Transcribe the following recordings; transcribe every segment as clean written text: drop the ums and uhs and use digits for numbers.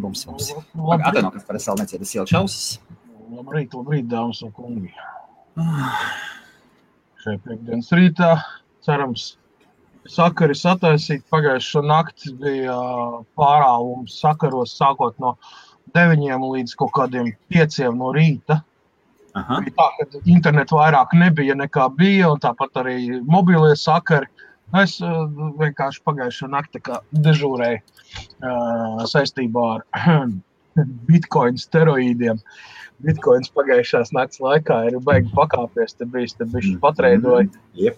Bums. Atvaino, kas par es vēl necietu, es ielkšu ausis. Labrīt, dāmas un kungi. Šai piekdienas rītā, cerams, sakari sataisīt. Pagājušo nakti bija pārāvums sakaros sākot no 9 līdz kaut kādiem 5 no rīta. Aha. Bija tā, ka internetu vairāk nebija nekā bija, un tāpat arī mobilie sakari. Es vienkārši pagājušo nakti kā dežūrēju saistībā ar bitcoin steroīdiem. Bitcoins pagājušās nakts laikā ir baigi pakāpies, te bišķi patreidoja. Yep.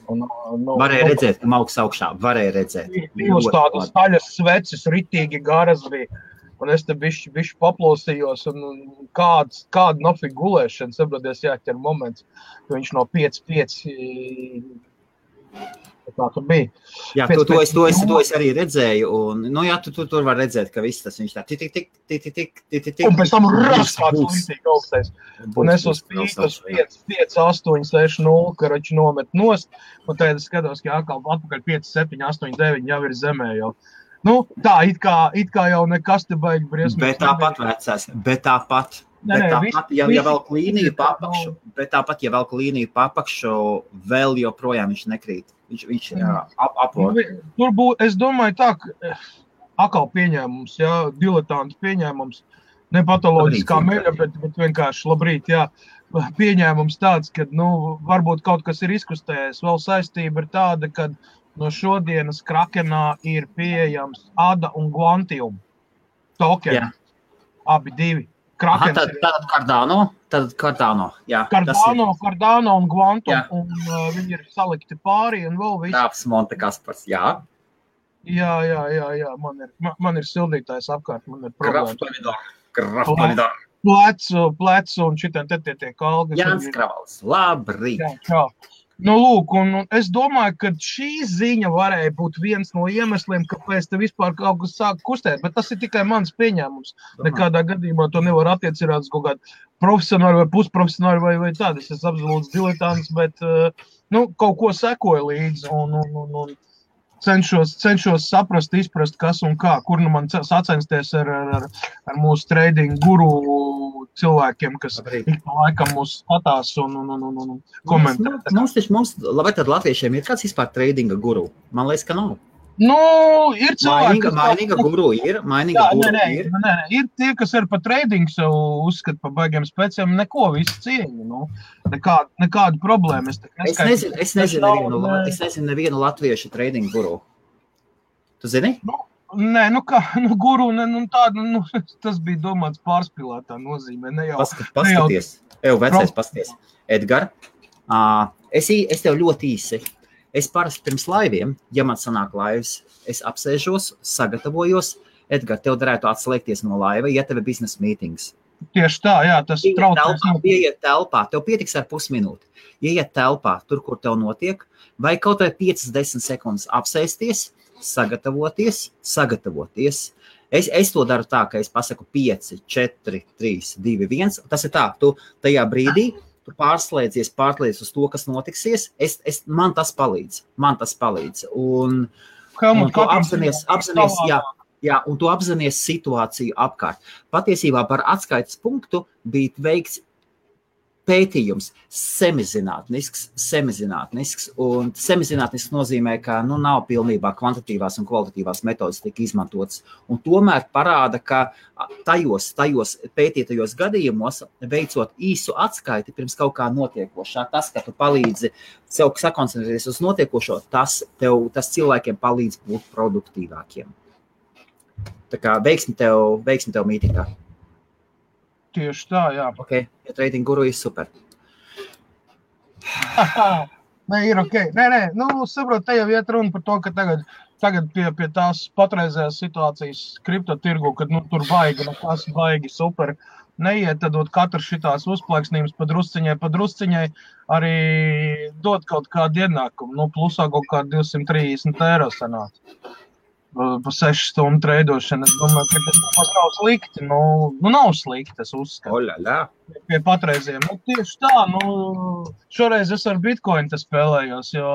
Varēja redzēt, ka augs augšā, varēja redzēt. Uz tādas taļas sveces ritīgi garas bija, un es te bišķi paplosījos, un kāda nofig gulēšana, saproties jāķer moments, ka viņš no 5 tā tur bija. Jā, to es arī redzēju, un, tu tur var redzēt, ka viss tas viņš tā tik. Un pēc tam kāds līdzīgi augstais. Un es uz 5, 8, 6, 0, karači nomet nost, un tad es skatos, ka atpakaļ 5, 7, 8, 9 jau ir zemē jau. Tā, it kā jau nekas te baigi briesmīgi. Bet tāpat vecās, ja velk līniju papakšu, vēl joprojām viņš nekrīt. Viņš apvod. Es domāju tā, ka atkal pieņēmums, diletantu pieņēmums, ne patoloģiskā meļa, bet vienkārši labrīt, pieņēmums tāds, ka, varbūt kaut kas ir izkustējies. Vēl saistība ir tāda, ka no šodienas Krakenā ir pieejams ADA un Quantium tokeni. Jā. Abi divi. Tad Cardano. Jā, Cardano un Quantum, jā. Un viņi ir salikti pāri un vēl viss. Tāps Monte Kaspars, jā. Jā, man ir sildītājs apkārt, man ir problēma. Kraftonidor. Plecu un šitien te tiek algas. Jānis Kravals, labrīt. Jā. Lūk, un es domāju, ka šī ziņa varēja būt viens no iemesliem, kāpēc te vispār kaut kas sāk kustēt, bet tas ir tikai mans pieņēmums. Nekādā gadījumā to nevar attiecināt uz kaut kādu profesionāli vai pusprofesionāli vai tādu. Es esmu absolūts diletants, bet kaut ko sekoju līdzi un cenšos saprast, izprast, kas un kā, kur man sacensties ar mūsu trading guru cilvēkiem, kas ik pa laikam mūs skatās un komentē. Labi, tad latviešiem ir kāds vispār tradinga guru? Man liekas, ka nav. Ir cilvēki, mainīga guru ir. Nē, ir tie, kas ir pa trading savu uzskat pa baigiem speciem, neko visu cieņu, nekādu problēmu. Es nezinu nevienu latviešu trading guru. Tu zini? Nē, guru, tādu, tas bija domāts pārspīlētā nozīmē, ne jau. Paskaties, vecais paskaties. Edgar, es tev ļoti īsi. Es parasti pirms laiviem, ja man sanāk laivas, es apsēžos, sagatavojos. Edgar, tev darētu atslēgties no laiva, ja tev ir biznesa mītings. Tieši tā, jā, tas traucēs. Ieiet telpā, tev pietiks ar pusminūti. Ieiet telpā, tur, kur tev notiek, vai kaut vai 5-10 sekundes apsēsties, sagatavoties. Es to daru tā, ka es pasaku 5, 4, 3, 2, 1. Tas ir tā, tu tajā brīdī tu pārslēdzies uz to, kas notiksies, man tas palīdz. Un tu apzinies situāciju apkārt. Patiesībā par atskaites punktu bija veikts pētījums semizinātnisks, un semizinātnisks nozīmē, ka nav pilnībā kvantitīvās un kvalitatīvās metodas tika izmantotas. Un tomēr parāda, ka tajos pētītajos gadījumos, veicot īsu atskaiti pirms kaut kā notiekošā, tas, ka tu palīdzi sev sakoncentrēties uz notiekošo, tas cilvēkiem palīdz būt produktīvākiem. Tā kā veiksmi tev mītīgā. Tieši tā, jā. Ok, ja trading guru ir super. Nē, ir ok. Nē, saprot, te jau iet runa par to, ka tagad pie tās patreizējās situācijas kriptotirgu, kad tur baigi super neiet, tad katrs šitās uzplaiksnības pa drusciņai arī dot kaut kādu ienākumu. Plusā kaut kādu 230 eiro sanāca. Pa 6 stundu treidošana. Es domāju, ka tas nav slikti. Nav slikti, es uzskatu. Pie patreiziem. Tieši tā, šoreiz es ar Bitcoin te spēlējos, jo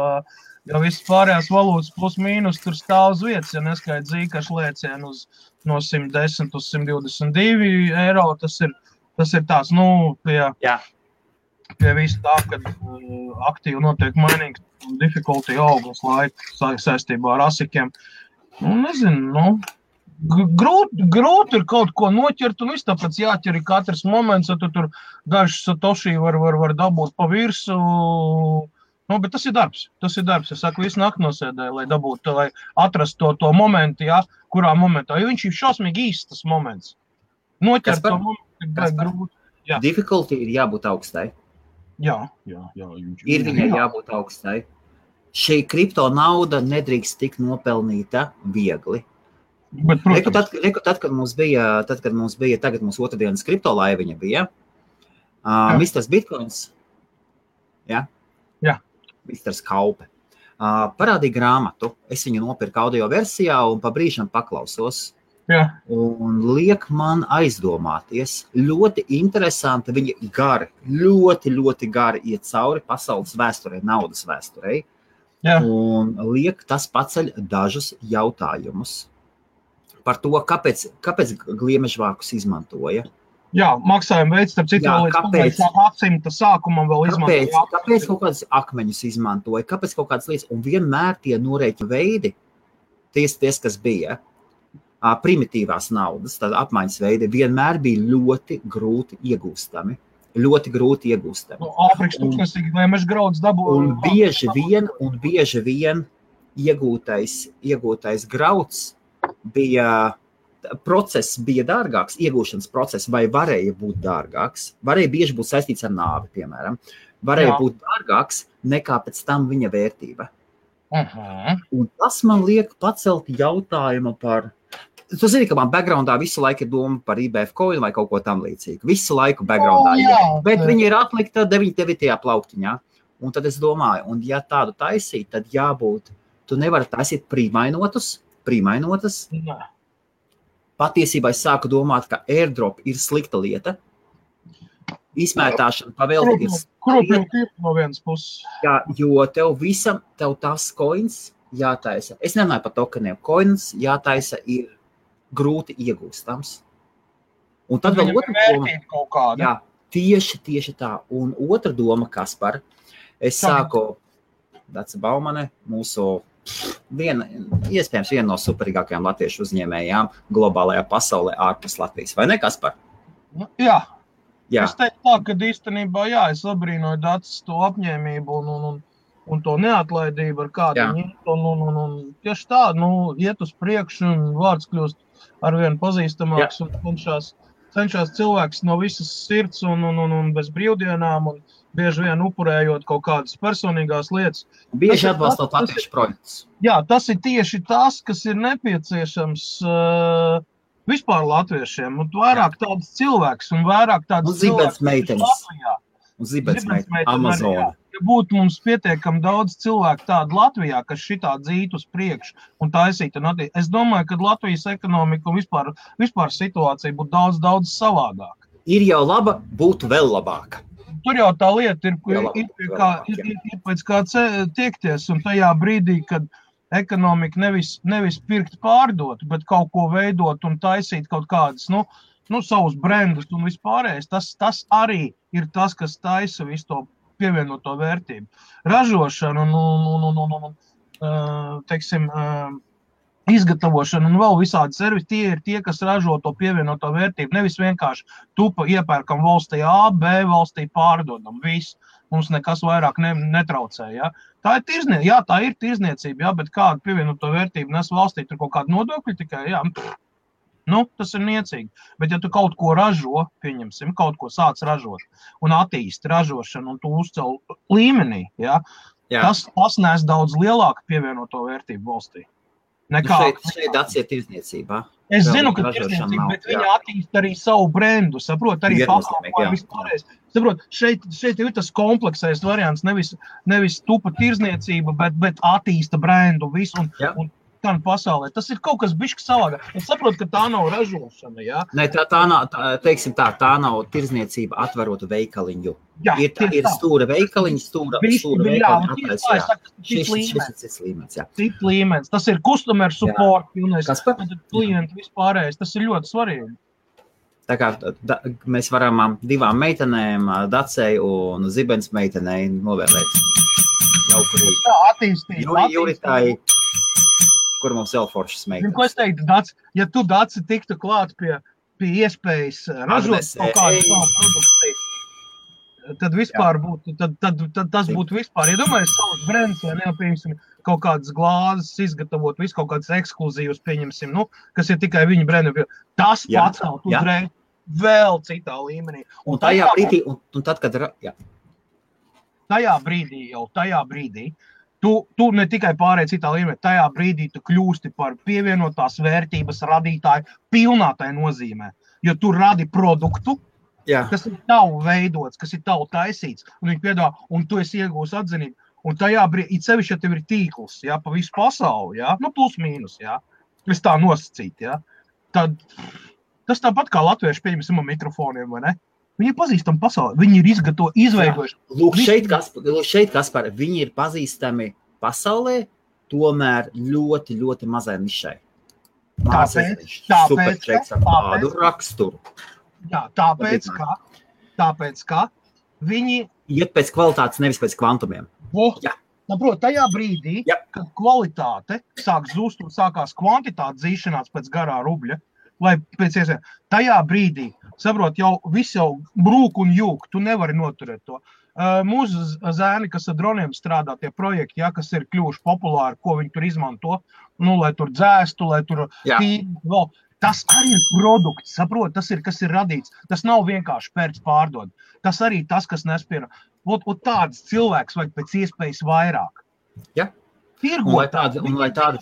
visas pārējās valūtas plus mīnus tur stāv uz vietas, ja neskaidrs zīkašu lēcienu uz no 110 uz 122 eiro. Tas ir tās, pie visu tā, kad aktīvi notiek mainīgs un difficulty augas laika saistībā ar asikiem. Nezinu, grūti ir kaut ko noķert, un viss tāpēc jāķer ir katrs moments, ja tu tur dažs satoši var dabūt pa virsu. Bet tas ir darbs. Es saku, visu nakti nosēdēju, lai dabūtu, lai atrastu to momentu, kurā momentā. Jo viņš ir šausmīgi īsts tas moments. Noķert to momentu ir grūti. Difficulty ir jābūt augstai. Jā. Ir viņai jābūt augstai. Šī kripto nauda nedrīkst tik nopelnīta viegli. Bet, tad, kad mums bija, tagad mums otrdienas kripto laiviņa bija, Mr. Bitcoins, Mr. Kaupe, parādīja grāmatu. Es viņu nopirku audio versijā un pa brīžam paklausos. Un liek man aizdomāties. Ļoti interesanti, viņi ļoti gari iet cauri pasaules vēsturei, naudas vēsturei. Un liek tas paceļ dažus jautājumus par to, kāpēc gliemežvākus izmantoja. Maksājuma veids, starp citu, līdz gadsimta sākumam vēl izmantoja. Kāpēc kaut kādas akmeņus izmantoja, kāpēc kaut kādas lietas, un vienmēr tie norēķina veidi, ties, kas bija, primitīvās naudas, tad apmaiņas veidi, vienmēr bija ļoti grūti iegūstami. Āfrikas tūkstnesīgi gliemeža grauds dabūja. Un bieži vien iegūtais grauds process bija dārgāks, iegūšanas process, vai varēja būt dārgāks, varēja bieži būt saistīts ar nāvi, piemēram, varēja būt dārgāks nekā pēc tam viņa vērtība. Un tas man liek pacelt jautājumu par... Tu zini, ka man backgroundā visu laiku ir doma par IBF coin vai kaut ko tam līdzīgu. Visu laiku backgroundā bet viņi ir atlikta 99. plauktiņā. Un tad es domāju, un ja tādu taisīt, tad jābūt, tu nevari taisīt prīmainotas. Patiesībā es sāku domāt, ka airdrop ir slikta lieta. Izmētāšana pavēlti ir slikta lieta. No vienas puses. Jo tev tās coins jātaisa. Es nerunāju par tokeniem. Coins jātaisa ir grūti iegūstams. Un tad vēl otra doma. Tieši tā. Un otra doma, Kaspar, es sāku Dace Baumane, mūsu iespējams viena no superīgākajām latviešu uzņēmējām globālajā pasaulē ārpus Latvijas. Vai ne, Kaspar? Jā. Es teiktu tā, ka īstenībā, es abrīnoju Daces to apņēmību un to neatlaidību, ar kādu viņi un tieši tā, iet uz priekšu un vārds kļūst arvien pazīstamāks un cenšas cilvēks no visas sirds un bez brīvdienām un bieži vien upurējot kaut kādas personīgās lietas. Bieži atbalstot latviešu projektus. Tas ir tieši tas, kas ir nepieciešams vispār latviešiem. Un vairāk tāds cilvēks un vairāk tāds cilvēks Latvijā. Un zibensmeitenes Amazona. Ja būtu mums pietiekami daudz cilvēku tādu Latvijā, kas šitā dzītu uz priekšu un taisītu un attīstīt, es domāju, ka Latvijas ekonomika un vispār situācija būtu daudz savādāka. Ir jau laba, būtu vēl labāka. Tur jau tā lieta ir pēc kā tiekties, un tajā brīdī, kad ekonomika nevis pirkt pārdot, bet kaut ko veidot un taisīt kaut kādas, savus brendus un vispārējais, tas arī ir tas, kas taisa visu to pievienoto vērtību. Ražošana un izgatavošana un vēl visādi servisi, tie ir tie, kas ražo to pievienoto vērtību. Nevis vienkārši tupa iepērkam valstī A, B valstī pārdodam. Viss. Mums nekas vairāk netraucē. Ja? Tā ir tirzniecība, bet kādu pievienoto vērtību nes valstī, tur kaut kādu nodokļu tikai, tas ir niecīgi. Bet ja tu kaut ko ražo, pieņemsim, kaut ko sāc ražot un attīsti ražošanu un tu uzcel līmenī, tas nes daudz lielāku pievienoto vērtību valstī. Šeit atsiet tirzniecībā. Es zinu, ka tirzniecība, bet viņi attīst arī savu brendu, saprot, arī pakalpojumu vispārējais. Saprot, šeit ir tas kompleksais variants, nevis tupa tirzniecība, bet attīsta brendu visu. Un gan pasaulē. Tas ir kaut kas bišķi savādāk. Es saprotu, ka tā nav ražošana, jā. Nē, tā nav, teiksim tā nav tirzniecība atverotu veikaliņu. Jā, Ir stūra veikaliņa, stūra veikaliņa atraisa, šis cits līmenis, jā. Cits līmenis. Tas ir customer support, pilnais. Klienti vispārējais. Tas ir ļoti svarīgi. Tā kā mēs varam divām meitenēm, Dacei un Zibens meitenei novēlēt jauku rītu. Tā attīstīt. Juritai, kur mums vēl foršas meitenes. Ko es teiktu, Daci, ja tu, Daci, tiktu klāt pie iespējas ražot kaut kādu savu produkciju, tad vispār būtu, tad tas būtu vispār. Ja domāju, savus brands, vai neapieņemsim kaut kādas glāzes izgatavot, visu kaut kādas ekskluzīvas pieņemsim, kas ir tikai viņa brandi. Tas pacelt uzreiz vēl citā līmenī. Un tajā brīdī, un tad, kad... Jā. Tajā brīdī, tu ne tikai pārēj citā līmenī, tajā brīdī tu kļūsti par pievienotās vērtības radītāju pilnā tai nozīmē. Jo tu radi produktu, kas ir tavu veidots, kas ir tavu taisīts, un viņi piedāvā, un tu esi iegūs atzinību. Un tajā brīdī, it sevišķi, ja tev ir tīkls, pa visu pasauli, plus mīnus, es tā nosacīt, tad tas tāpat kā latvieši pieņemsim mikrofoniem, vai ne? Viņi ir pazīstami pasaulē, viņi ir izveidojuši. Lūk, šeit, Kaspar, viņi ir pazīstami pasaulē, tomēr ļoti, ļoti mazai nišai. Superčeks ar tādu raksturu. Jā, tāpēc, ka viņi... Iet pēc kvalitātes, nevis pēc kvantumiem. Tajā brīdī, kad kvalitāte sāk zust un sākās kvantitāte zīšanās pēc garā rubļa, vai pēc iespējas, tajā brīdī, saprot, viss jau brūk un jūk, tu nevari noturēt to. Mūsu zēni, kas ar droniem strādā, tie projekti, kas ir kļuvuši populāri, ko viņi tur izmanto, lai tur dzēstu, lai tur tīri, tas arī ir produkts, saprot, tas ir, kas ir radīts. Tas nav vienkārši pērts pārdod. Tas arī tas, kas nespēra. Tāds cilvēks vajag pēc iespējas vairāk. Ja. Un lai tādi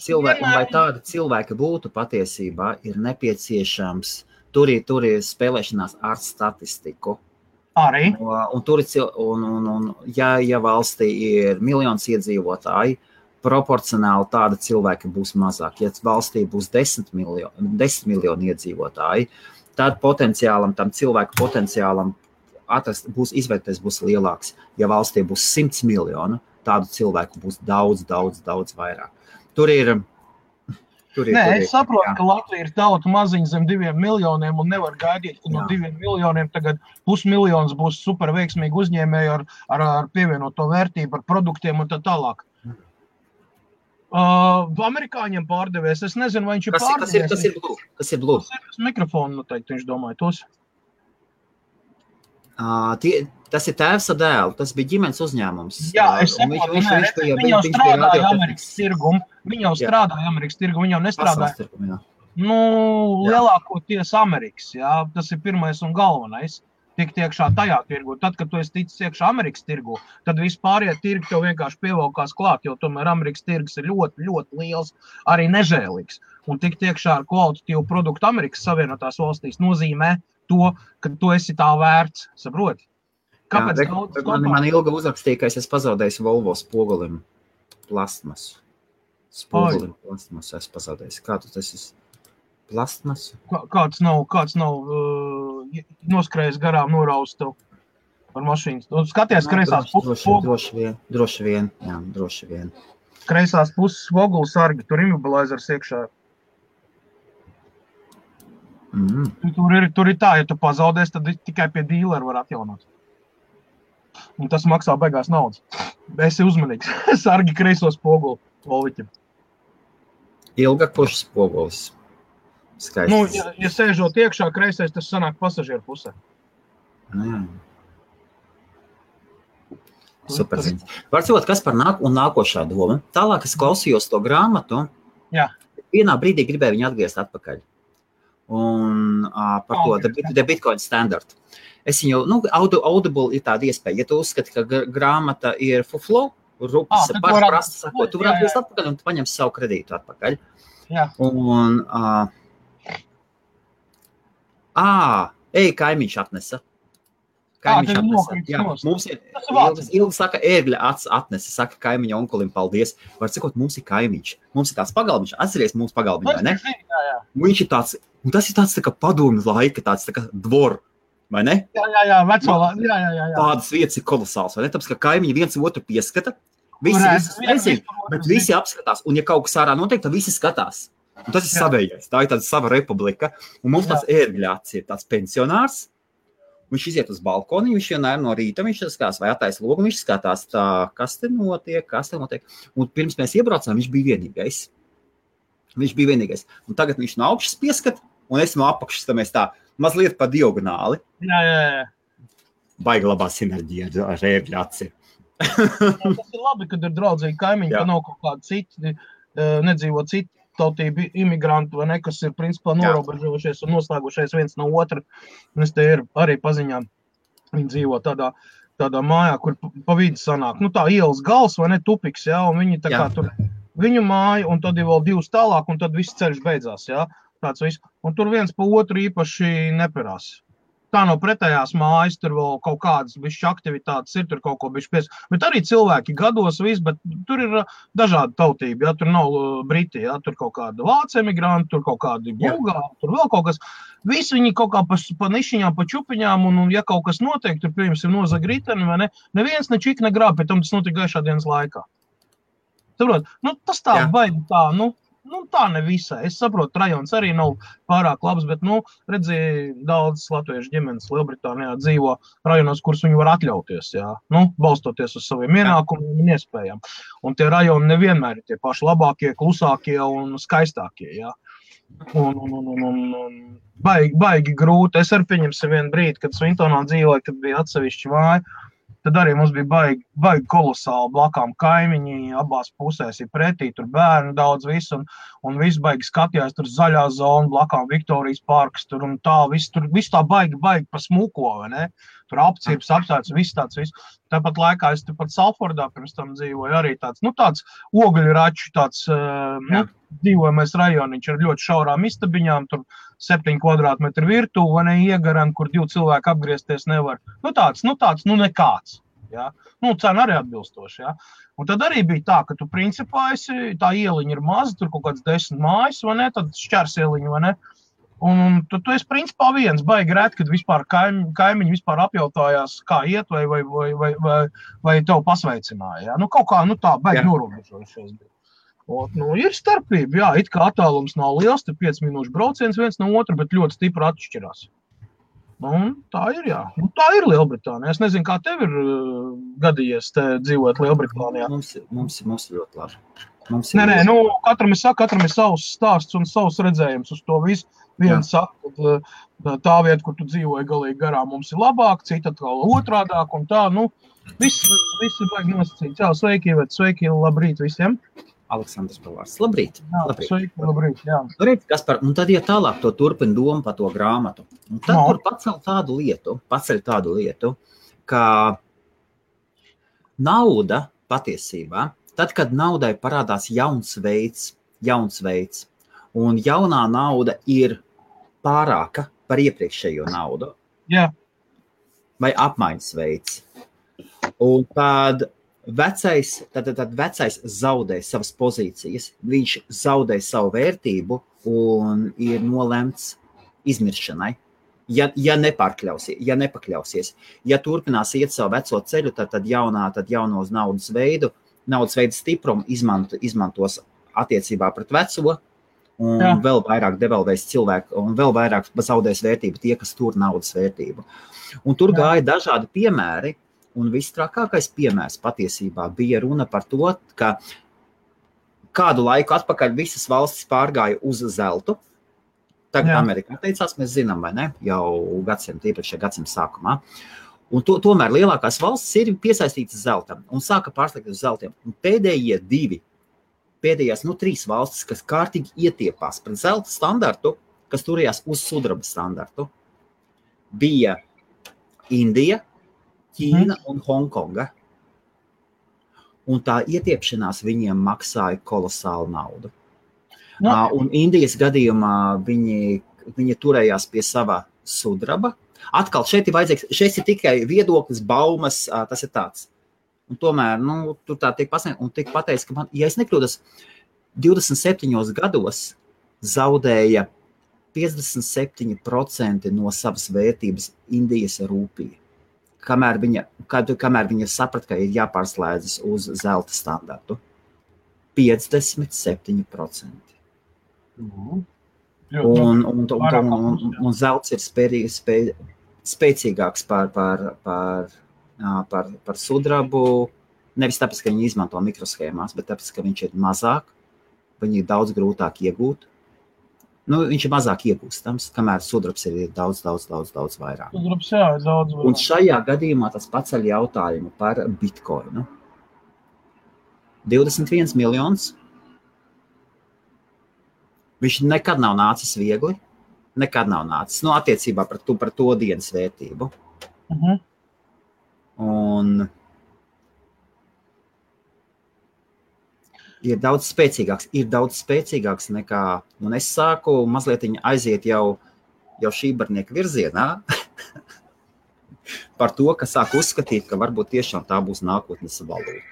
cilvēki būtu patiesībā, ir nepieciešams, tur ir spēlēšanās ar statistiku. Arī. Ja valstī ir miljons iedzīvotāji, proporcionāli tāda cilvēki būs mazāk. Ja valstī būs 10 miljoni iedzīvotāji, tad tam cilvēku potenciālam izvērtēs būs lielāks. Ja valstī būs 100 miljonu, tādu cilvēku būs daudz vairāk. Es saprotu, ka Latvija ir tauta maziņa zem 2 miljoniem un nevar gaidīt, ka no 2 miljoniem tagad pusmiljons būs super veiksmīgi uzņēmēji ar pievienoto vērtību, ar produktiem un tā tālāk. Amerikāņiem pārdevējs, es nezinu, vai viņš ir pārdevējs. Kas ir Blue? Tas ir mikrofonu noteikti, viņš domāja tos. Tas ir tēvs ar dēlu, tas bija ģimenes uzņēmums. Jā, es saprotu, viņi jau strādāja Amerikas tirgumu, viņi jau nestrādāja. Lielākoties Amerikas, tas ir pirmais un galvenais, tikt iekšā tajā tirgu. Tad, kad tu esi ticis iekšā Amerikas tirgu, tad vispārie tirgi tev vienkārši pievalkās klāt, jo tomēr Amerikas tirgus ir ļoti, ļoti liels, arī nežēlīgs. Un tikt iekšā ar kvalitatīvu produktu Amerikas Savienotās valstīs nozīmē to, ka tu esi tā vērts, saproti? Kāpēc man ilga uzrakstīja, ka es esmu pazaudējis Volvo spogulim plastmasu. Es pazaudējis. Kā tu tas esi? Plastmasu? Kāds nav noskrējis garām noraust tev ar mašīnas? Skaties, kreisās puses spogulis. Droši vien. Kreisās puses spogulis sargi, tur immobilizers iekšā. Tur ir tā, ja tu pazaudēs, tad tikai pie dīlera var atjaunot. Un tas maksā beigās naudas. Esi uzmanīgs. Sargi kreiso spoguli Volviķim. Ilgāk pušas spogulis. Skaists. Ja sēžot iekšā kreisais, tas sanāk pasažieru pusē. Superziņas. Varbūt, kas par nākošā doma. Tālāk es klausījos to grāmatu. Jā. Vienā brīdī gribēju viņu atgriezt atpakaļ. Un par to The Bitcoin Standard. Es viņu, Audible ir tāda iespēja. Ja tu uzskati, ka grāmata ir fuflo, rupas, prasta sakot, tu varētu atgriezt atpakaļ un tu paņem savu kredītu atpakaļ. Jā. Un, kaimiņš atnesa. Kaimiņš mums ir ilgi saka, ērgļa atnesi, saka kaimiņa onkulim paldies. Var sakot, mums ir kaimiņš. Mums ir tāds pagalbiņš. Atceries mums pagalbiņš, vai ne? Viņš ir tāds, un tas ir tāds tā kā padomju laika, tāds tā kā dvor, vai ne? Jā, veco, jā. Tādas vietas ir kolosāls, vai ne? Tāpēc, ka kaimiņi viens otru pieskata, bet visi apskatās, un ja kaut kas ārā notiek, tad visi skatās. Un tas ir savējais, tā ir tāda sava republika, un mums tāds ērgļāts ir tāds pensionārs. Viņš iziet uz balkoni, viņš vienmēr no rīta, viņš skatās, vai attaisa logu, viņš skatās tā, kas te notiek. Un pirms mēs iebraucām, viņš bija vienīgais. Un tagad viņš no augšas pieskat, un es no apakšas, tā mēs tā mazliet pa diagonāli. Jā. Baigi labā sinerģija ar ērgļāci. Tas ir labi, kad ir draudzīgi kaimiņi, ka nav kaut kādi citi, nedzīvo citi tautību imigrantu, vai ne, kas ir principā norobežojušies un noslēgušies viens no otra. Un es te ir arī paziņām, viņi dzīvo tādā mājā, kur pa vidu sanāk. Nu tā ielas gals, vai ne, tupiks, un viņi tā kā tur viņu māja, un tad ir vēl divas tālāk, un tad viss ceļš beidzās, tāds viss. Un tur viens pa otru īpaši neperās. Tā no pretējās mājas, tur vēl kaut kādas bišķi aktivitātes ir, tur kaut ko bišķi pies. Bet arī cilvēki gados viss, bet tur ir dažādi tautība, tur nav briti, tur kaut kāda vācu emigranti, tur kaut kādi bulgāri, tur vēl kaut kas. Visi viņi kaut kā pa nišiņām, pa čupiņām, un ja kaut kas notiek, tur, piemēram, nozaga riteni, vai ne, neviens ne čik negrāb, pēc tam tas notika gaišā dienas laikā. Saprot, tas tā baigi tā, tā ne visai. Es saprotu, rajons arī nav pārāk labs, bet, redzēju, daudz latviešu ģimenes Lielbritānijā dzīvo rajonos, kurus viņi var atļauties, balstoties uz saviem ienākumiem un iespējām. Un tie rajoni nevienmēr ir tie paši labākie, klusākie un skaistākie, Un baigi grūti. Es arī pieņemsim vienu brīdi, kad Svintonā dzīvoju, kad bija atsevišķi māja. Tad arī mums bija baigi kolosāli blakām kaimiņi, abās pusēs ir pretī, tur bērni daudz visu, un viss baigi skatījās, tur zaļā zona, blakām Viktorijas parks, tur un tā, viss tā baigi pa smuko, vai ne? Tur apcirps, apsēts, viss tāds, viss. Tāpat laikā es tepat Salfordā pirms tam dzīvoju arī tāds ogļraču, dzīvojamais rajoniņš ar ļoti šaurām istabiņām, tur 7 kvadrātmetru virtuve, vai ne, iegaran, kur 2 cilvēki apgriezties nevar. Tāds, nekāds. Cena arī atbilstoši, Un tad arī bija tā, ka tu principā tā ieliņa ir maza, tur kaut kāds 10 mājas, vai ne, tad šķērs ieliņa, vai ne. Un tu esi principā viens, baigi rēt, kad vispār kaimiņi vispār apjautājās, kā iet, vai tev pasveicināja, kaut kā, tā baigi norobežojušies bija. Ir starpība, it kā attālums nav liels, te 5 minūšu brauciens viens no otra, bet ļoti stipri atšķirās. Tā ir, tā ir Lielbritānija. Es nezinu, kā tev ir gadījies te dzīvot Lielbritānijā. Mums ir ļoti labi. Nē, katram ir savs stāsts un savs redzējums uz to visu. Viens saka, ka tā vieta, kur tu dzīvoji galīgi garām, mums ir labāk, cita atkal otrādāk un tā, viss ir baigi nosacīts. Sveiki, sveiki, labrīt visiem. Aleksandrs Pavārs. Labrīt. Labrīt. Labrīt, Kaspar, un tad, ja tālāk to turpina domu par to grāmatu, un tad tur paceļ tādu lietu, ka nauda patiesībā, tad, kad naudai parādās jauns veids, un jaunā nauda ir pārāka par iepriekšējo naudu, vai apmaiņas veids, un tad vecais zaudē savas pozīcijas, viņš zaudē savu vērtību un ir nolemts izmiršanai. Ja nepakļausies. Ja turpinās iet savu veco ceļu, tad jaunos naudas veidu stiprumu izmantos attiecībā pret veco, un vēl vairāk devalvēs cilvēku, un vēl vairāk zaudēs vērtību tie, kas tur naudas vērtību. Un tur gāja dažādi piemēri, un visstrākākais piemērs patiesībā bija runa par to, ka kādu laiku atpakaļ visas valstis pārgāja uz zeltu. Tagad Amerikā teicās, mēs zinām, vai ne, jau iepriekšējā gadsimta sākumā. Un tomēr lielākās valstis ir piesaistītas zeltam un sāka pārslēgt uz zeltiem. Un pēdējās 3 valstis, kas kārtīgi ietiepās pret zelta standartu, kas turējās uz sudraba standartu, bija Indija, Ķīna un Hongkonga. Un tā ietiepšanās viņiem maksāja kolosālu naudu. Un Indijas gadījumā viņi turējās pie sava sudraba, Atkal šeit ir tikai viedoklis, baumas, tas ir tāds. Un tomēr, tur tā tiek pasniegt, un tiek pateicis, ka man, ja es nekļūdos, 27 gados zaudēja 57% no savas vērtības Indijas rūpija. Kamēr viņa saprata, ka ir jāpārslēdzas uz zelta standartu. 57%. Un zelts ir spēcīgāks par sudrabu, nevis tāpēc, ka viņi izmanto mikroshēmās, bet tāpēc, ka viņš ir mazāk, viņi ir daudz grūtāk iegūt. Viņš ir mazāk iegūstams, kamēr sudrabs ir daudz vairāk. Sudrabs, jā, ir daudz vairāk. Un šajā gadījumā tas paceļ jautājumu par bitcoinu. 21 miljonus. Viņš nekad nav nācis viegli. Nekad nav nācis. Attiecībā par to dienas vērtību. Un ir daudz spēcīgāks nekā, un es sāku mazliet aiziet jau šībarnieka virzienā par to, ka sāku uzskatīt, ka varbūt tiešām tā būs nākotnes valūta.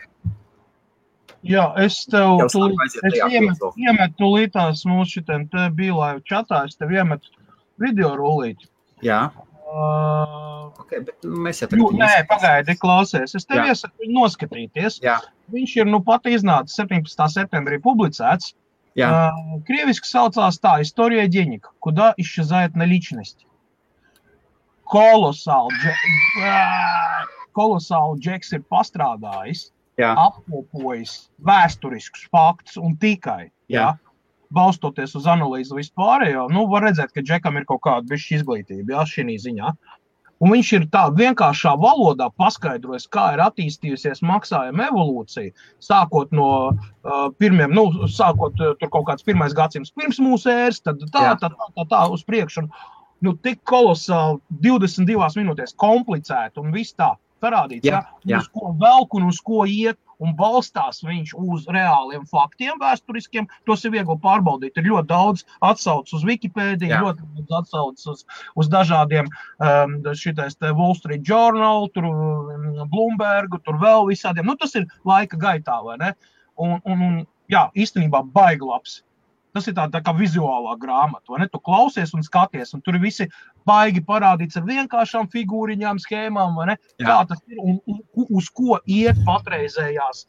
Jā, es iemetu tūlītās mūsu šitiem te Bīlaivu čatā, es tev iemetu video rullīti. Jā. Okay, bet mēs jau tagad... Nē, pagaidi, klausies. Es tev iesaku noskatīties. Jā. Viņš ir pat iznācis 17. septembrī publicēts. Krieviski saucās tā, История денег, куда исчезает наличность. Kolosāli Džeks ir pastrādājis, apkopojis vēsturiskus faktus un tikai, balstoties uz analīzi vispārējo, var redzēt, ka Džekam ir kaut kāda bišķi izglītība, šī ziņā. Un viņš ir tā vienkāršā valodā paskaidrojis, kā ir attīstījusies maksājuma evolūcija, sākot no pirmiem, sākot tur kaut kāds 1. gadsimts pirms mūsu ēras, tad tā uz priekšu. Tik kolosāli 22 minūtēs komplicēti un viss tā parādīts, uz ko velk un uz ko iet, un balstās viņš uz reāliem faktiem vēsturiskiem. Tos ir viegli pārbaudīt. Ir ļoti daudz atsauc uz Wikipēdiju, ļoti daudz atsauc uz dažādiem šitais te Wall Street Journal, tur Bloombergu, tur vēl visādiem. Tas ir laika gaitā, vai ne? Un īstenībā baigi labs. Tas ir tā kā vizuālā grāmata, vai ne? Tu klausies un skaties, un tur ir visi baigi parādīts ar vienkāršām figūriņām, schēmām, vai ne? Kā tas ir un uz ko iet patreizējās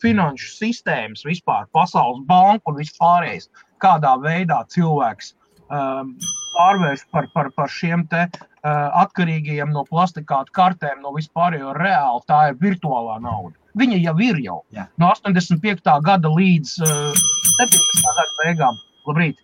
finanšu sistēmas vispār, Pasaules banka un vispārējais, kādā veidā cilvēks pārvērš par šiem te atkarīgajiem no plastikātu kartēm, no vispārējo reāli, tā ir virtuālā nauda. Viņa jau ir no 85. gada līdz 17. gada beigām. Labrīt.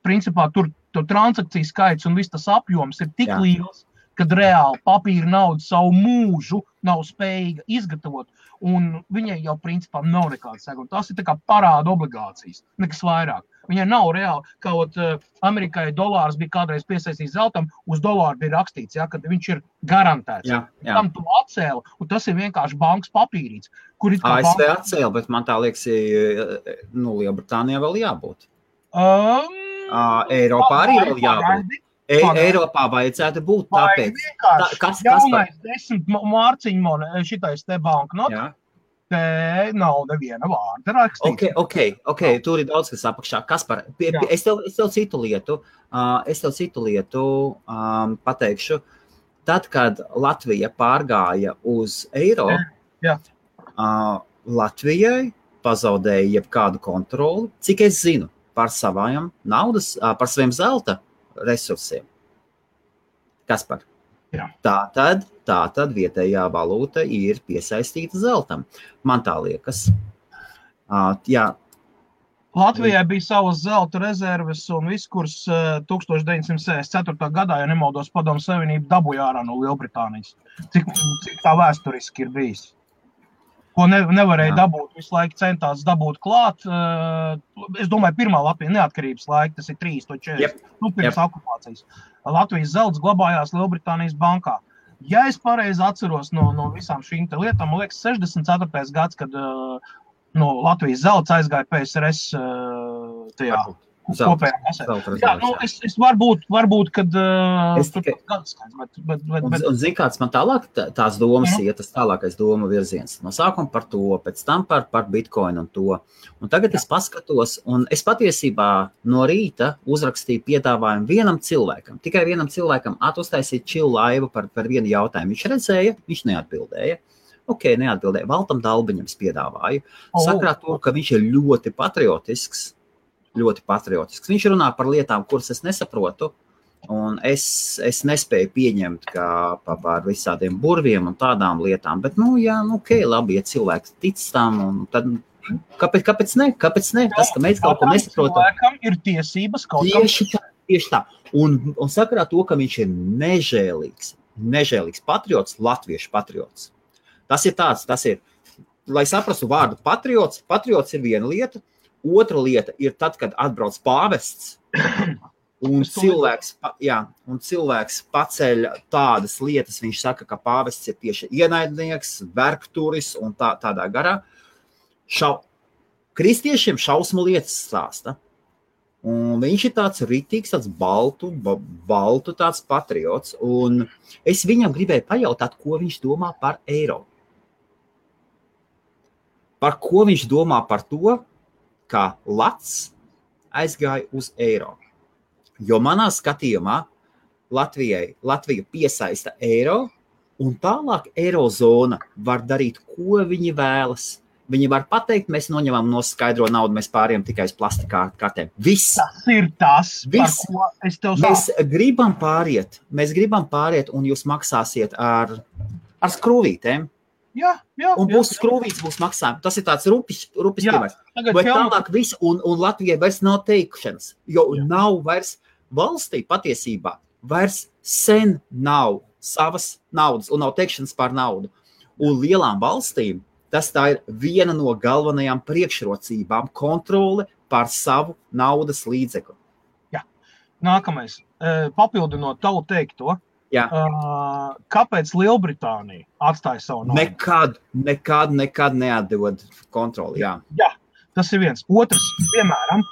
Principā tur transakciju skaits un viss tas apjoms ir tik liels, kad reāli papīra nauda savu mūžu nav spējīga izgatavot, un viņai jau principā nav nekāda seguma. Tas ir tā kā parāda obligācijas, nekas vairāk. Viņai nav reāli, kaut Amerikai dolārs bija kādreiz piesaistīts zeltam, uz dolāru bija rakstīts, kad viņš ir garantēts. Tam tu atcēli, un tas ir vienkārši bankas papīrīts. ASV atcēli, bet man tā liekas, Lielbritānijā vēl jābūt. Eiropā arī vēl jābūt. Eiropā vajadzētu būt tāpēc. Jaunais 10 mārciņu šitais te banknota. Te nav neviena vārda rakstīts. Ok, tur ir daudz, kas apakšā. Kaspar, es tev citu lietu pateikšu. Tad, kad Latvija pārgāja uz eiro, Latvijai pazaudēja jebkādu kontroli, cik es zinu, par savām naudas, par saviem zelta resursiem. Kaspar? Tātad vietējā valūta ir piesaistīta zeltam. Man tā liekas. Latvijai bija savas zelta rezerves un viss, kuras 1964. gadā, ja nemaldos, Padomu Savienība dabūja ārā no Lielbritānijas. Cik tā vēsturiski ir bijis. Ko nevarēja dabūt, visu laiku centās dabūt klāt. Es domāju, pirmā Latvija neatkarības laika, tas ir 340, pirms okupācijas. Latvijas zelts glabājās Lielbritānijas bankā. Ja es pareizi atceros no visām šīm te lietām, man liekas, 64. gads, kad Latvijas zelts aizgāja PSRS tajā kopējā kasē. Jā, es varbūt, kad Un zini, kāds man tālāk tās domas iet, tas tālākais doma virziens. No sākuma par to, pēc tam par Bitcoin un to. Un tagad es paskatos, un es patiesībā no rīta uzrakstīju piedāvājumu vienam cilvēkam, tikai vienam cilvēkam uztaisīt chill laivu par vienu jautājumu. Viņš redzēja, viņš neatbildēja. Neatbildēja. Valtam Dalbiņam piedāvāju. Sakrā to, ka viņš ir ļoti patriotisks. Viņš runā par lietām, kuras es nesaprotu, un es nespēju pieņemt kā par visādiem burviem un tādām lietām. Bet, labi, ja cilvēks tic tam, un tad kāpēc ne? Tas, ka mēs kaut ko nesaprotam. Cilvēkam ir tiesības kaut kam. Tieši tā. Un sakarā to, ka viņš ir nežēlīgs patriots, latviešu patriots. Tas ir, lai saprastu vārdu patriots ir viena lieta, otra lieta ir tad, kad atbrauc pāvests un cilvēks paceļ tādas lietas, viņš saka, ka pāvests ir tieši ienaidnieks, vergturis un tādā garā. Kristiešiem šausmu lietas stāsta. Un viņš ir tāds ritīgs, tāds baltu tāds patriots. Un es viņam gribēju pajautāt, ko viņš domā par eiro. Par ko viņš domā par to, ka lats aizgāja uz eiro. Jo manā skatījumā Latviju piesaista eiro, un tālāk eirozona var darīt, ko viņi vēlas. Viņi var pateikt, mēs noņemam no skaidro naudu, mēs pāriem tikai uz plastika kartēm. Viss. Tas ir tas, par ko es tev saku. Mēs gribam pāriet, un jūs maksāsiet ar skrūvītēm. Jā. Un būs skrūvīts, būs maksājumi. Tas ir tāds rupis piemērs. Bet tālāk viss, un Latvijai vairs nav teikšanas, jo nav vairs valstī patiesībā, vairs sen nav savas naudas, un nav teikšanas par naudu. Un lielām valstīm tas tā ir viena no galvenajām priekšrocībām - kontrole par savu naudas līdzekli. Jā. Nākamais. Papildinot tavu teikto. Jā. Kāpēc Lielbritānija atstāja savu naudu? Nekad neatdod kontroli. Jā, tas ir viens. Otrs, piemēram,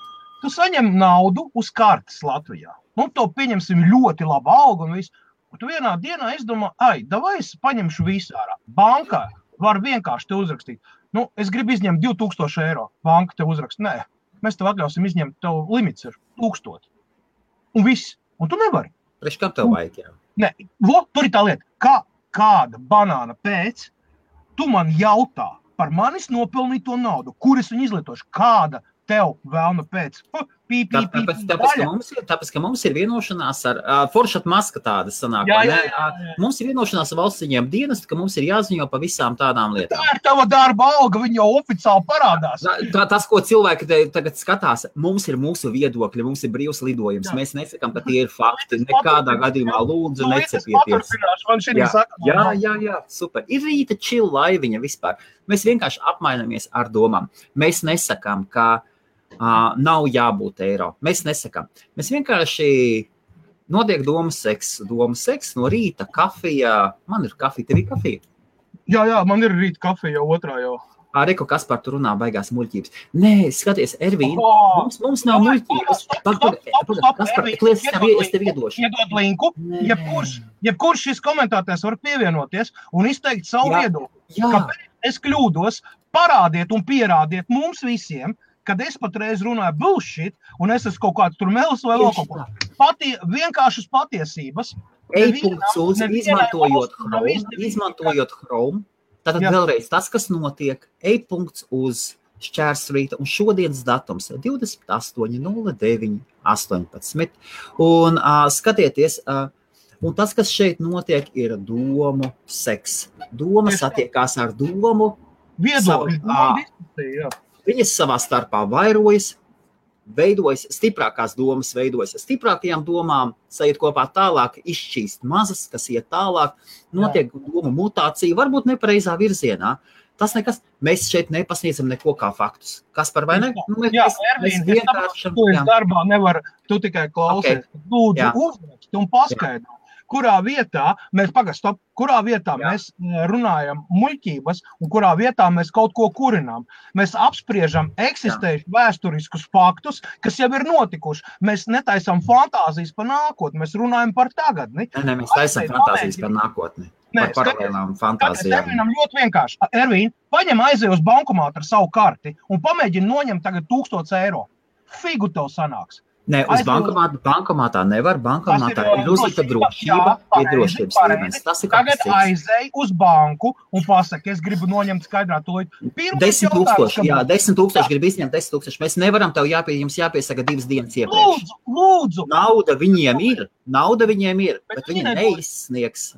tu saņem naudu uz kartes Latvijā. To pieņemsim ļoti labu algu un visu. Un tu vienā dienā izdomā, davai es paņemšu visu ārā. Bankā var vienkārši te uzrakstīt. Es gribu izņemt 2000 eiro. Banka te uzrakst. Nē, mēs tev atļausim izņemt, tev limits ir 1000. Un viss. Un tu nevari. Priekš kam tev vajag, jā? Nē, tur ir tā lieta, kāda banāna pēc, tu man jautā par manis nopelnīto naudu, kur es viņu izlietošu, kāda tev vēlna pēc. Tāpēc, ka mums ir vienošanās ar Foršat Maska tādas sanāk. Mums ir vienošanās ar valstsiņiem dienestu, ka mums ir jāziņo pa visām tādām lietām. Tā ir tava darba alga, viņa jau oficiāli parādās. Tas, ko cilvēki tagad skatās, mums ir mūsu viedokļi, mums ir brīvs lidojums. Mēs nesakām, ka tie ir fakti. Nekādā gadījumā lūdzu necepieties. Jā, super. Ir rīta chill laiviņa vispār. Mēs vienkārši apmainamies ar domām. Mēs nesakām, ka nav jābūt eiro. Mēs nesakām. Mēs vienkārši notiek domas seks no rīta, kafija. Man ir kafija, tev ir kafija? Jā, man ir rīta kafija jau otrā jau. Reku, kas par tu runā baigās muļķības. Nē, skaties, Ervīna, mums nav muļķības. Es tev iedošu. Iedod linku. Jebkurš šis komentētājs var pievienoties un izteikt savu viedokli. Kāpēc es kļūdos, parādiet un pierādiet mums visiem, kad es patreiz runāju bullshit, un es esmu kaut kāds tur melis vai vēl kaut ko. Vienkāršas patiesības. E-punkts izmantojot Chrome. Tātad vēlreiz tas, kas notiek, e-punkts uz šķērsrīta, un šodienas datums 28.09.18. Un skatieties, un tas, kas šeit notiek, ir domu seks. Doma satiekās ar domu. Viedokļi. Viņas savā starpā vairojas, veidojas, stiprākās domas veidojas. Stiprākajām domām sajiet kopā tālāk, izšķīst mazas, kas iet tālāk, notiek domu mutācija, varbūt nepareizā virzienā. Tas nekas, mēs šeit nepasniedzam neko kā faktus. Kas par vai ne? Mēs vienkārši... Tu darbā nevar, tu tikai klausies. Lūdzu, uzraksti un paskaidro. kurā vietā mēs runājam muļķības un kurā vietā mēs kaut ko kurinām. Mēs apspriežam eksistējuši vēsturiskus faktus, kas jau ir notikuši. Mēs netaisam fantāzijas par nākotni, mēs runājam par tagadni. Nē, mēs taisam fantāzijas par nākotni. Par paralēlām fantāzijām. Mēs ļoti vienkārši. Ervīn, paņem aizej uz bankomātu ar savu karti un pamēģini noņemt tagad 1000 eiro. Figu tev sanāks. Nē, uz bankomātā nevar. Bankomātā ir uzlikta drošība, ir drošības līmenis. Tas ir tagad aizej uz banku un pasaka, es gribu noņemt skaidrā to. 10,000, jā, 10,000 grib izņemt 10,000. Mēs nevaram tev jums jāpiesaka 2 dienas iepriekš. Lūdzu. Nauda viņiem ir, bet viņi neizsniegs.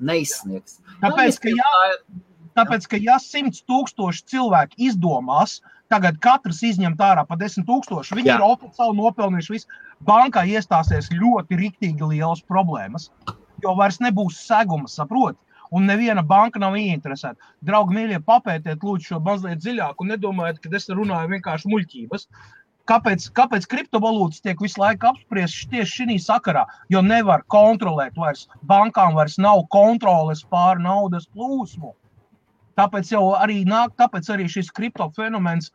Tāpēc, ka ja 100,000 cilvēki izdomās, tagad katrs izņemt ārā pa 10,000, viņi ir oficiāli nopelnījuši visu. Bankā iestāsies ļoti riktīgi lielas problēmas, jo vairs nebūs seguma, saproti? Un neviena banka nav ieinteresēta. Draugi mīļie, papētiet lūdzu šo mazliet dziļāk un nedomājiet, ka es runāju vienkārši muļķības. Kāpēc kriptovalūtas tiek visu laiku apspriestas tieši šī sakarā? Jo nevar kontrolēt vairs, bankām vairs nav kontroles pār naudas plūsmu. Tāpēc arī šis kriptofenomens,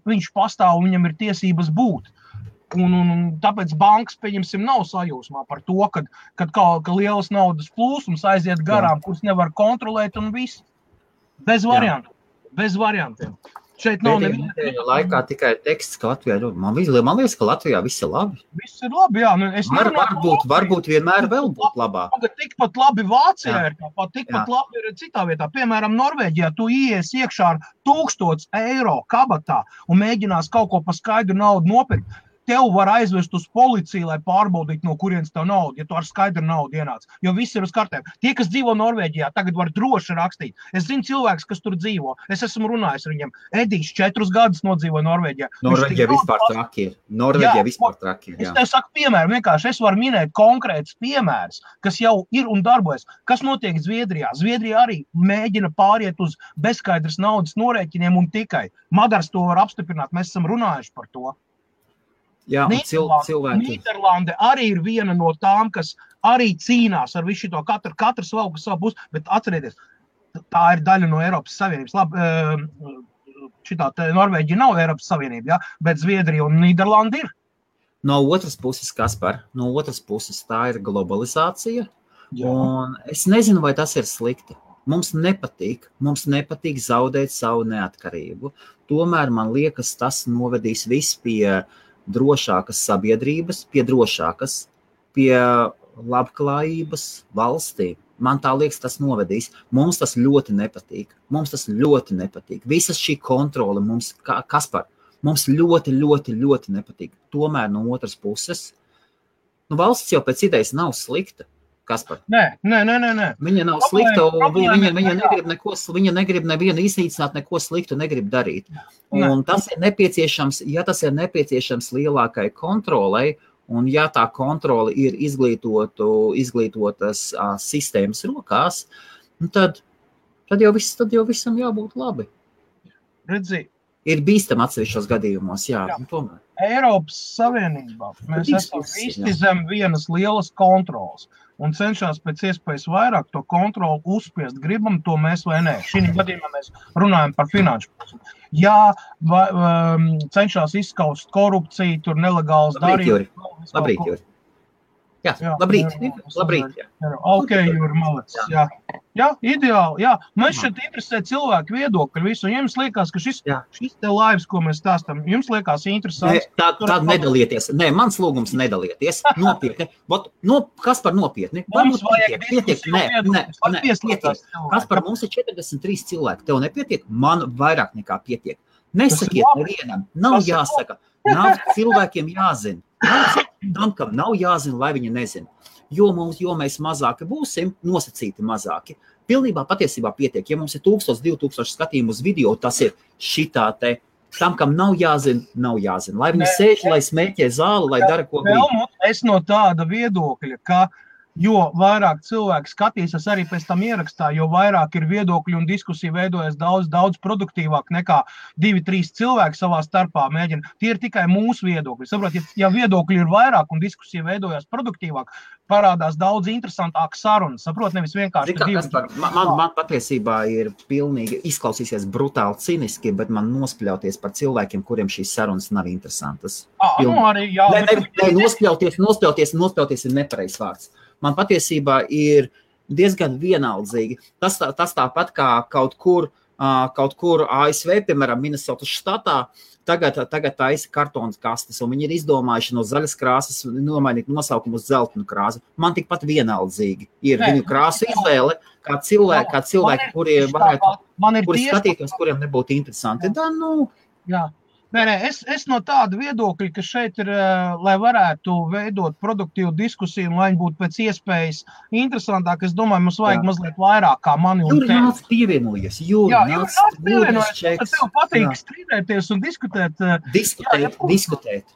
viņš pastāv un viņam ir tiesības būt. Un tāpēc bankas, pieņemsim, nav sajūsmā par to, ka lielas naudas plūsmas aiziet garām, kuras nevar kontrolēt un viss. Bez variantiem. Šeit nav neviena. Laikā tikai teksts, ka Latvijā ir. Man liekas, ka Latvijā viss ir labi. Viss ir labi, jā. Varbūt vienmēr vēl būt labāk. Tikpat labi Vācijā ir, tikpat labi ir citā vietā. Piemēram, Norvēģijā tu ies iekšā ar 1000 eiro kabatā un mēģinās kaut ko pa skaidru naudu nopirkt. Tev var aizvest uz policiju, lai pārbaudītu, no kurienes tev nauda, ja tu ar skaidru naudu ienāc. Jo viss ir uz kartēm. Tie, kas dzīvo Norvēģijā, tagad var droši rakstīt. Es zinu cilvēks, kas tur dzīvo. Es esmu runājis ar viņiem. Edijs 4 gadus nodzīvo Norvēģijā. Norvēģija vispār traki ir. Es tev saku piemēru, vienkārši es varu minēt konkrētus piemērus, kas jau ir un darbojas. Kas notiek Zviedrijā? Zviedrijā arī mēģina pāriet uz bezskaidras naudas norēķiniem un tikai. Madars to var apstiprināt, mēs esam runājuši par to. Jā, cilvēki. Nīderlande arī ir viena no tām, kas arī cīnās ar visu to katrs valku savu pusi, bet atcerieties, tā ir daļa no Eiropas Savienības. Šitā Norvēģija nav Eiropas Savienība, bet Zviedrija un Nīderlanda ir. No otras puses, Kaspar, tā ir globalizācija, un es nezinu, vai tas ir slikti. Mums nepatīk zaudēt savu neatkarību. Tomēr, man liekas, tas novedīs viss pie drošākas sabiedrības, pie labklājības valstī. Man tā liekas, tas novedīs. Mums tas ļoti nepatīk. Visas šī kontrole mums, Kaspar, mums ļoti nepatīk. Tomēr no otras puses, valsts jau pēc idejas nav slikta. Kaspar? Nē. Viņa nav slikta, viņa negrib nevienu iznīcināt, neko sliktu negrib darīt. Un tas ir nepieciešams, ja tas ir nepieciešams lielākai kontrolei, un ja tā kontrole ir izglītotas sistēmas rokās, tad jau visam jābūt labi. Redzi. Ir bīstam atsevišķos gadījumos, tomēr. Eiropas Savienībā mēs esam visi zem vienas lielas kontrolas un cenšās pēc iespējas vairāk to kontroli uzspiest. Gribam to mēs vai nē. Šī gadījumā mēs runājam par finanšu pusi. Jā, cenšās izskaust korupciju, tur nelegāls darījums. Labrīt, Juri. Jā, labrīt. Ok, Juri, malec. Jā, ideāli. Jā. Man šeit interesē cilvēku viedokļi visu. Jums liekas, ka šis te laivs, ko mēs stāstam, jums liekas interesants? Tā nedalieties. Nē, mans lūgums nedalieties. Nopietni. Kaspar, nopietni. Mums vajag pietiek. Kaspar, mums ir 43 cilvēki. Tev nepietiek? Man vairāk nekā pietiek. Nesakiet nevienam. Nav jāsaka. Nav cilvēkiem jāzina. Tam, kam nav jāzina, lai viņi nezina. Jo mēs mazāki būsim, nosacīti mazāki. Pilnībā patiesībā pietiek. Ja mums ir 1000, 2000 skatījumu uz video, tas ir šitā te. Tam, kam nav jāzina. Lai viņi sēž, lai smēķē zāli, lai dara ko grib. Es no tāda viedokļa, ka Jo vairāk cilvēki skatīsies arī pēc tam ierakstā, jo vairāk ir viedokļi un diskusija veidojas daudz produktīvāk nekā 2-3 cilvēki savā starpā mēģina. Tie ir tikai mūsu viedokļi. Saprot, ja viedokļi ir vairāk un diskusija veidojas produktīvāk, parādās daudz interesantāka saruna. Saprot, nevis vienkārši man patiesībā ir pilnīgi izklausīsies brutāli ciniski, bet man nospļauties par cilvēkiem, kuriem šīs sarunas nav interesantas. Arī, jā. Nospļauties ir nepareizs vārds. Man patiesībā ir diezgan vienaldzīgi. Tas tāpat kā kaut kur ASV, piemēram, Minnesotas štatā, tagad taisa kartonas kastes, un viņi ir izdomājuši no zaļas krāsas nomainīt nosaukumu uz zeltainu krāsu. Man tikpat vienaldzīgi ir viņu krāsu izvēle, kā cilvēki, kuriem varētu skatītos, kuriem nebūtu interesanti. Jā. Nē, es no tāda viedokļa, ka šeit ir, lai varētu veidot produktīvu diskusiju, un lai viņi būtu pēc iespējas interesantāk, es domāju, mums vajag mazliet vairāk kā mani un tevi. Nāc pievienojies, nāc pievienojies. Tev patīk strīdēties un diskutēt. Diskutēt.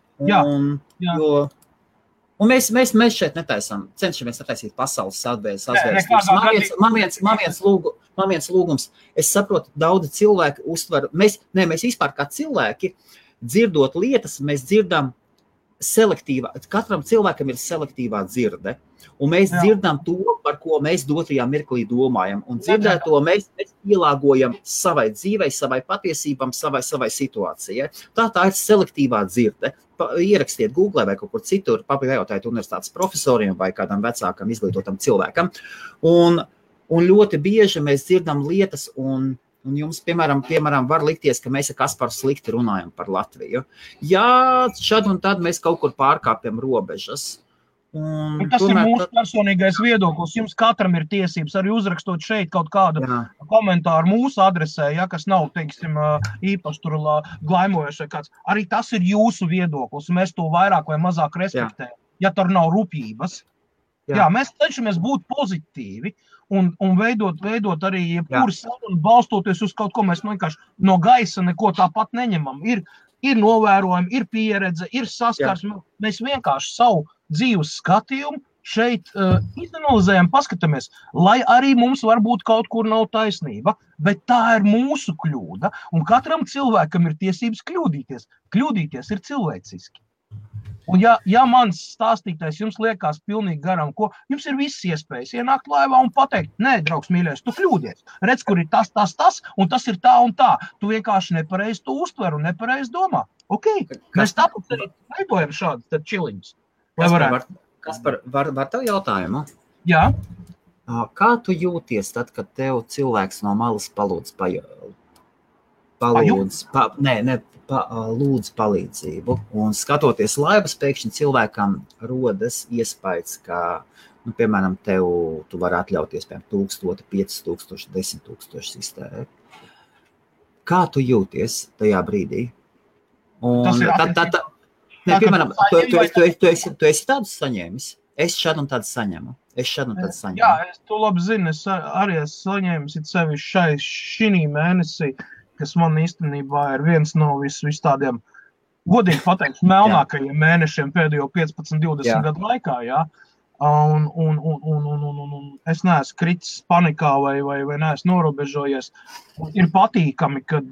Un mēs šeit cenšamies netaisīt pasaules sazvērstības. Man viens lūgums. Es saprotu, daudzi cilvēki uztver, mēs vispār kā cilvēki, dzirdot lietas, mēs dzirdam selektīvā, katram cilvēkam ir selektīvā dzirde. Un mēs dzirdam to, par ko mēs dotajā mirklī domājam. Un dzirdēto mēs pielāgojam savai dzīvei, savai patiesībām, savai situācijai. Tā ir selektīvā dzirde. Ierakstiet Google vai kaut kur citur, pajautājiet universitātes profesoriem vai kādam vecākam izglītotam cilvēkam. Un ļoti bieži mēs dzirdam lietas, un jums, piemēram, var likties, ka mēs ar Kasparu slikti runājam par Latviju. Jā, šad un tad mēs kaut kur pārkāpjam robežas. Un tas ir mūsu personīgais viedoklis. Jums katram ir tiesības arī uzrakstot šeit kaut kādu komentāru mūsu adresē, kas nav, teiksim, īpaši tur glaimojuši vai kāds. Arī tas ir jūsu viedoklis. Mēs to vairāk vai mazāk respektējam, ja tur nav rupības. Jā, mēs cenšamies būt pozitīvi un veidot arī jebkuru sarunu, balstoties uz kaut ko. Mēs vienkārši no gaisa neko tāpat neņemam. Ir novērojumi, ir pieredze, ir saskarsme. Mēs vienkārši savu dzīves skatījumu šeit izanalizējam, paskatāmies, lai arī mums varbūt kaut kur nav taisnība, bet tā ir mūsu kļūda, un katram cilvēkam ir tiesības kļūdīties. Kļūdīties ir cilvēciski. Un ja mans stāstītais jums liekas pilnīgi garam, jums ir visas iespējas ienākt laivā un pateikt, nē, draugs mīļais, tu kļūdies. Redz, kur ir tas, un tas ir tā un tā. Tu vienkārši nepareizi to uztver un nepareizi domā. Ok, mēs tāpēc arī veidojam šādas čiliņus. Kaspar, var tev jautājumu? Jā. Kā tu jūties tad, kad tev cilvēks no malas lūdz palīdzību, un skatoties laivas, pēkšņi cilvēkam rodas iespējas, ka, piemēram, tu vari atļauties, piemēram, 1000, 5000, 10 000 iztērēt. Kā tu jūties tajā brīdī? Piemēram, tu esi tādus saņēmis? Es šādu un tādu saņemu. Jā, es to labi zinu. Es arī esmu saņēmis sevišķi šī mēnesī, kas man īstenībā ir viens no vis tādiem, godīgi pateikt, melnākajiem mēnešiem pēdējo 15-20 gadu laikā. Jā. Un es neesmu kritis panikā vai neesmu norobežojies. Ir patīkami, kad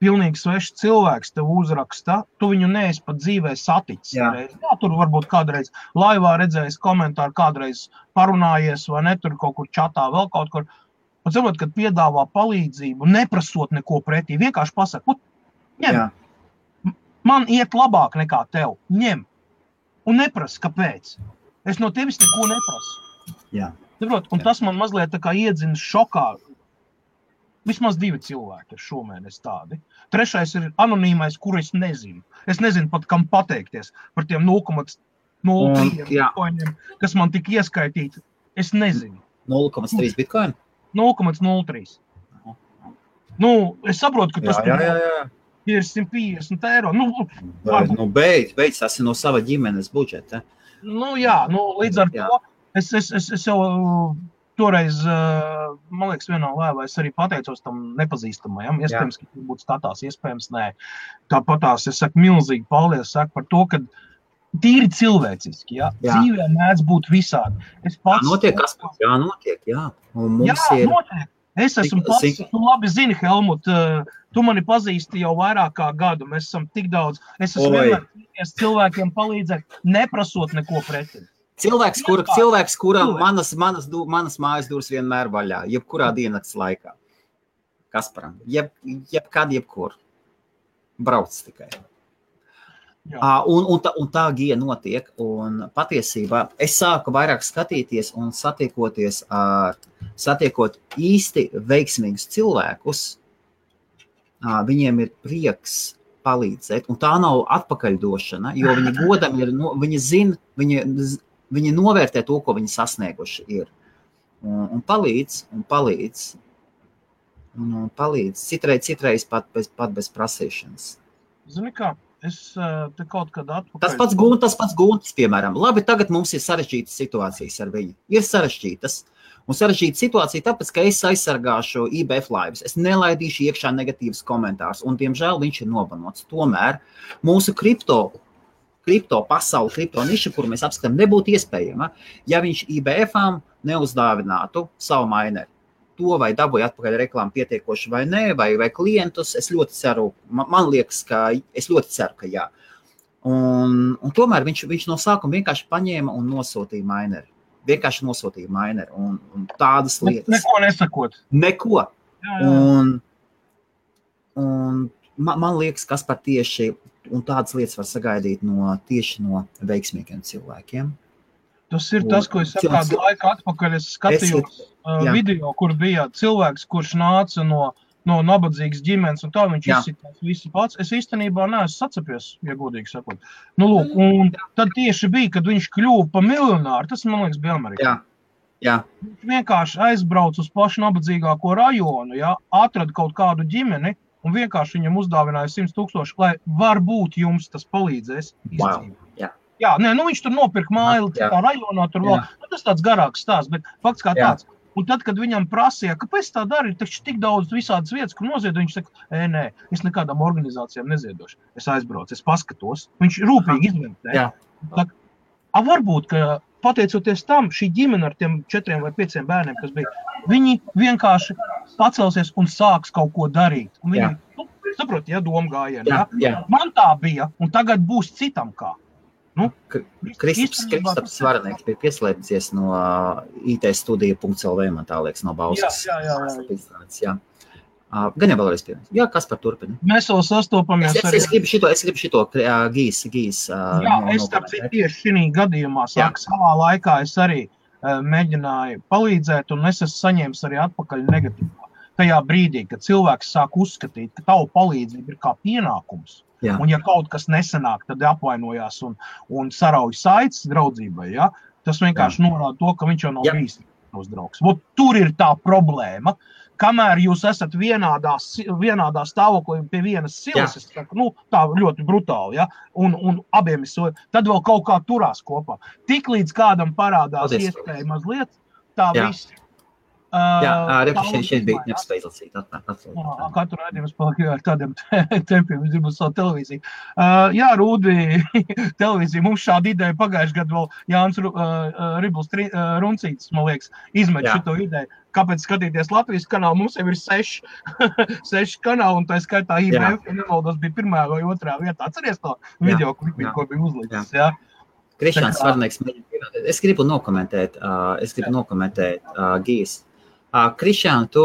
pilnīgi svešs cilvēks tev uzraksta, tu viņu neesi pat dzīvē saticis. Jā, tur varbūt kādreiz laivā redzējis komentāru, kādreiz parunājies vai ne, tur kaut kur čatā, vēl kaut kur. Un saprot, kad piedāvā palīdzību, neprasot neko pretī, vienkārši pasaka, ņem, man iet labāk nekā tev, ņem. Un neprasa, kāpēc. Es no tevis neko neprasu. Jā. Saprot, un tas man mazliet tā kā iedzina šokā. Vismaz 2 cilvēki ir šomēnes tādi. 3. ir anonīmais, kuru es nezinu. Es nezinu pat, kam pateikties par tiem 0,03 bitkoiniem, kas man tika ieskaitīti. Es nezinu. 0,3 bitkoini? 0,03. Es saprotu, ka tas ir 150 eiro. Beidz, tas ir no sava ģimenes budžeta. Līdz ar to es jau toreiz, man liekas, vienā laivā es arī pateicos tam nepazīstamajam. Iespējams, ka būtu skatās, iespējams, nē. Tāpatās es saku milzīgi paldies par to, ka tīri cilvēciski, ja? Dzīvē mēdz būt visādi. Es pats... Notiek, jā, notiek, jā. Un mums notiek. Es esmu pats, tu labi zini, Helmut, tu mani pazīsti jau vairāk kā gadu, mēs esam tik daudz. Es esmu vienmēr cilvēkiem palīdzēt, neprasot neko pretī. Cilvēks, kuram manas mājas durvis vienmēr vaļā, jebkurā diennakts laikā. Kasparam, jebkur. Brauc tikai. Un tā gija notiek, un patiesībā es sāku vairāk skatīties un satiekot īsti veiksmīgus cilvēkus, viņiem ir prieks palīdzēt, un tā nav atpakaļdošana, jo viņi godam ir, viņi zina, viņi novērtē to, ko viņi sasnieguši ir, un palīdz, citreiz pat bez prasīšanas. Zini kā? Es te kaut kad atpakaļ... Tas pats Guntis, piemēram. Labi, tagad mums ir sarežģītas situācijas ar viņu. Ir sarežģītas. Un sarežģīta situācija tāpēc, ka es aizsargāšu IBF laivas. Es nelaidīšu iekšā negatīvas komentārus. Un, diemžēl, viņš ir nobanots. Tomēr mūsu kripto pasauli, kripto niša, kuru mēs apskatām, nebūtu iespējama, ja viņš IBF-ām neuzdāvinātu savu maineri. To vai dabūja atpakaļ reklāmu pietiekoši vai nē, vai klientus, es ļoti ceru, man liekas, es ļoti ceru, ka jā. Un tomēr viņš no sākuma vienkārši paņēma un nosūtīja maineri. Un tādas lietas. Neko nesakot. Neko. Jā. Un man liekas, kas par tieši, un tādas lietas var sagaidīt tieši no veiksmīgiem cilvēkiem. Tas ir tas, ko es kādu laiku atpakaļ es skatījos video, kur bija cilvēks, kurš nāca no nabadzīgas ģimenes, un tā viņš izsitās visi pats. Es īstenībā neesmu sacepies, ja godīgi sakot. Nu, lūk, un tad tieši bija, kad viņš kļuva pa miljonāru, tas, man liekas, bija Amerikā. Jā. Viņš vienkārši aizbrauc uz pašu nabadzīgāko rajonu, atrada kaut kādu ģimeni, un vienkārši viņam uzdāvināja 100,000, lai varbūt jums tas palīdzēs izdzīvot. Jā, viņš tur nopirka māju, citā rajonā tur vēl. Tas tāds garāks stāsts, bet fakts kā tāds. Un tad, kad viņam prasīja, kāpēc tā dara, ir taču tik daudz visādas vietas, kur noziedo, viņš saka, nē, es nekādām organizācijām neziedošu. Es aizbraucu, es paskatos. Viņš rūpīgi izvērtē. Varbūt, ka pateicoties tam, šī ģimene ar tiem 4 vai 5 bērniem, kas bija, viņi vienkārši pacelsies un sāks kaut ko darīt. Un viņi, saprot, doma gājiena. Man tā bija, un tagad būs citam kā. Kristaps Svarnieks bija pieslēdzies no itstudija.lv, man tā liekas, no Bauskas. Jā. Gan jau vēlreiz pievienot. Jā, kas par turpina? Mēs vēl sastopamies arī. Es gribu šito gīs. Jā, es tieši šī gadījumā savā laikā es arī mēģināju palīdzēt, un es esmu saņēmis arī atpakaļ negatīvā. Tajā brīdī, kad cilvēks sāk uzskatīt, ka tavu palīdzību ir kā pienākums. Jā. Un ja kaut kas nesanāk, tad apvainojās un sarauj saites draudzībai, tas vienkārši norāda to, ka viņš jau nav bijis draugs. Tur ir tā problēma, kamēr jūs esat vienādā stāvoklī pie vienas silas, es saku, tā ļoti brutāli, un abiem ir tad vēl kaut kā turās kopā. Tik līdz kādam parādās iespēja mazliet, tā viss. Šeit bija nespēj lasīt. Katru raidījumu es paliku ar tādiem tempiem, es gribu savu televīziju. Rūdi, televīzija, mums šāda ideja pagājuši gadu vēl Jānis Ribls Runcītis, man liekas, izmet šito ideju. Kāpēc skatīties Latvijas kanālu? Mums jau ir 6 kanāli, un tā skaitā IBF, ja nevaldos, bija 1. vai 2. vietā. Atceries to video, ko bija uzlicis, Krišāns Svarnieks mēģina pievienot. Es gribu nokomentēt Gijas. Krišān, tu...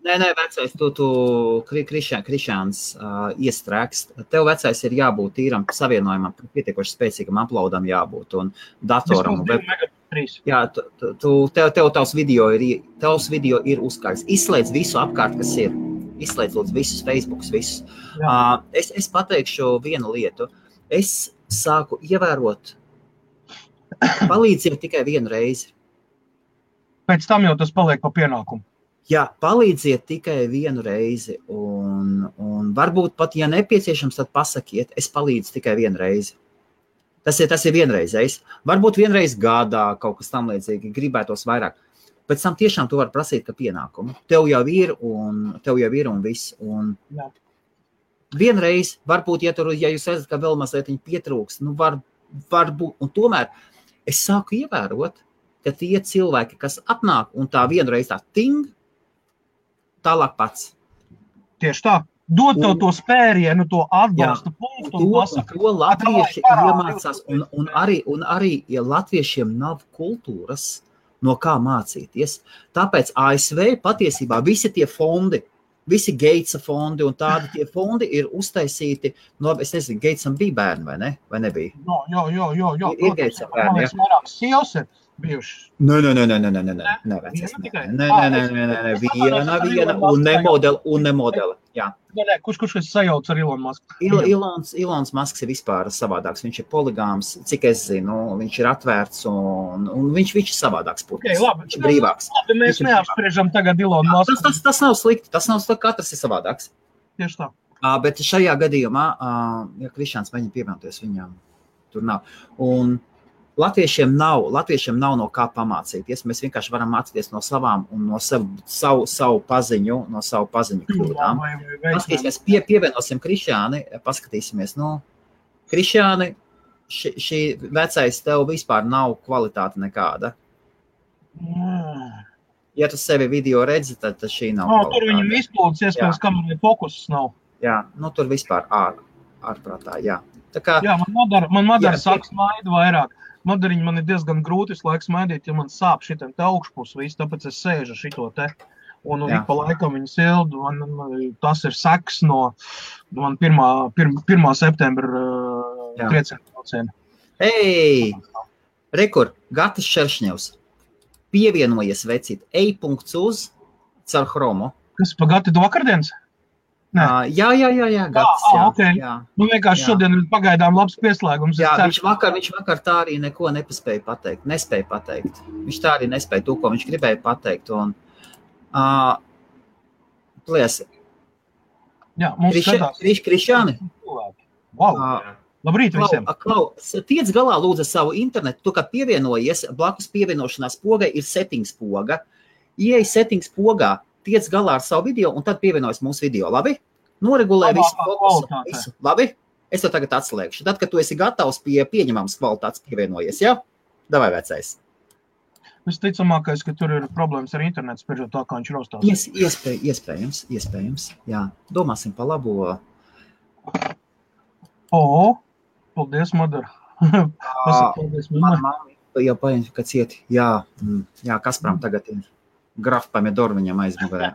Nē, vecais, tu Krišāns iestrēgst. Tev vecais ir jābūt tīram savienojumam, pietiekoši spēcīgam uploadam jābūt un datoram. Jā, tavs video ir uzkārs. Izslēdz visu apkārt, kas ir. Izslēdz lūdzu visus Facebookus, visus. Es pateikšu vienu lietu. Es sāku ievērot palīdzību tikai vienu reizi. Pēc tam jau tas paliek pa pienākumu. Jā, palīdziet tikai vienu reizi. Un varbūt pat, ja nepieciešams, tad pasakiet, es palīdzu tikai vienu reizi. Tas ir vienreizējs. Varbūt vienreiz gadā kaut kas tam līdzīgi, gribētos vairāk. pēc tam tiešām tu vari prasīt, ka pienākumu. Tev jau ir un viss. Un vienreiz, varbūt, ja jūs redzat, ka vēl mazliet pietrūks, nu varbūt, un tomēr es sāku ievērot, ka tie cilvēki, kas atnāk un tā vienreiz tā ting, tālāk pats. Tieši tā. Dod tev to spērienu, to atbalsta punktu un pasaka. To latvieši iemācās, un arī, ja latviešiem nav kultūras, no kā mācīties. Tāpēc ASV patiesībā visi tie fondi, visi Gatesa fondi un tādi tie fondi ir uztaisīti, es nezinu, Gatesam bija bērni vai ne? Vai nebija? Jā. Ir Gatesam bērni, jā. Vairākas sievas ir bijušas. Nē, viena un nemodela, jā. Kurš sajauc ar Elon Musk? Elons Musks ir vispār savādāks, viņš ir poligāms, cik es zinu, viņš ir atvērts un viņš ir savādāks putns, viņš ir brīvāks. Mēs neapspriežam tagad Elon Musk. Tas nav slikti, katrs ir savādāks. Tieši tā. Bet šajā gadījumā, ja Krišāns mēģina pievienoties, viņam tur nav. Un latviešiem nav no kā pamācīties. Mēs vienkārši varam mācīties no savām un no savu paziņu kļūdām. Paskatīsimies, pievienosim Krišāni, paskatīsimies, Krišāni, šī vecais tev vispār nav kvalitāte nekāda. Ja tu sevi video redzi, tad šī nav kvalitāte. Tur viņam izplūdes, iespējams, kamēr fokusus nav. Jā, tur vispār ārprātā, jā. Tā kā, man madara saka smaidu vairāk. Madariņi man ir diezgan grūti visu laiku smaidīt, ja man sāp šitam te augšpus visu, tāpēc es sēžu šito te. Un ik pa laikam viņu sildu, tas ir seks no man 1. septembra trieciena brauciena. Rekur, Gatis Šeršņevs, pievienojies vecīt, ej.uz caur Chromu. Kas, pa Gati do vakardienas? Jā, Gatis, okay. Jā. Vienkārši šodien ir pagaidām labs pieslēgums. Jā, viņš vakar tā arī neko nespēja pateikt. Viņš tā arī nespēja to, ko viņš gribēja pateikt. Un, pliesi. Jā, mums skatās. Krišāni. Wow. Labrīt visiem. Tiec galā lūdzu savu internetu. Tu, kad pievienojies, blakus pievienošanās pogai ir settings poga. Ieej settings pogā. Tiec galā ar savu video un tad pievienojas mūsu video, labi? Noregulē visu fokusu, labi? Es to tagad atslēgšu. Tad, kad tu esi gatavs pie pieņemams kvalitātes pievienojies, jā? Davai vecais. Visticamākais, ka tur ir problēmas ar internetu, spriežot tā, kā viņš rostās. Iespējams, jā. Domāsim pa labo. Paldies, Madara. Paldies, mamma. Jau paņem, ka cieti. Jā, Kasparam tagad ir. Graf Pamedoru viņam aizmugurē.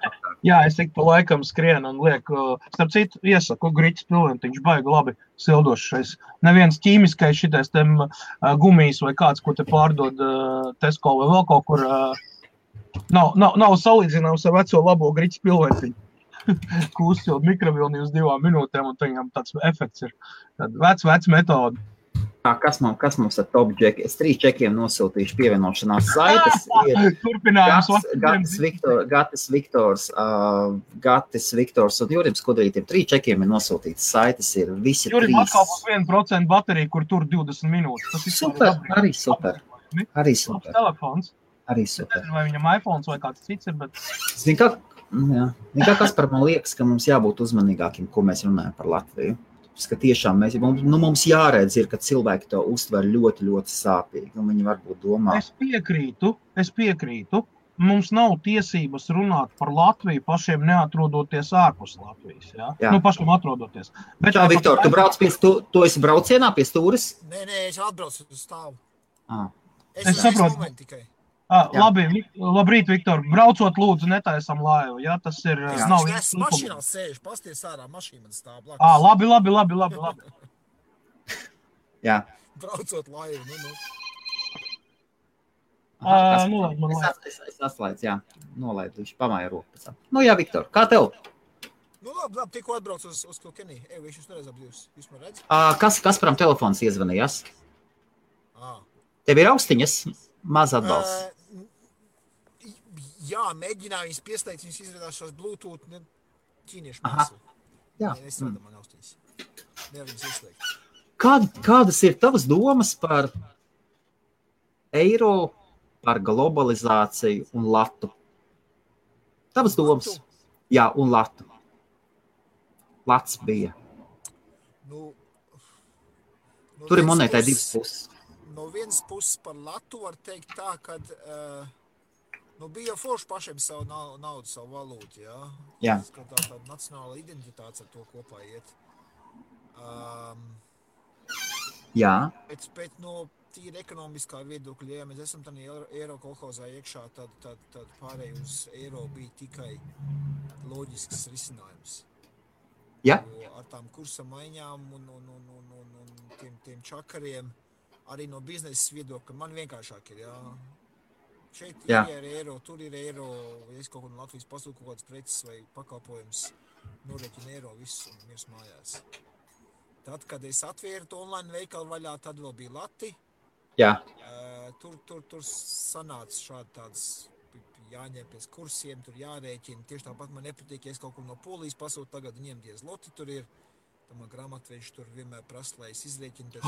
Jā, es tik pa laikam skrienu un lieku, starp citu, iesaku Griķis Pilventiņš baigi labi sildošais. Neviens ķīmiskais šitais tem gumijas vai kāds, ko te pārdod Tesco vai vēl kaut kur, nav salīdzināms ar veco labo Griķis Pilventiņu. Kūstot mikrovilni uz 2 minūtēm un viņam tāds efekts ir. Tad vec metoda. Kas mums ar top džeki? Es 3 čekiem nosūtīšu pievienošanās saites. Turpinājums. Gatis Viktors un Jurim Skudrītiem 3 čekiem ir nosūtītas saites. Ir visi Jurim 3. atkal būs 1% baterija, kur tur 20 minūtes. Tas arī super. Telefons. Arī super. Es nezinu, vai viņam iPhones vai kāds cits ir, bet... Nekā kas par man liekas, ka mums jābūt uzmanīgākiem, ko mēs runājam par Latviju. Ka tiešām mums jāredz ir, ka cilvēki to uztver ļoti, ļoti sāpīgi. Viņi varbūt domā. Es piekrītu. Mums nav tiesības runāt par Latviju pašiem neatrodoties ārpus Latvijas. Ja? Pašiem atrodoties. Bet tā, Viktor, tu brauc tu esi braucienā pie stūres? Nē, es atbraucu uz stāvu. Es saprotu. Labrīt, Viktor. Braucot lūdzu, netaisam laivu. Ja? Tas ir... Es mašīnā sēžu, pasties ārā, mašīna stāv blakus. Labi. Jā. Braucot laivu, Es atslēdzu, jā. Nolaidu, viņš pamāja roku. Jā, Viktor, kā tev? Labi, tikko atbraucu uz Kilkenī. Viņš jūs nereiz apdzīvs. Jūs man redz? Kasparam telefons iezvanījās? Tev ir austiņas? Maz atbalsts. Jā, mēģināju viņas pieslēgt, viņas izrādās šos Bluetooth ķīniešu mākslu. Jā. Nestrādā man austiņas. Nevar viņas izslēgt. Kādas ir tavas domas par eiro par globalizāciju un latu. Tavas domas? Latu? Jā, un latu. Lats bija. Tur ir monētai divas puses. No vienas puses par latu var teikt tā, ka bija forši pašiem savu naudu, savu valūtu, jā. Jā. Tā nacionāla identitāte ar to kopā iet. Jā. Bet no tīri ekonomiskā viedokļa, ja mēs esam tādā eiro kolhozā iekšā, tad pārēj uz eiro bija tikai loģisks risinājums. Jā. Jo ar tām kursa maiņām un tiem čakariem, arī no biznesa viedokļa, man vienkāršāk ir, jā. Šeit ir eiro, tur ir eiro, ja es kaut ko no Latvijas pasūku kaut kāds preces vai pakalpojums, noreķina eiro visus un mirs mājās. Tad, kad es atvēru to online veikalu vaļā, tad vēl bija lati. Jā. Tur sanāca šādi tāds jāņem pēc kursiem, tur jārēķina. Tieši tāpat man nepatīk, ja es kaut ko no Polijas pasūtu, tagad viņiem tie zloti tur ir. Tad man grāmatveži tur vienmēr prasa, lai es izrēķinu pēc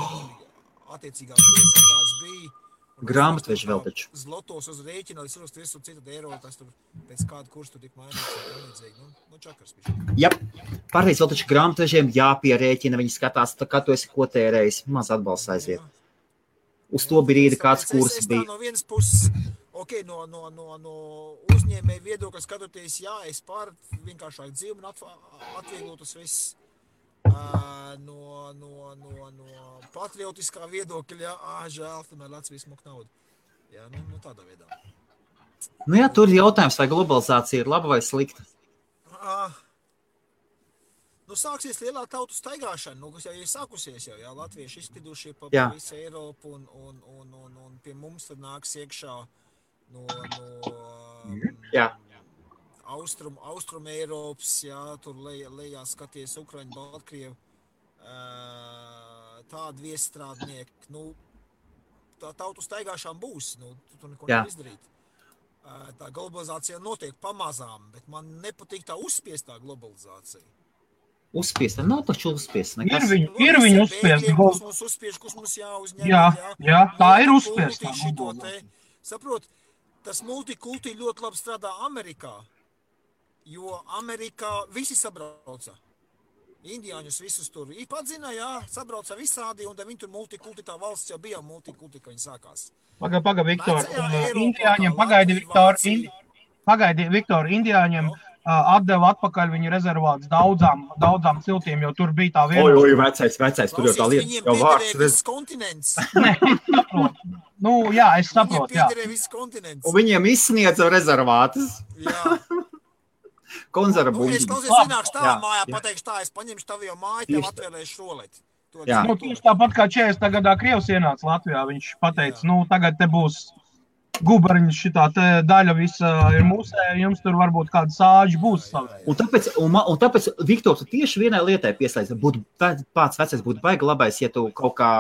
attiecīgā kursa, kāds bija. Grāmatveži vēl taču. Zlotos uz rēķina, lai es visu citu eiro, tas tur pēc kādu kursu tur tik mainīts. Nu, čakars bija. Jā, pārreiz vēl taču grāmatvežiem jāpierēķina, viņi skatās, kā tu esi ko tērējis, maz atbalsts aiziet. Uz to brīdi kāds kurs bija. No vienas puses, no uzņēmēja viedokļa skatoties, jā, es pār vienkāršāk dzīvi un atvieglo tas viss. No patriotiskā viedokļa, žēl, tomēr Latvijas mok naudu. Jā, nu tādā veidā. Nu jā, tur ir jautājums, vai globalizācija ir laba vai slikta? Sāksies lielā tautu staigāšana, kas jau ir sākusies jau, jā, latvieši izspidušie pa visu Eiropu un pie mums tad nāks iekšā Jā. Austrum Eiropas, jā, tur lejā skaties Ukraiņu, Baltkrievu, tādi viesstrādnieki, tā tautu staigāšana būs, tu neko nevar izdarīt. Tā globalizācija notiek pamazām, bet man nepatīk tā uzspiestā globalizācija. Uzspiesta? Nav taču uzspiesta. Ir viņa uzspiesta. Kas mums uzspiež, kas mums jāuzņem. Jā, tā ir uzspiesta. Saprot, tas multikulti ļoti labi strādā Amerikā, jo Amerikā visi sabrauca. Indiāņus visus tur padzina, jā, sabrauca visādi, un viņi tur multikulti, tā valsts jau bija multikulti, ka viņi sākās. Paga, Viktor, Indiāņiem, pagaidi, Viktor, Indiāņiem atdeva atpakaļ viņa rezervāts daudzām ciltīm, jo tur bija tā viena. Oi, vecais, tur jau tā lieta. Viņiem piederēja viss kontinents. Jā, es saprotu, jā. Viņiem piederēja viss kontinents. Un viņiem izsniedza rezervātus. Jā. Konzerva buļģi. Es klausies, ienākšu tavā mājā, pateikšu tā, es paņemšu tavu jau māju, tev atvēlēšu roleti. Tieši tāpat kā 40. gadā Krievs ienāca Latvijā, viņš pateica, tagad te būs gubariņš, šitā te daļa visa ir mūsē, jums tur varbūt kāda sāģi būs savai. Un tāpēc, Viktor, tu tieši vienai lietai pieslēdz, pats vecais būtu baigi labais, ja tu kaut kā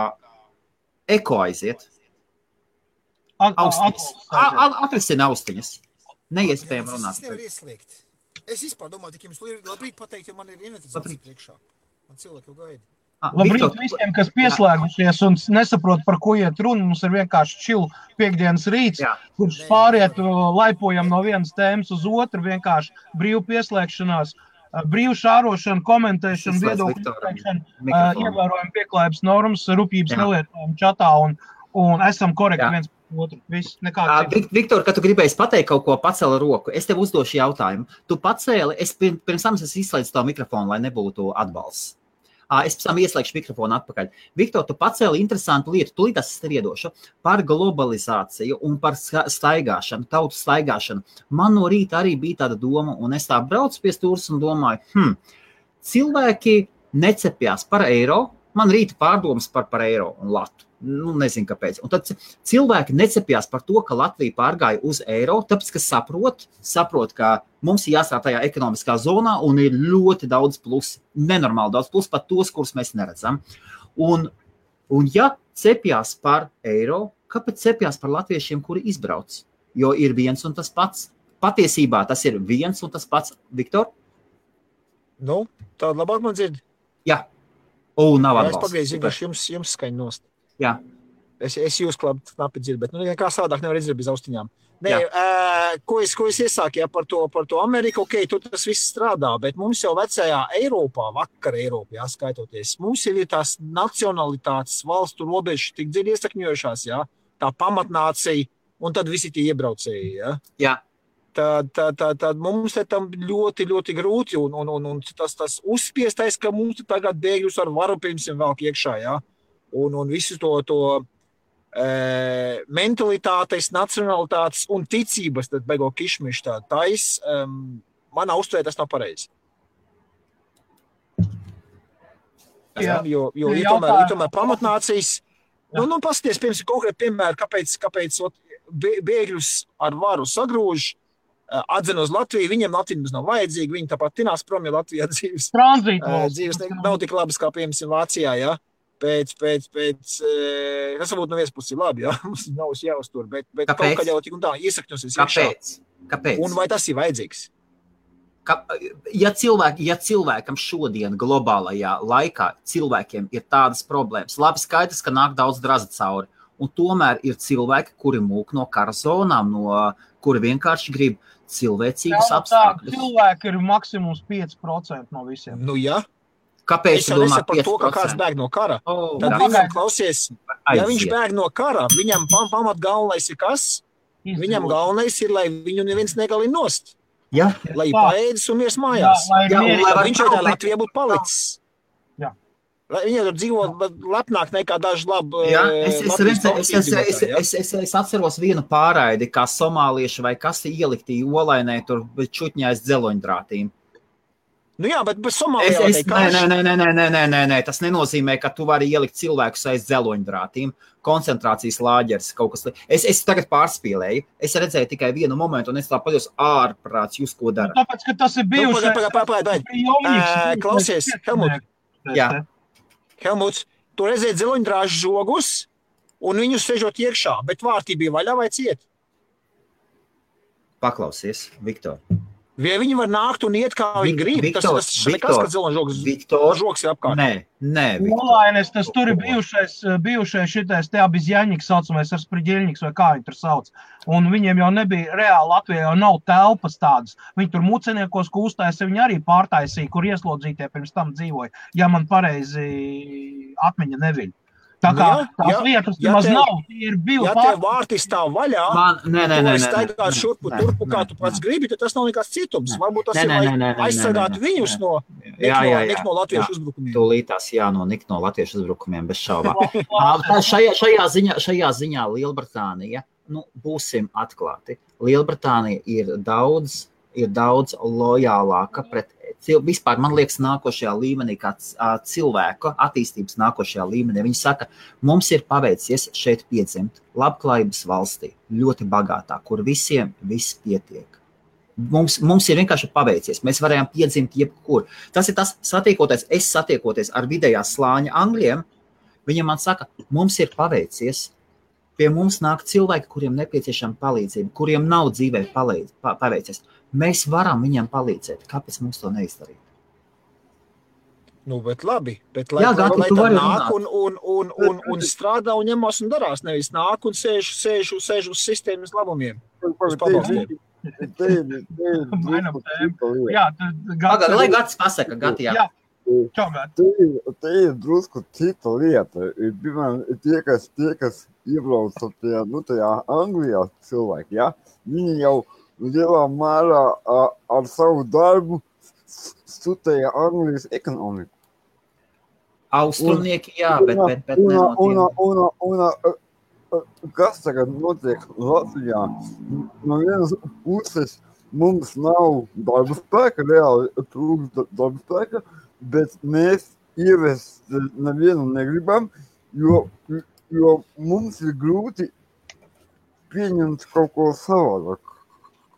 eko aiziet. Atrisina austiņas. Neiespējami runāt. Es nevaru ieslēgt. Es vispār domāju, tik jums labrīt pateikt, jo man ir inventarizācija priekšā. Man cilvēki jau gaida. Labrīt visiem, kas pieslēgušies un nesaprot, par ko iet runa. Mums ir vienkārši chill piekdienas rīts, kurš pāriet, laipojam no vienas tēmas uz otru, vienkārši brīvu pieslēgšanās, brīvu šārošanu, komentēšanu, viedokļu izteikšanu, ievērojam pieklājības normas, rupjības nelietojam čatā un esam korekti viens par otru. Viss, Viktor, kad tu gribēji pateikt kaut ko, pacēli roku. Es tev uzdošu jautājumu. Tu pacēli, es pirms tam izslēdzu tavu mikrofonu, lai nebūtu atbalsts. Es pēc tam ieslēgšu mikrofonu atpakaļ. Viktor, tu pacēli interesantu lietu, tūlīt es tev iedošu, par globalizāciju un par staigāšanu, tautu staigāšanu. Man no rīta arī bija tāda doma, un es tā braucu pie stūras un domāju, cilvēki necepjās par eiro, man rīta pārdomas par eiro un latu. Nezinu, kāpēc. Un tad cilvēki necepjās par to, ka Latvija pārgāja uz eiro, tāpēc, ka saprot, ka mums ir jāstrādā tajā ekonomiskā zonā un ir ļoti daudz plusi, nenormāli daudz plusi, pat tos, kurus mēs neredzam. Un ja cepjās par eiro, kāpēc cepjās par latviešiem, kuri izbrauc? Jo ir viens un tas pats. Patiesībā tas ir viens un tas pats. Viktor? Tāda labāk man dzird. Jā. Nav atbalsts. Es pagaidu, vienkārši jums skaņu nost. Jā. Es jūs knapi dzirdu, bet kā savādāk nevar izdarīt bez austiņām. Nē, ko es iesāku par to Ameriku, tur tas viss strādā, bet mums jau vecajā Eiropā, vakar Eiropā, skaitoties, mums jau ir tās nacionalitātes valstu robežas tik dziļi iesakņojušās, tā pamatnācija, un tad visi tie iebraucēji, Jā. Tad mums tam ļoti, ļoti grūti, un tas uzspiestais, ka mums tagad bēgļus ar varu pirms vēl iekšā, un visu to mentalitātes, nacionalitātes un ticības, tad beigo kišmiši manā uztvērē tas nav pareizi. Jo ir tomēr pamatnācijas, paskaties, piemēram, konkrēti piemēri, kāpēc bēgļus ar varu sagrūž, atzina uz Latviju, viņiem Latvijas nav vajadzīga, viņi tāpat tinās prom, jo Latvijā dzīves nav tik labas kā, piemēram, Vācijā, Pēc tas varbūt no vienas puses ir labi, mums nav jāuztur, bet kaut kā jau tik un tā iesakņosies iekšā. Kāpēc? Un vai tas ir vajadzīgs? Ja cilvēkam šodien globālajā laikā cilvēkiem ir tādas problēmas, labi skaidrs, ka nāk daudz draza cauri, un tomēr ir cilvēki, kuri mūk no kara zonām, kuri vienkārši grib cilvēcīgus apstākļus. Cilvēki ir maksimums 5% no visiem. Nu, jā. Kāpēc es domā 5%? Par to, ka kāds bēg no kara. Tad viņam klausies, ja viņš bēg no kara, viņam pamat galvenais ir kas? Viņam galvenais ir, lai viņu neviens negalina nost. Jā. Lai paēdis un miers mājās. Viņš jau tā Latvijā būtu palicis. Jā. Viņi tur dzīvo lepnāk nekā daži labi. Es atceros vienu pārraidi, kā somālieši vai kas ielikti olainē tur čutņais dzeloņdrātīm. Nu jā, bet Somālijā Nē, tas nenozīmē, ka tu vari ielikt cilvēkus aiz dzeloņdrātīm, koncentrācijas lāģeris, kaut kas. Es tagad pārspīlēju, es redzēju tikai vienu momentu, un es tā paļos ārprāts, jūs ko dara. Tāpēc, ka tas ir bijuši. Klausies, Helmut. Jā. Helmuts, tu redzēji dzeloņdrāžu žogus, un viņus sežot iekšā, bet vārtī bija vaļā vai ciet? Paklausies, Viktor. Vai viņi var nākt un iet, kā viņi grib? Tas nekas, ka žogs ir apkārt. Nē, Viktor. Olainis, tas tur ir bijušais šitais te abizjaņiks saucamais ar spriģeļņiks, vai kā viņi tur sauc. Un viņiem jau nebija reāli Latvijā, jau nav telpas tādas. Viņi tur muceniekos kūstājās, viņi arī pārtaisīja, kur ieslodzītie pirms tam dzīvoja. Ja man pareizi atmiņa neviļ. Tā kā tās vietas maz nav, tie ir bijuši. Ja tev vārti stāv vaļā, tu staigāt šurpu turpu, kā tu pats gribi, tad tas nav nekāds cietums. Varbūt tas ir, lai aizsargātu viņus no latviešu uzbrukumiem. Tūlītās nikt no latviešu uzbrukumiem, bez šaubām. Šajā ziņā Lielbritānija, būsim atklāti, Lielbritānija ir daudz lojālāka pret vispār, man liekas, nākošajā līmenī, kā cilvēku attīstības nākošajā līmenī. Viņi saka, mums ir paveicies šeit piedzimt labklājības valstī, ļoti bagātā, kur visiem viss pietiek. Mums ir vienkārši paveicies, mēs varējām piedzimt jebkur. Tas ir tas satiekoties ar vidējā slāņa angļiem, viņiem man saka, mums ir paveicies, pie mums nāk cilvēki, kuriem nepieciešama palīdzība, kuriem nav dzīvē paveicies. Mēs varam viņam palīdzēt. Kāpēc mums to neizdarīt? Nu, bet labi. Bet lai tad nāk un strādā un ņemās un darās. Nevis nāk un sēž uz sistēmas labumiem. Uz pabalstiem. Lai Gats pasaka, Gati, jā. Te ir drusku cita lieta. Tie, kas iebrauc tajā Anglijā cilvēki, viņi jau lielā mērā ar savu darbu studēja Anglijas ekonomiku. Austrumnieki, jā, bet kas tagad notiek Latvijā? No vienas puses mums nav darba spēka, reāli trūkst darba spēka, bet mēs ievest nevienu negribam, jo mums ir grūti pieņemt kaut ko savādāk.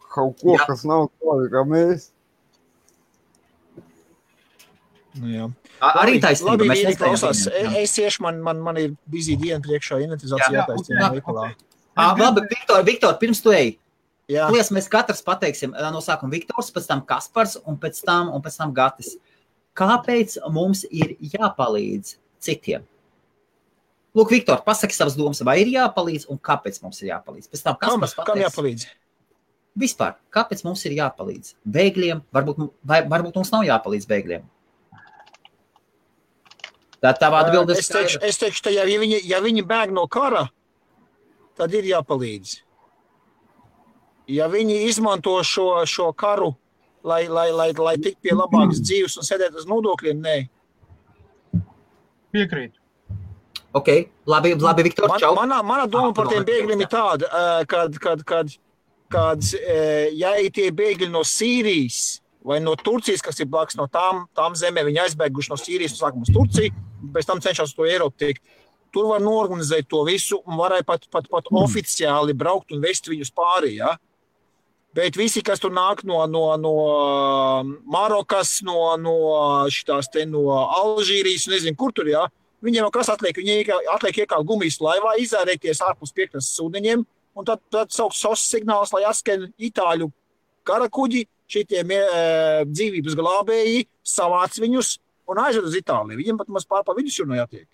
Kaut ko, kas nav tādi, kā mēs. Jā. Arī taisnība. Labi, klausās. Es iešu, man ir busy diena priekšā, inventarizācija jātaistina veikalā. Labi, Viktor, pirms tu ej. Lies, mēs katrs pateiksim no sākuma Viktors, pēc tam Kaspars un pēc tam Gatis. Kāpēc mums ir jāpalīdz citiem? Lūk, Viktor, pasaki savas domas, vai ir jāpalīdz un kāpēc mums ir jāpalīdz. Pēc tam, Kam jāpalīdz? Vispār, kāpēc mums ir jāpalīdz? Bēgļiem, varbūt mums nav jāpalīdz bēgļiem. Tā tavā atbilde ir skaidra. Es teikšu, ja viņi bēg no kara, tad ir jāpalīdz. Ja viņi izmanto šo karu, lai tik pie labākas dzīves un sēdēt uz nodokļiem, nē. Piekrīt. Ok, labi, Viktor, čau. Mana doma par tiem bēgļiem ir tāda, kad ja tie bēgļi no Sīrijas vai no Turcijas, kas ir blakus no tām zemēm, viņi aizbēguši no Sīrijas un sākam uz Turciju, pēc tam cenšas to Eiropu tikt. Tur var norganizēt to visu un varēja pat oficiāli braukt un vest viņus pārī, ja? Bet visi, kas tur nāk no Marokas, no Alžīrijas, nezinu, kur tur, ja? Viņiem jau kas atliek? Viņi atliek iekālt gumijas laivā, izārēties ārpus piekrastes ūdeņiem, un tad sauks SOS signāls, lai atskan itāļu karakuģi, šitiem dzīvības glābēji, savāc viņus un aizved uz Itāliju. Viņiem pat maz pār pa vidusjūru jātiek.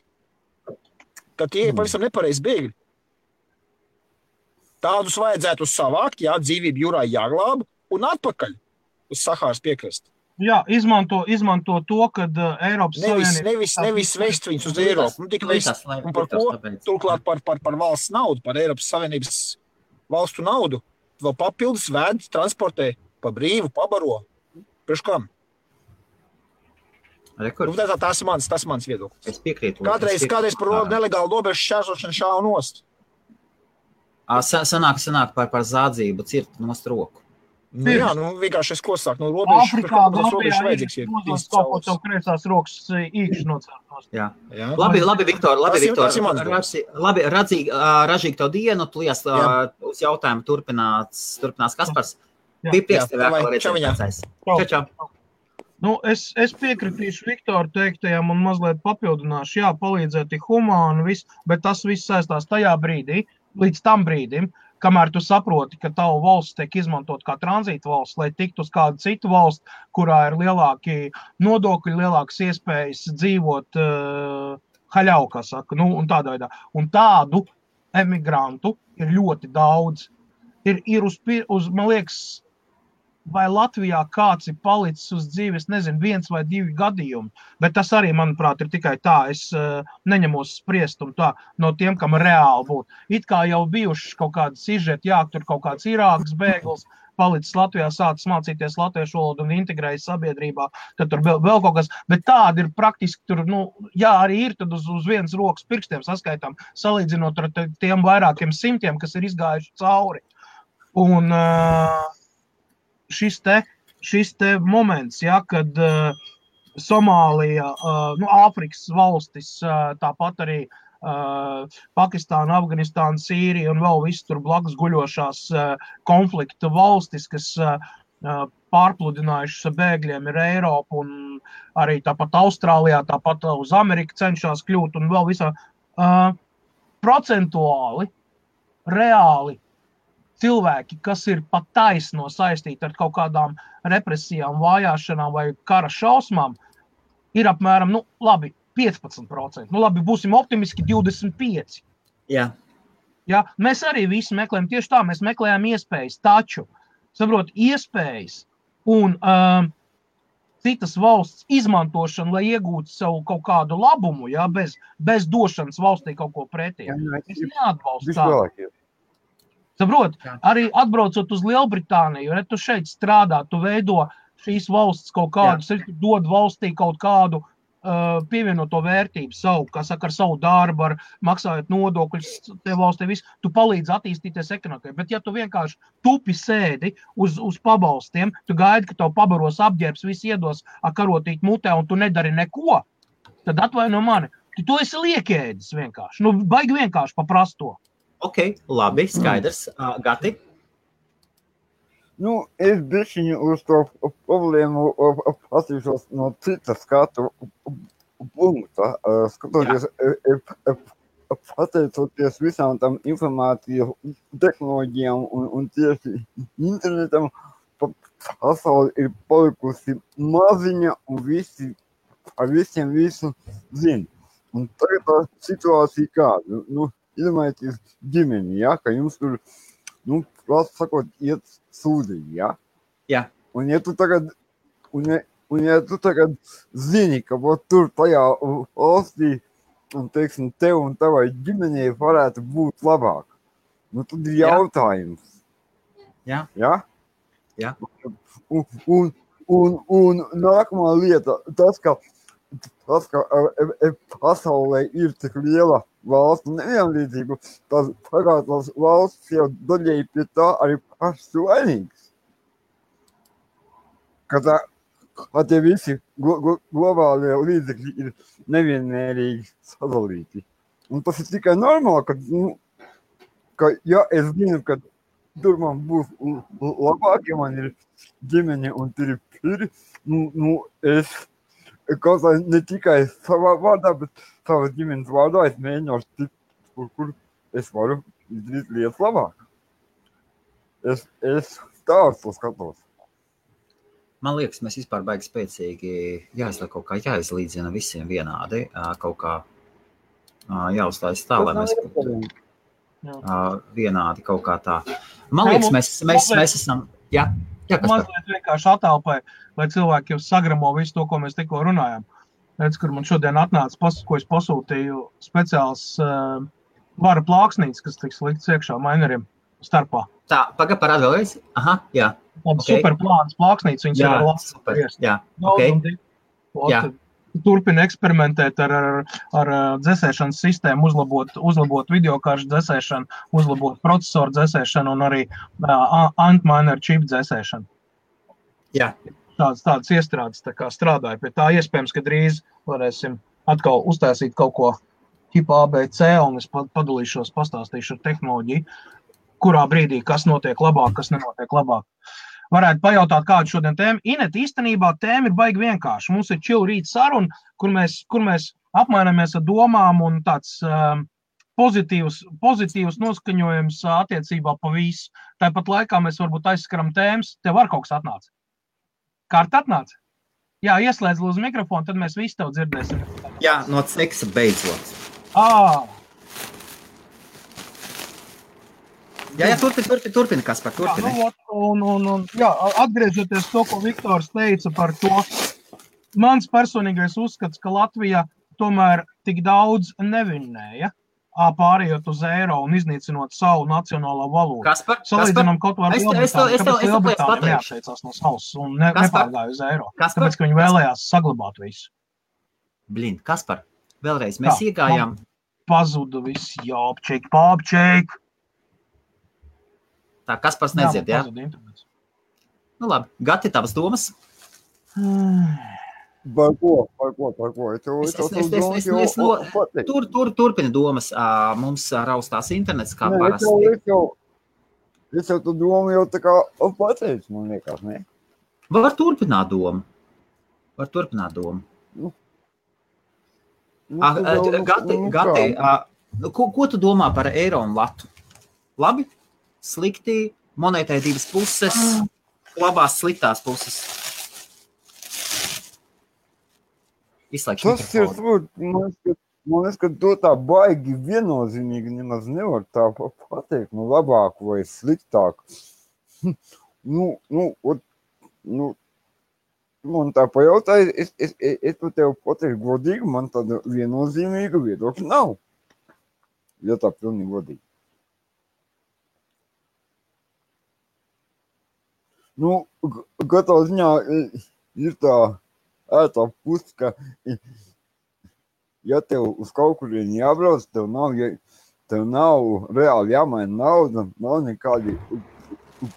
Tad tie ir pavisam nepareizi bēgļi. Tādus vajadzētu savākt, jā, dzīvību jūrā jāglāb un atpakaļ uz Sahāras piekrasti. Jā, izmanto to, kad Eiropas Savienība... Nevis vest viņus uz Eiropu. Tik vest, un par ko? Turklāt par valsts naudu, par Eiropas Savienības valstu naudu. Vēl papildus vēd, transportē pa brīvu, pabaro. Priekš kam? Tas ir mans viedoklis. Es piekrītu. Kādreiz par nelegālu robežu šķērsošanu šāvu nost. Sanāk par zādzību, cirt nost roku. Jā, vienkārši es ko sāku no robežu. Afrikā, Gambijā ir uzdos kaut ko tev kreisās rokas īkši nocērtos. Jā. Labi, Viktor. Labi, ražīgi tev dienu, tu lies uz jautājumu turpinās Kaspars. Bija prieks tev vēl redzēt. Čau. Nu, es piekritīšu Viktoru teiktajam un mazliet papildināšu. Jā, palīdzēt ir humāni, bet tas viss saistās tajā brīdī, līdz tam brīdim, kamēr tu saproti, ka tavu valsts tiek izmantot kā tranzīta valsts, lai tiktu uz kādu citu valsts, kurā ir lielāki nodokļi, lielākas iespējas dzīvot haļau, kā saka, un tādā veidā. Un tādu emigrantu ir ļoti daudz. Ir man liekas, vai Latvijā kāds ir palicis uz dzīves, nezinu, 1 vai 2 gadījumi, bet tas arī, manuprāt, ir tikai tā, es neņemos spriest un tā no tiem, kam reāli būtu. It kā jau bijuši kaut kādi sižeti, jā, tur kaut kāds Irākas bēglis, palicis Latvijā, sācis mācīties latviešu valodu un integrējas sabiedrībā, tad tur vēl kaut kas, bet tādi ir praktiski tur, jā, arī ir, tad uz vienas rokas pirkstiem saskaitām, salīdzinot ar tiem vairākiem simtiem, kas ir izgājuši cauri. Un šis te moments, ja, kad Somālija, Āfrikas valstis, tāpat arī Pakistāna, Afganistāna, Sīrija un vēl viss tur blakus guļošās konflikta valstis, kas pārpludinājušas bēgļiem ir Eiropa un arī tāpat Austrālijā, tāpat uz Ameriku cenšas kļūt un vēl visā procentuāli, reāli cilvēki, kas ir pat taisno saistīti ar kaut kādām represijām, vājāšanām vai kara šausmām, ir apmēram, 15%. Būsim optimiski 25%. Jā. Ja, mēs arī visi meklējam tieši tā, mēs meklējam iespējas, taču, saprot, iespējas un citas valsts izmantošana, lai iegūtu savu kaut kādu labumu, ja, bez došanas valstī kaut ko pretī. Es neatbalstu tādu. Saprot, arī atbraucot uz Lielbritāniju, ja tu šeit strādā, tu veido šīs valsts kaut kādus, dod valstī kaut kādu pievienoto vērtību savu, kā saka, ar savu darbu, ar maksājot nodokļus, te valstī visu, tu palīdzi attīstīties ekonomikai. Bet ja tu vienkārši tupi sēdi uz pabalstiem, tu gaidi, ka tev pabaros apģērbs, viss iedos karotīt mutē un tu nedari neko, tad atvaino mani. Tu esi liekēdis vienkārši. Baigi vienkārši paprast to. Ok, labi, skaidrs. Gati? Es bišķiņu uz to problēmu patīšos no citas skatu punkta. Skatoties, pateicoties visām tam informāciju tehnoloģijām un tieši internetam, pasauli ir palikusi maziņa un visiem visu zina. Un tagad tā situācija kāda? Nu, iedomājieties ģimeni, ja, ka jums tur, nu, prasa sakot, iet sūdiņi, ja? Jā. Un ja tu tagad, zini, ka tur tajā valstī, un, teiksim, tev un tavai ģimenei varētu būt labāk, nu, tad ir jautājums. Jā. Ja? Jā. Un nākamā lieta, tas, ka pasaulē ir tik liela valstu nevienlīdzība, tas valsts jau daļēji pie tā arī pašas vainīgas. Ka tie visi globālie līdzekļi ir nevienmērīgi sadalīti. Un tas ir tikai normāli, ka ja es zinu, ka tur man būs labāk, ja man ir ģimene un tur ir piri, es kaut kā ne tikai savā vārdā, bet savas ģimenes vārdā es mēģināšu tikt, kur es varu izdarīt lietas labāk. Es tā to skatos. Man liekas, mēs vispār baigi spēcīgi kaut kā jāizlīdzina visiem vienādi, kaut kā jāuzstājas tā, lai mēs vienādi kaut kā tā. Man liekas, mēs esam... Jā, mazliet vienkārši attēlpai, lai cilvēki jau sagramo visu to, ko mēs tikko runājām. Redz, kur man šodien atnāca, ko es pasūtīju speciāls vara plāksnītes, kas tiks likts iekšā maineriem starpā. Tā, parād vēlreiz? Aha, jā. Okay. Super plānas plāksnītes, viņas ir ar labs. Super, jā, ok. Turpina eksperimentēt ar dzesēšanas sistēmu, uzlabot videokāršu dzesēšanu, uzlabot procesoru dzesēšanu un arī Antminer chip dzesēšanu. Jā. Tādas iestrādes tā kā strādāja pie tā. Iespējams, ka drīz varēsim atkal uztaisīt kaut ko tipa ABC un es padalīšos, pastāstīšu ar tehnoloģiju, kurā brīdī kas notiek labāk, kas nenotiek labāk. Varētu pajautāt, kādu šodien tēmu. Inet, īstenībā tēma ir baigi vienkārši. Mums ir chill rīt saruna, kur mēs apmainamies ar domām un tāds pozitīvs noskaņojums attiecībā pa visu. Tāpat laikā mēs varbūt aizskaram tēmas. Tev var kaut kas atnāca? Kārta atnāca? Jā, ieslēdz lūdzu mikrofonu, tad mēs visi tev dzirdēsim. Jā, no seksa beidzot. Jā, turpina, Kaspar, turpina. Jā, atgriežoties to, ko Viktors teica par to, mans personīgais uzskats, ka Latvija tomēr tik daudz nevinnēja, pārējot uz eiro un iznīcinot savu nacionālo valodu. Kaspar, salīdzinām kaut var Lielbritāniju, kāpēc Lielbritānija neapteicās no savas un nepārgāja uz eiro. Tāpēc, ka viņi vēlējās saglabāt visu. Kaspar, vēlreiz mēs iegājām. Pazuda viss, jāpčeik, pāpčeik. Tā, Kaspars nedzird, jā? Nu labi, Gati, tavas domas? Par ko? Turpina domas. Mums raustās internets, kā parasti. Es jau tu domu jau tā kā pateicu, man liekas, ne? Var turpināt domu. Gati, ko tu domā par eiro un latu? Labi? Slikti, monētai divas puses, labās sliktās puses. Izslēgšu mikrofonu. Man liekas, ka to tā baigi viennozīmīgi nemaz nevar tā pateikt, labāku vai sliktāku. Man tā pajautāja, es tu tev pateikšu godīgi, man tāda viennozīmīga viedokļa nav. Ja tā pilnīgi godīgi. Katrā ziņā ir tā ētā puse, ka ja tev uz kaut kurien jābrauc, tev nav reāli jāmaina nauda, nav nekādi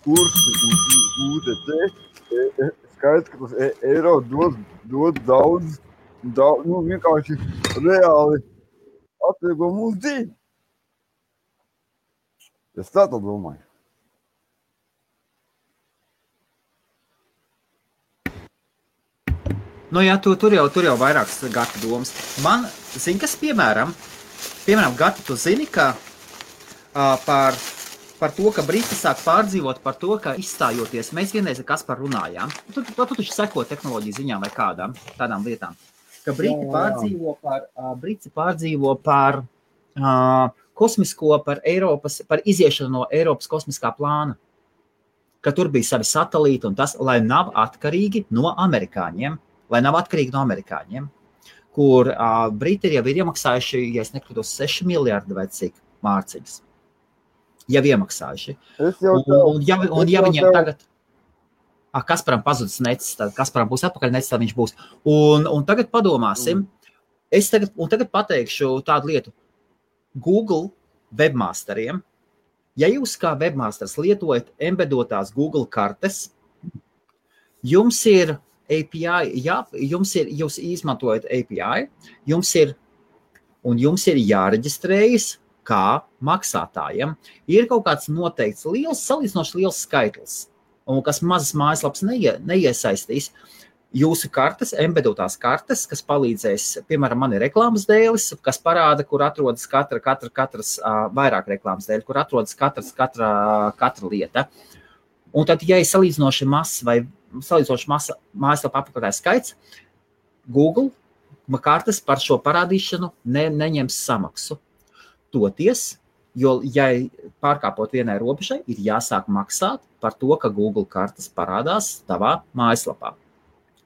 kursi un UTT. Skaidrs, ka tas eiro dod daudz, vienkārši reāli atvieglo mūsu dzīvi. Es tā domāju. Nu jā, tur jau vairākas Gati domas. Man, zini, kas piemēram, Gati, tu zini, ka par to, ka Briti sāk pārdzīvot par to, ka izstājoties, mēs vienreiz ar Kasparu runājām. Tu taču seko tehnoloģiju ziņām vai kādām tādām lietām. ka Briti pārdzīvo par kosmisko, par iziešanu no Eiropas kosmiskā plāna, ka tur bija savi satelīti un tas, lai nav atkarīgi no amerikāņiem, kur Briti jau ir iemaksājuši, ja es nekļūdos, 6 miljardi vai cik mārciņas. Jau iemaksājuši. Un ja viņiem tagad... Kasparam pazudis necis, tad Kasparam būs atpakaļ necis, tad viņš būs. Un tagad padomāsim, tagad pateikšu tādu lietu. Google webmasteriem, ja jūs kā webmasters lietojat embedotās Google kartes, jums ir API, jūs izmantojat API, jums ir jāreģistrējas kā maksātājiem. Ir kaut kāds noteikts salīdzinoši liels skaitlis, un kas mazas mājaslapas neiesaistīs, jūsu kartes, embedotās kartes, kas palīdzēs, piemēram, man ir reklāmas dēlis, kas parāda, kur atrodas katras vairāk reklāmas dēļi, kur atrodas katra lieta. Un tad, ja ir salīdzinoši masa mājaslapa apmeklētāju skaits, Google kartes par šo parādīšanu neņems samaksu. Toties, jo, ja pārkāpot vienai robežai, ir jāsāk maksāt par to, ka Google kartes parādās tavā mājaslapā.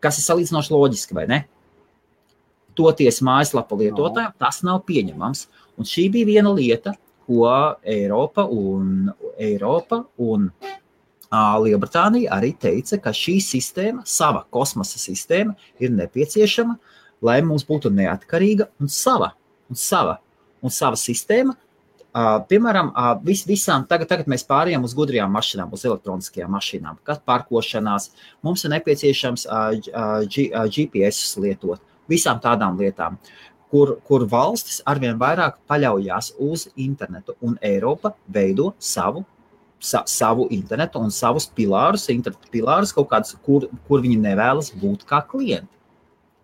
Kas ir salīdzinoši loģiski, vai ne? Toties mājaslapa lietotājiem tas nav pieņemams. Un šī bija viena lieta, ko Eiropa un Lielbritānija arī teica, ka šī sistēma, sava kosmosa sistēma, ir nepieciešama, lai mums būtu neatkarīga un sava sistēma. Piemēram, visām tagad mēs pārējām uz gudrajām mašīnām, uz elektroniskajām mašīnām, kad pārkošanās, mums ir nepieciešams GPS lietot, visām tādām lietām, kur valstis arvien vairāk paļaujās uz internetu, un Eiropa veido savu internetu un savus internetu pilārus kaut kādus, kur viņi nevēlas būt kā klienti.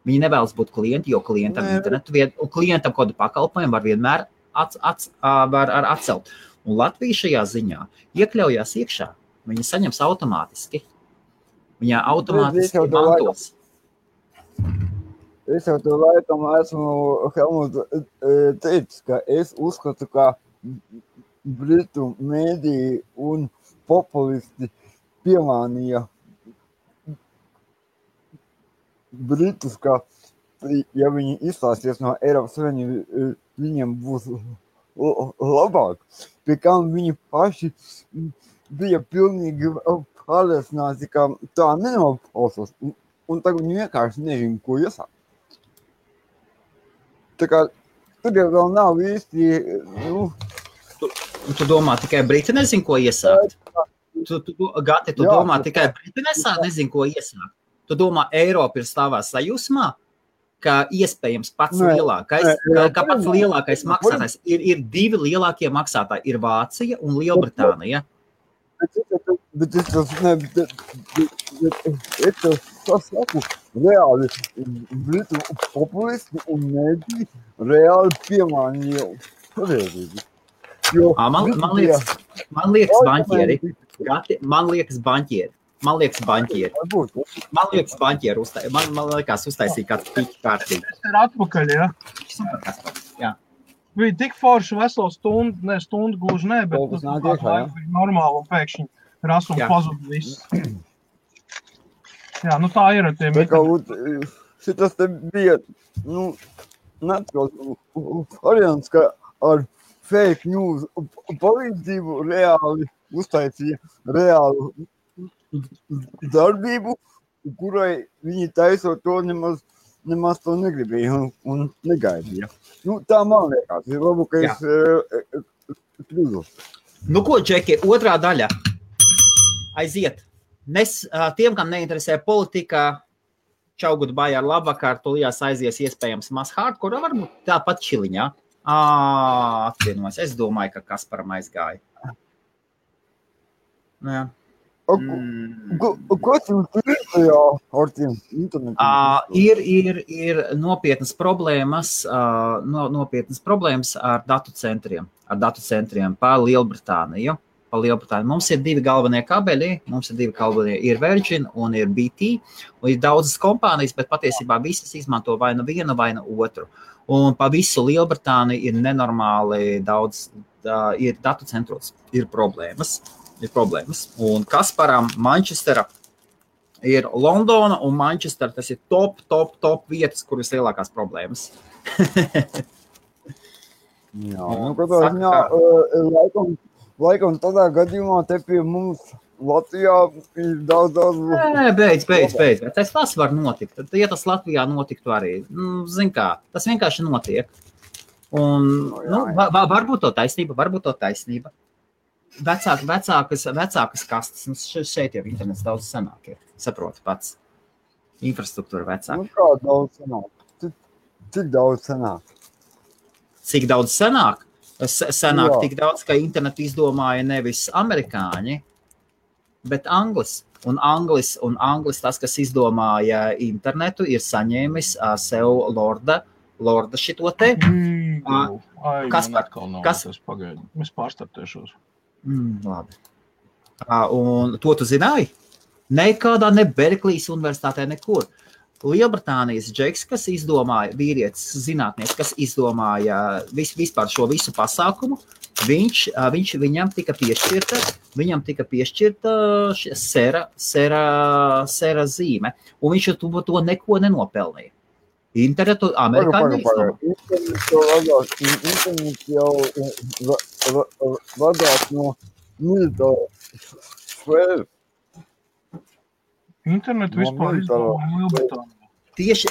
Viņi nevēlas būt klienti, jo klientam internetu, un klientam kodu pakalpojumu var vienmēr var atcelt. Un Latvija šajā ziņā iekļaujās iekšā. Viņa saņems automātiski. Viņa automātiski mantos. Es jau to laikam esmu Helmut teicis, ka es uzskatu, ka Britu mēdī un populisti piemānīja Britus, ka ja viņi izstāsies no Eiropas Savienības, viņiem būs labāk, pie kam viņi paši bija pilnīgi pārliecināti, ka tā nenoklausās, un tagad viņi vienkārši nezinu, ko iesākt. Tā kā tur jau vēl nav īsti... Tu domā, tikai Briti nezin, ko iesākt? Gati, tu domā, tikai Briti nezin, ko iesākt? Tu domā, Eiropa ir stāvā sajūsmā? Ka iespējams pats lielākais maksātājs ir divi lielākie maksātāji, ir Vācija un Lielbritānija. Bet es saku, reāli Britu populisti un mēdī reāli piemānīja pareizību. Man liekas baņķieri. Man liekas baņķieri. Man liekas uztaisīja kāds pīķi kārtīgi. Tas ir atpakaļ, ja? Jā. Bija tik forši veselu stundu gluži ne, bet tas bija normāli un pēkšņi ras un pazud viss. Jā, nu tā ir ar tiem. Šitas te bija, netkos variants, ka ar fake news palīdzību reāli uztaisīja reālu darbību, kurai viņi taisot to nemaz to negribēja un negaidīja. Tā man liekas, ir labu, ka es kļūdos. Nu ko, Džeki, otrā daļa. Aiziet. Tiem, kam neinteresē politika, čau, goodbye, ar labvakar, tulijās aizies iespējams maz hardcore, varbūt tāpat čiliņā. Atvienojas. Es domāju, ka Kasparam aizgāja. Jā. Kas jums ir tajā ar tiem internetu? Ir nopietnas problēmas ar datu centriem pa Lielbritāniju. pa Lielbritāniju. Mums ir 2 galvenie kabeļi, ir Virgin un ir BT, un ir daudzas kompānijas, bet patiesībā visas izmanto vai nu vienu, vai nu otru. Un pa visu Lielbritāniju ir nenormāli daudz, ir datu centros, ir problēmas. Un Kasparam Manchestera ir Londona un Manchester, tas ir top vietas, kur ir lielākās problēmas. Jā, katrā ziņā, laikam tādā gadījumā te pie mums Latvijā ir daudz. Nē, beidz. Tas var notikt. Tad, ja tas Latvijā notiktu arī, zin kā, tas vienkārši notiek. Un, varbūt to taisnība. Vecākas kastes, šeit jau internets daudz senāk ir, saprotu pats. Infrastruktūra vecāka. Kā daudz senāk? Cik daudz senāk? Cik daudz senāk? Senāk tik daudz, ka internetu izdomāja nevis amerikāņi, bet anglis. Un anglis tas, kas izdomāja internetu, ir saņēmis sev lorda šito te. Kas? Es pārstartēšos. Labi. Un to tu zināji? Nekādā, ne Berklijas universitātē, nekur. Lielbritānijas džeks, kas izdomāja, vīrietis, zinātnieks, kas izdomāja vispār šo visu pasākumu, viņam tika piešķirta sera zīme, un viņš to neko nenopelnīja. Internetu amerikāņi Internets jau vadās no militāra sfēras. Internetu vispār izdomāja Lielbritānija.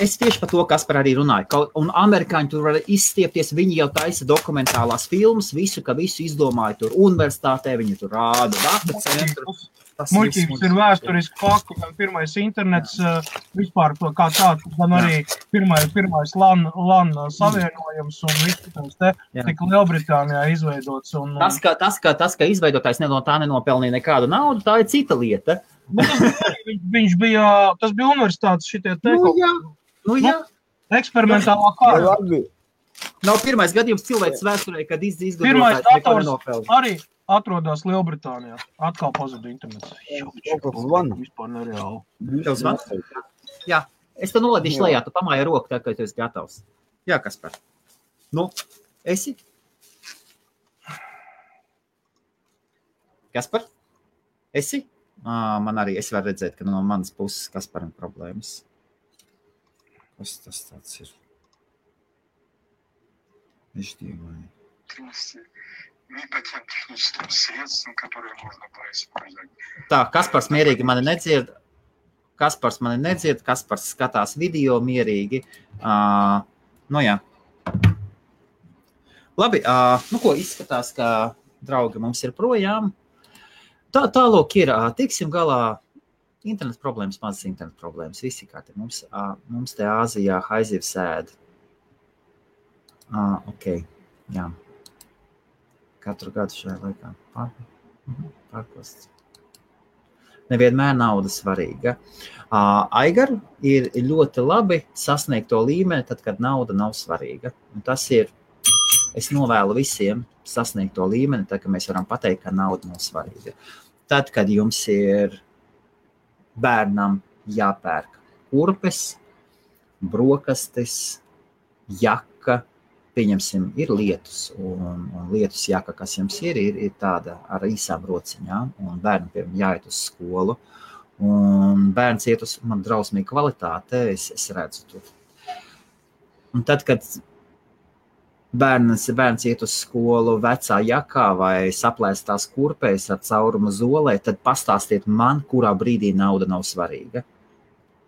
Es tieši par to, Kaspar, arī runāju. Un amerikāņi tur var izstiepties, viņi jau taisa dokumentālās filmas, visu izdomāja tur universitātē, viņi tur rāda datu centru. Muļķības ir vēsturiski fakti, gan pirmais internets vispār to kā tāds, gan arī pirmais LAN savienojums un viss tika Lielbritānijā izveidots. Tas, ka izveidotājs no tā nenopelnīja nekādu naudu, tā ir cita lieta. Tas bija universitātes šitie teikumi. Jā. Eksperimentālā kārta. Nav pirmais gadījums cilvēks vēsturē, kad izgudrotājs pirmais neko nenopelnīja. Arī atrodas Lielbritānijā. Atkal pazuda internets. Vispār nereāli. Tev zvan? Jā, es te noladīšu lejā, tu pamāji roku, tā kā tu esi gatavs. Jā, Kaspar. Esi? Kaspar? Esi? Man arī, es varu redzēt, ka no manas puses Kasparam problēmas. Kas tas tāds ir? Viņš dievoja. Tā, Kaspars mierīgi mani nedzird. Kaspars skatās video mierīgi. Jā. Labi, ko izskatās, ka draugi mums ir projām. Tālūk ir, tiksim galā, internet problēmas, mazas internet problēmas, visi kā te mums te Āzijā haizivs ēd. Jā. Katru gadu šajā laikā pārkosts. Nevienmēr nauda svarīga. Aigar ir ļoti labi sasniegt to līmeni, tad, kad nauda nav svarīga. Un tas ir, es novēlu visiem sasniegt to līmeni, tad, kad mēs varam pateikt, ka nauda nav svarīga. Tad, kad jums ir bērnam jāpērk kurpes, brokastis, jaka, pieņemsim, ir lietus, un lietus jaka, kas jums ir tāda ar īsām rociņām, un bērnam, piemēram, jāiet uz skolu, un bērns iet uz man drausmīgu kvalitāte, es redzu tur. Un tad, kad bērns iet uz skolu vecā jakā vai saplēstās kurpēs ar caurumu zolē, tad pastāstiet man, kurā brīdī nauda nav svarīga.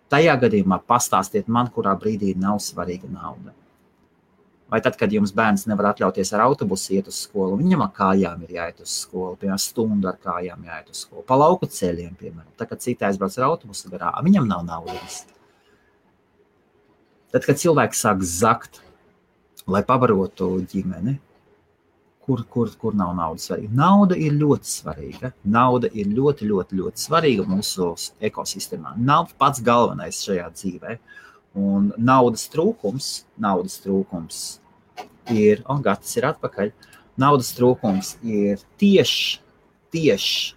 Tajā gadījumā pastāstiet man, kurā brīdī nav svarīga nauda. Vai tad, kad jums bērns nevar atļauties ar autobusu iet uz skolu, viņam ar kājām ir jāiet uz skolu, piemēram, stundu ar kājām jāiet uz skolu, pa lauku ceļiem, piemēram. Tad, kad citi aizbrauc ar autobusu garā, viņam nav naudas. Tad, kad cilvēks sāk zakt, lai pabarotu ģimeni, kur nav naudas svarīga. Nauda ir ļoti svarīga. Nauda ir ļoti, ļoti, ļoti svarīga mūsu ekosistēmā. Nav pats galvenais šajā dzīvē. Un naudas trūkums ir, Gatis ir atpakaļ, naudas trūkums ir tieši tieši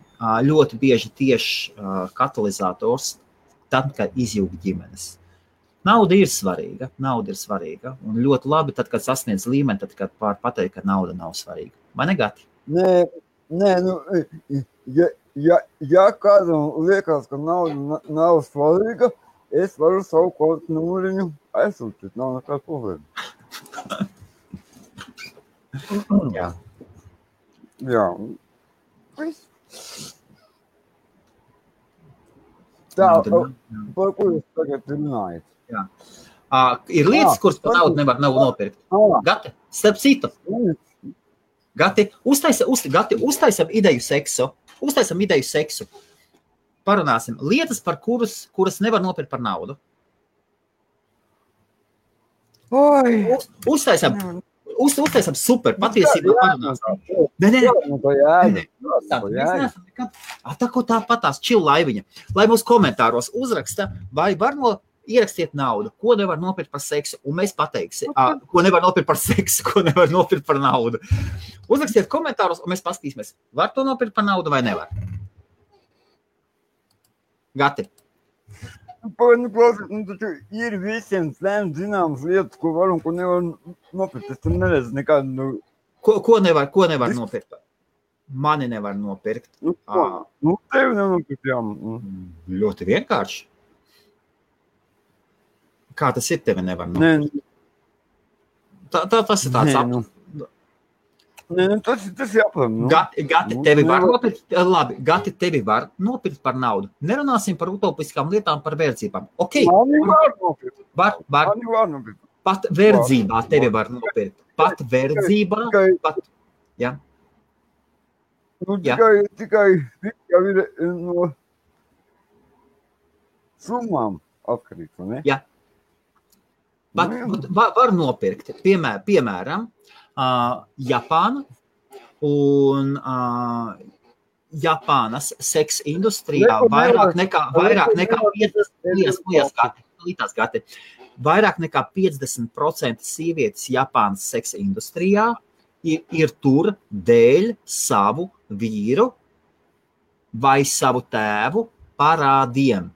katalizators tad, kad izjūg ģimenes. Nauda ir svarīga, un ļoti labi tad, kad sasniedz līmeni, tad, kad pateikt, ka nauda nav svarīga. Vai ne, Gati? Nē, ja kādam liekas, ka nauda nav svarīga, es varu savu kontu numuriņu aizsūtīt, nav nekāda problēma. Jā. Tā, par ko jūs tagad runājat? Jā. Ir lietas, kuras par naudu nevar nopirkt. Gati, starp citu. Gati, uztaisam ideju seksu. Parunāsim. Lietas, par kuras nevar nopirkt par naudu. Uztaisam super, patiesībā parunāsim. Nē. Tāpatās čil laiviņa. Lai mūs komentāros uzraksta, vai var ierakstiet naudu, ko nevar nopirkt par seksu, un mēs pateiksim, ko nevar nopirkt par seksu, ko nevar nopirkt par naudu. Uzrakstiet komentāros, un mēs paskatīsimies, var to nopirkt par naudu vai nevar. Gati. Taču ir visiem zināmas lietas, ko var un ko nevar nopirkt. Es tam neredzu nekādu... Ko nevar nopirkt? Mani nevar nopirkt. Tevi nevar nopirkt, jā. Ļoti vienkārši. Kā tas ir, tevi nevar nopirkt? Tas ir tāds tas jāpam. Gati, tevi var nopirkt, labi, Gati, tevi var nopirkt par naudu. Nerunāsim par utopiskām lietām, par verdzībām. Ok. Mani var nopirkt. Mani var nopirkt. Pat verdzībā tevi var nopirkt. Pat verdzībā. Jā. Tikai ir no summām atkarīgs, ne? Jā. Var nopirkt, piemēram, Japāna un Japānas seks industrijā vairāk nekā 50% sievietes Japānas seks industrijā ir tur dēļ savu vīru vai savu tēvu parādiem.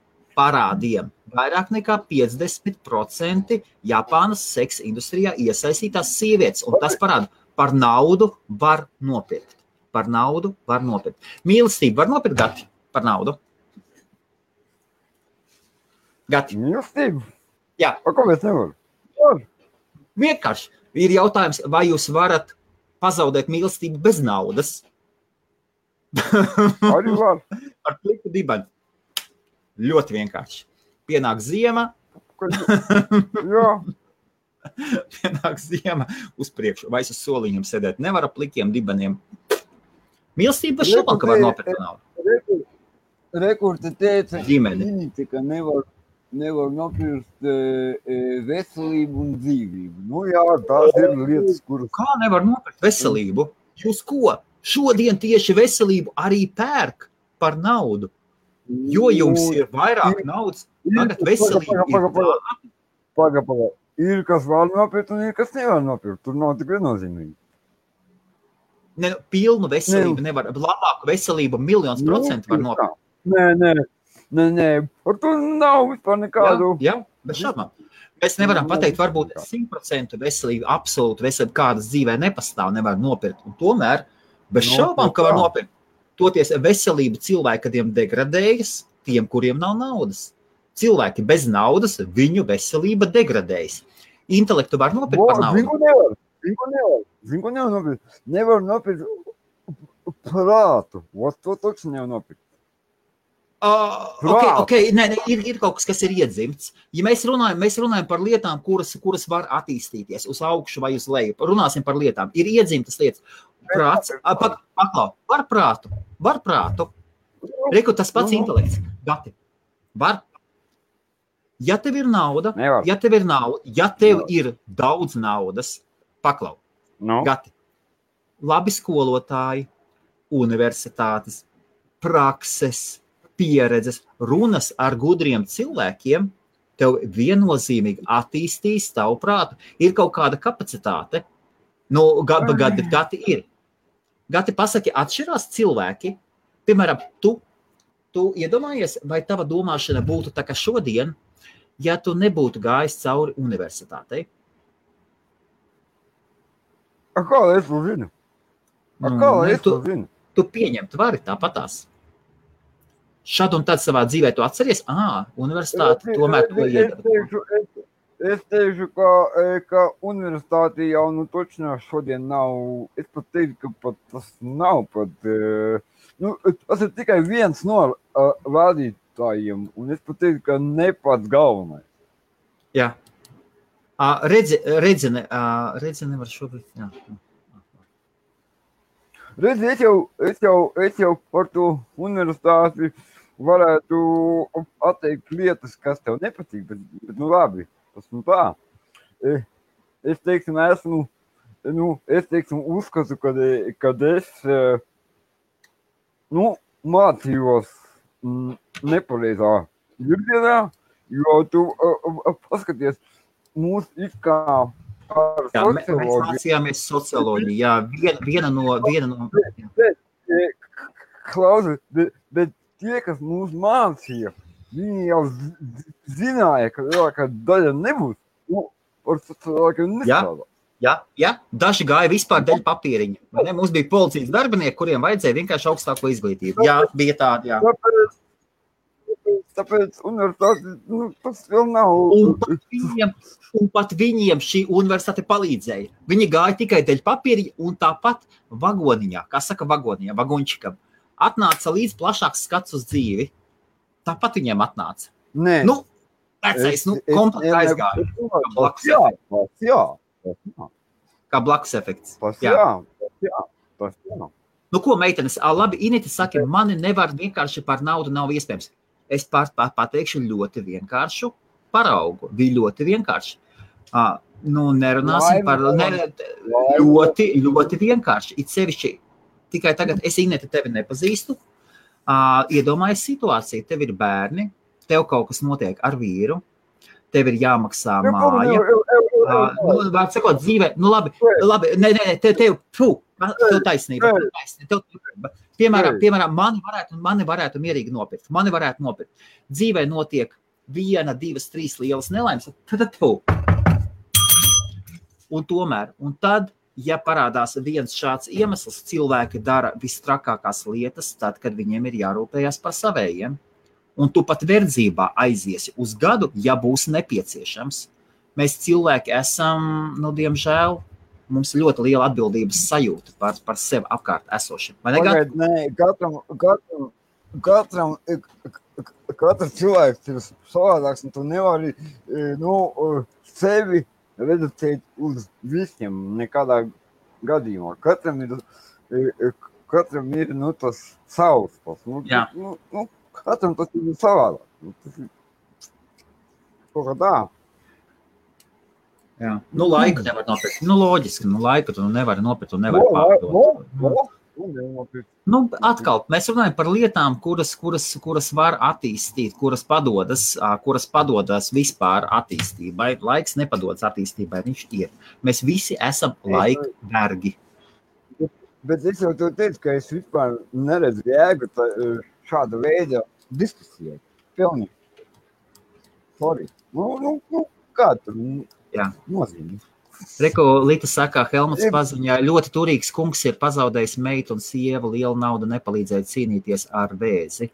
Vairāk nekā 50% Japānas seks industrijā iesaistītās sievietes, un tas parāda, par naudu var nopirkt. Mīlestību var nopirkt, Gati, par naudu? Gati? Mīlestību? Jā. Kāpēc nevar? Vienkārši. Ir jautājums, vai jūs varat pazaudēt mīlestību bez naudas? Arī var. Ar pliku dibani. Ļoti vienkārši. Pienāk ziema. Jā. Pienāk ziema uz priekšu. Vai es uz soliņiem sēdēt. Nevar ar plikiem dibaniem. Mīlestība bez šobām, ka var nopirkt naudu. Rekurti teica, ģimeni. Ka nevar nopirkt veselību un dzīvību. Jā, tās ir lietas, kuras... Kā nevar nopirkt veselību? Jūs ko? Šodien tieši veselību arī pērk par naudu. Jo jums ir vairāk naudas, tagad veselība ir tāda. Paga. Ir, kas var nopirkt un ir, kas nevar nopirkt. Tur nav tik viennozīmīgi. Pilnu veselību nevar. Labāku veselību 1,000,000% var nopirkt. Nē. Par to nav vispār nekādu. Jā, bez šaubām. Mēs nevaram pateikt, varbūt 100% veselība, absolūti veselība, kādas dzīvē nepastāv, nevar nopirkt. Un tomēr, bez šaubām, ka var nopirkt. Toties veselība cilvēkiem degradējas, tiem, kuriem nav naudas. Cilvēki bez naudas, viņu veselība degradējas. Intelektu var nopirkt par naudu? Viņu nevar nopirkt. Nevar nopirkt prātu. To taču nevar nopirkt. Ir kaut kas ir iedzimts. Ja mēs runājam par lietām, kuras var attīstīties uz augšu vai uz leju. Runāsim par lietām. Ir iedzimtas lietas. Prāts, var prātu. Reku tas pats intelekts. Gati, var. Ja tev ir nauda, ja tev ir daudz naudas, paklau. Gati, labi skolotāji, universitātes, prakses, pieredzes, runas ar gudriem cilvēkiem, tev viennozīmīgi attīstīs tavu prātu. Ir kaut kāda kapacitāte. Gati ir. Gati, pasaki, atšķirās cilvēki, Piemēram, tu iedomājies, vai tava domāšana būtu tā kā šodien, ja tu nebūtu gājis cauri universitātei? Kā lai es to zinu? Kā lai es to zinu? Tu pieņemt vari tāpatās. Šad un tad savā dzīvē tu atceries, universitāte tomēr to iedara. Es teikšu, ka universitāte jau točno šodien nav, es pat teiktu, ka pat tas nav pat, tas ir tikai viens no vadītājiem, un es pat teiktu, ka ne pats galvenais. Jā. Redzi nevar šobrīd, jā. Redzi, es jau par to universitāti varētu atteikt lietas, kas tev nepatīk, bet labi, tas tā. Es teiksim, uzskatu, kad es, mācījos nepareizā virzienā, jo tu paskaties, mūs it kā Jā, mēs mācījāmies socioloģiju, jā, viena no... Klausi, bet tie, kas mūs mācīja, viņi jau zināja, ka daļa nebūs, par socioloģiju nestrādā. Jā, daži gāja vispār dēļ papīriņa. Mums bija policijas darbinieki, kuriem vajadzēja vienkārši augstāko izglītību. Jā, bija tādi, jā. Tāpēc universitāte, tas vēl nav. Un pat viņiem šī universitāte palīdzēja. Viņi gāja tikai dēļ papīriņa un tāpat vagoniņā, kā saka vagoniņā, vagončikam, atnāca līdz plašāks skats uz dzīvi. Tāpat viņiem atnāca. Nē. Vecais, komplet aizgāja. Kā blakus efekts. Jā. Ko, meitenes, labi, Inita saka, mani nevar vienkārši par naudu nav iespējams. Es pateikšu ļoti vienkāršu paraugu. Bija ļoti vienkārši. Nerunāsim par ļoti vienkārši. It sevišķi, tikai tagad es, Ineta, tevi nepazīstu. Iedomājies situāciju, tev ir bērni, tev kaut kas notiek ar vīru, tev ir jāmaksā māja. Var sakot, dzīvē, labi, tev taisnība. Piemēram, mani varētu mierīgi nopirkt. Dzīvē notiek 1, 2, 3 lielas nelaimes, tad tu. Un tad, ja parādās viens šāds iemesls, cilvēki dara vistrakākās lietas, tad, kad viņiem ir jārūpējas par savējiem. Un tu pat verdzībā aiziesi uz gadu, ja būs nepieciešams. Mēs cilvēki esam, diemžēl, mums ļoti liela atbildības sajūta par sevi apkārt esošiem. Katrs cilvēks ir savādāks, un tu nevari sevi reducēt uz visiem nekādā gadījumā. Katram ir tas savs. Katram tas ir savādāk. Kaut kā tā. Jā. Laiku nevar nopirkt. Loģiski, laiku tu nevari nopirkt un nevari pārdot. Atkal, mēs runājam par lietām, kuras var attīstīt, kuras padodas vispār attīstībai. Laiks nepadodas attīstībai, viņš ir. Mēs visi esam laika vergi. Bet es jau tev teicu, ka es vispār neredzu jēgu šāda veida diskusijai. Pilnīgi. Sorry. Kā tur nozīmē? Reko, Lita saka, Helmuts paziņā, ļoti turīgs kungs ir pazaudējis meitu un sievu, liela nauda nepalīdzēja cīnīties ar vēzi.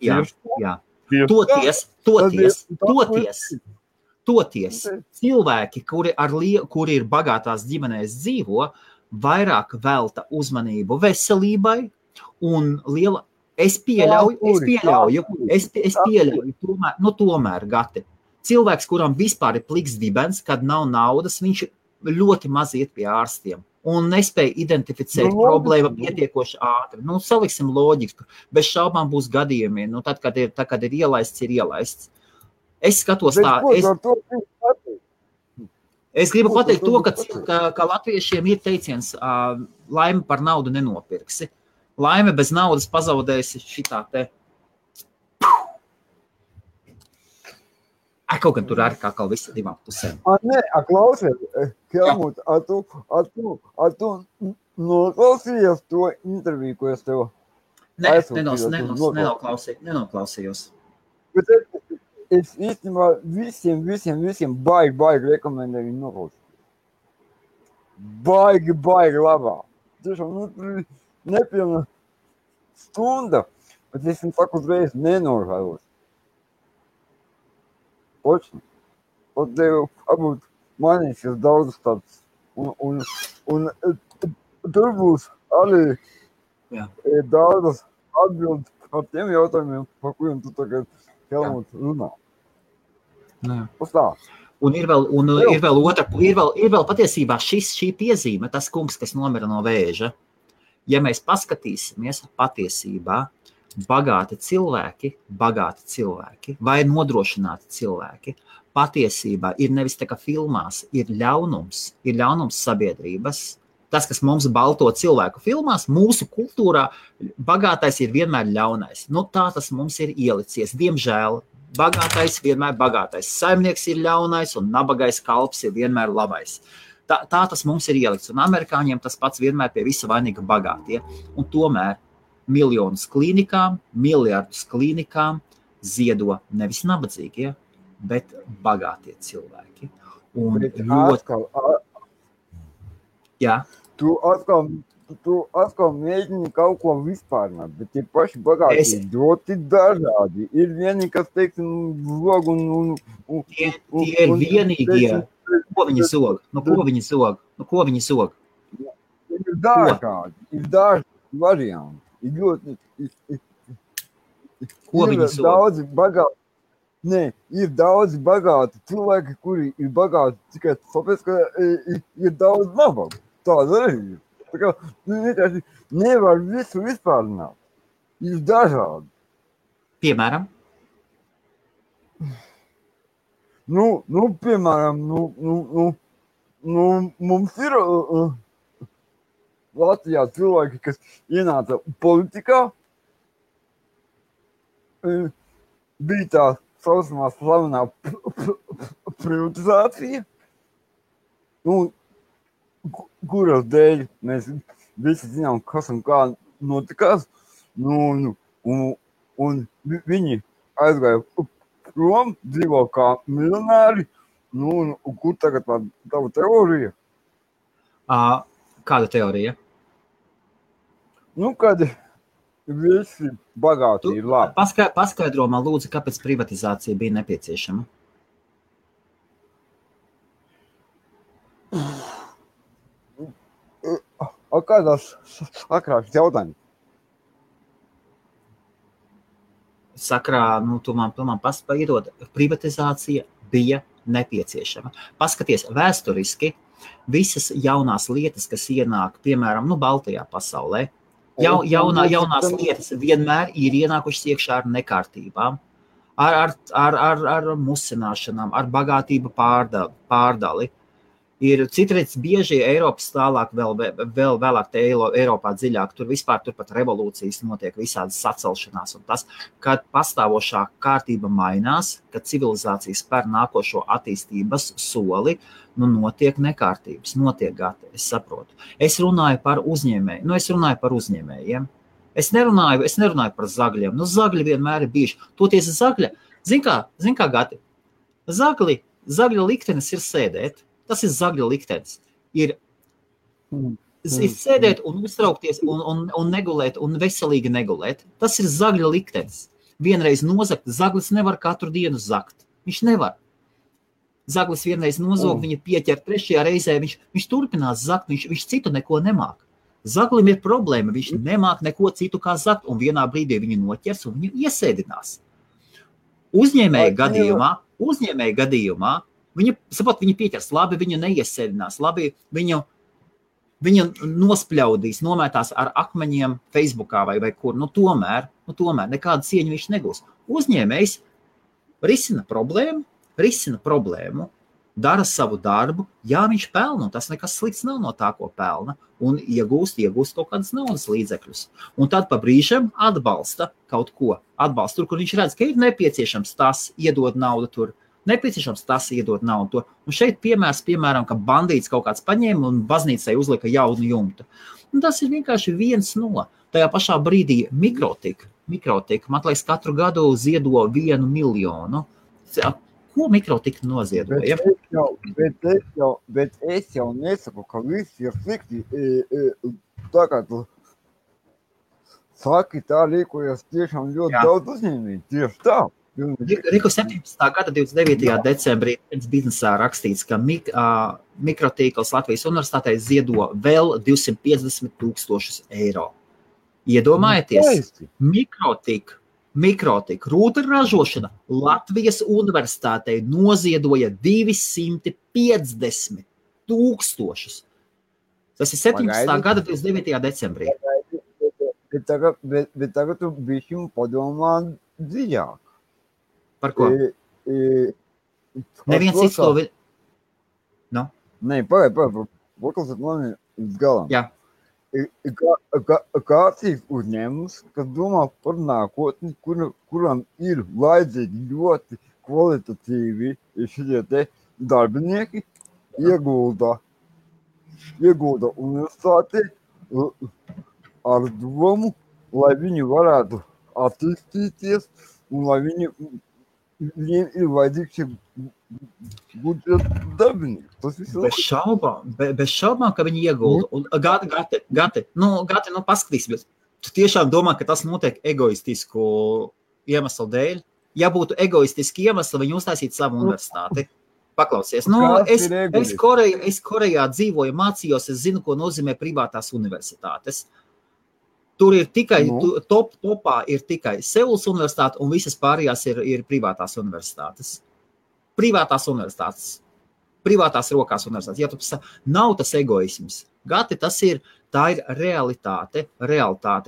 Jā. Toties, cilvēki, kuri ir bagātās ģimenēs dzīvo, vairāk velta uzmanību veselībai un liela, es pieļauju, tomēr, Gati. Cilvēks, kuram vispār ir pliks dibens, kad nav naudas, viņš ļoti maz iet pie ārstiem un nespēja identificēt problēmu pietiekoši ātri. Saliksim loģiku, bez šaubām būs gadījumi, tad, kad ir ielaists, ir ielaists. Es skatos tā, es gribu pateikt to, ka latviešiem ir teiciens, laime par naudu nenopirksi. Laime bez naudas pazaudēsi šitā te. Kaut gan tur arī kā visi divām pusēm. Klausies, Helmut, tu Noklausījies to interviju, ko es tev nenoklausījos. Bet es īstenībā visiem baigi rekomendēju viņu noklausīt. Baigi labā. Tiešām, nepilna stunda, bet es viņu saku uzreiz nenožēlos. Oči. Un tev varbūt mainīsies daudzas tādas. Un tur būs arī daudzas atbildes par tiem jautājumiem, par kuriem tu tagad Helmut runā. Pastāst. Un ir vēl patiesībā šī piezīme, tas kungs, kas nomira no vēža. Ja mēs paskatīsimies patiesībā, bagāti cilvēki vai nodrošināti cilvēki, patiesībā ir nevis tā kā filmās, ir ļaunums sabiedrības. Tas, kas mums balto cilvēku filmās, mūsu kultūrā, bagātais ir vienmēr ļaunais. Nu, tā tas mums ir ielicies. Diemžēl, bagātais vienmēr bagātais. Saimnieks ir ļaunais un nabagais kalps ir vienmēr labais. Tā tas mums ir ielikts. Un amerikāņiem tas pats vienmēr pie visa vainīga bagātie. Un tomēr miljonus klīnikām, miljardus klīnikām ziedo nevis nabadzīgie, bet bagātie cilvēki. Un Tu atkal mēģini kaut ko vispārināt, bet tie paši bagāti ļoti dažādi. Ir vieni, kas teiksim zog un tie ir vienīgie. Ko viņi zog? Ko viņi zog? Ir dažādi varianti. Ir ļoti... Ko viņi zog? Ir daudzi bagāti cilvēki, kuri ir bagāti tikai tāpēc, ka ir daudz nabagu. Tāda arī ir. Tā kā vienkārši nevar visu vispārināt. Ir dažādi. Piemēram? Piemēram, mums ir Latvijā cilvēki, kas ienāca politikā, bija tā saucamā slavenā privatizācija, kuras dēļ mēs visi zinām, kas un kā notikās, un viņi aizgāja prom, dzīvo kā miljonāri, kur tagad tava teorija? Kāda teorija? Kad visi bagāti ir labi. Paskaidro man lūdzu, kāpēc privatizācija bija nepieciešama? Kādās sakrās jautājums? Sakrā, tu man paspaiedod, privatizācija bija nepieciešama. Paskaties, vēsturiski visas jaunās lietas, kas ienāk, piemēram, Baltijā pasaulē, jaunās lietas vienmēr ir ienākušas iekšā ar nekārtībām, ar musināšanām, ar bagātību pārdali. Ir citreiz bieži Eiropas tālāk, vēl vēlāk te Eiropā dziļāk, tur pat revolūcijas notiek, visādas sacelšanās un tas, kad pastāvošā kārtība mainās, kad civilizācijas spēr nākošo attīstības soli, notiek nekārtības, es saprotu. Es runāju par uzņēmējiem. Es nerunāju par zagļiem. Zagļi vienmēr ir bijuši. Toties zagļa, zin kā Gati, zagļa liktenis ir sēdēt. Tas ir zagļa liktenis. Ir sēdēt un uztraukties un negulēt un veselīgi negulēt. Tas ir zagļa liktenis. Vienreiz nozagt, zaglis nevar katru dienu zagt. Viņš nevar. Zaglis vienreiz nozog, viņa pieķer trešajā reizē, viņš turpinās zagt, viņš citu neko nemāk. Zaglim ir problēma, viņš nemāk neko citu kā zagt, un vienā brīdī viņu noķers un viņu iesēdinās. Uzņēmēja gadījumā Viņa pieķers, labi, viņu neiesēdinās, labi, viņu nospļaudīs, nomētās ar akmeņiem Facebookā vai kur. Tomēr nekādu cieņu viņš negūs. Uzņēmējs risina problēmu, dara savu darbu, viņš pelna, un tas nekas slikts nav no tā, ko pelna, un iegūst kaut kādas naudas līdzekļus. Un tad pa brīžam atbalsta kaut ko, tur, kur viņš redz, ka ir nepieciešams tas, iedod naudu tur, Nepieciešams tas iedot naudu. Un šeit piemēram, ka bandīts kaut kāds paņēma un baznīcai uzlika jaunu jumtu. Un tas ir vienkārši 1-0. Tajā pašā brīdī mikrotika, man liekas, katru gadu ziedo 1 miljonu. Ko mikrotika noziedoja? Bet es jau nesaku, ka viss ir slikti. Tā kā tu saki, tā rīkojas tiešām ļoti daudz uzņēmēji. Tieši tā. Riku 17. gada 29. decembrī biznesā rakstīts, ka mikrotīkls Latvijas universitātei ziedo vēl 250,000 eiro. Iedomājieties, mikrotika, rūta ražošana Latvijas universitātei noziedoja 250,000. Tas ir 17. gada 29. decembrī. Bet tagad tu bišķi padomā dziļāk. Par ko? Neviens cits to... No? Nē, paklausiet mani uz galam. Jā. Kāds ir uzņēmums, kas domā par nākotni, kuram ir vajadzīgi ļoti kvalitatīvi šitie te darbinieki, iegulda universitāti ar domu, lai viņi varētu attīstīties un lai viņiem ir vajadzīgs šie budžeta darbinieki. Bez šaubām, ka viņi iegulda. Un Gati, paskatīsimies. Tu tiešām domā, ka tas notiek egoistisku iemeslu dēļ? Ja būtu egoistiski iemesli, viņi uztaisītu savu universitāti. Paklausies. Es Korejā dzīvoju, mācījos, es zinu, ko nozīmē privātās universitātes. Tur ir tikai, topā ir tikai Seulas universitāte un visas pārējās ir privātās universitātes. Privātās rokās universitātes. Ja tu nav tas egoisms. Gati, tā ir realitāte,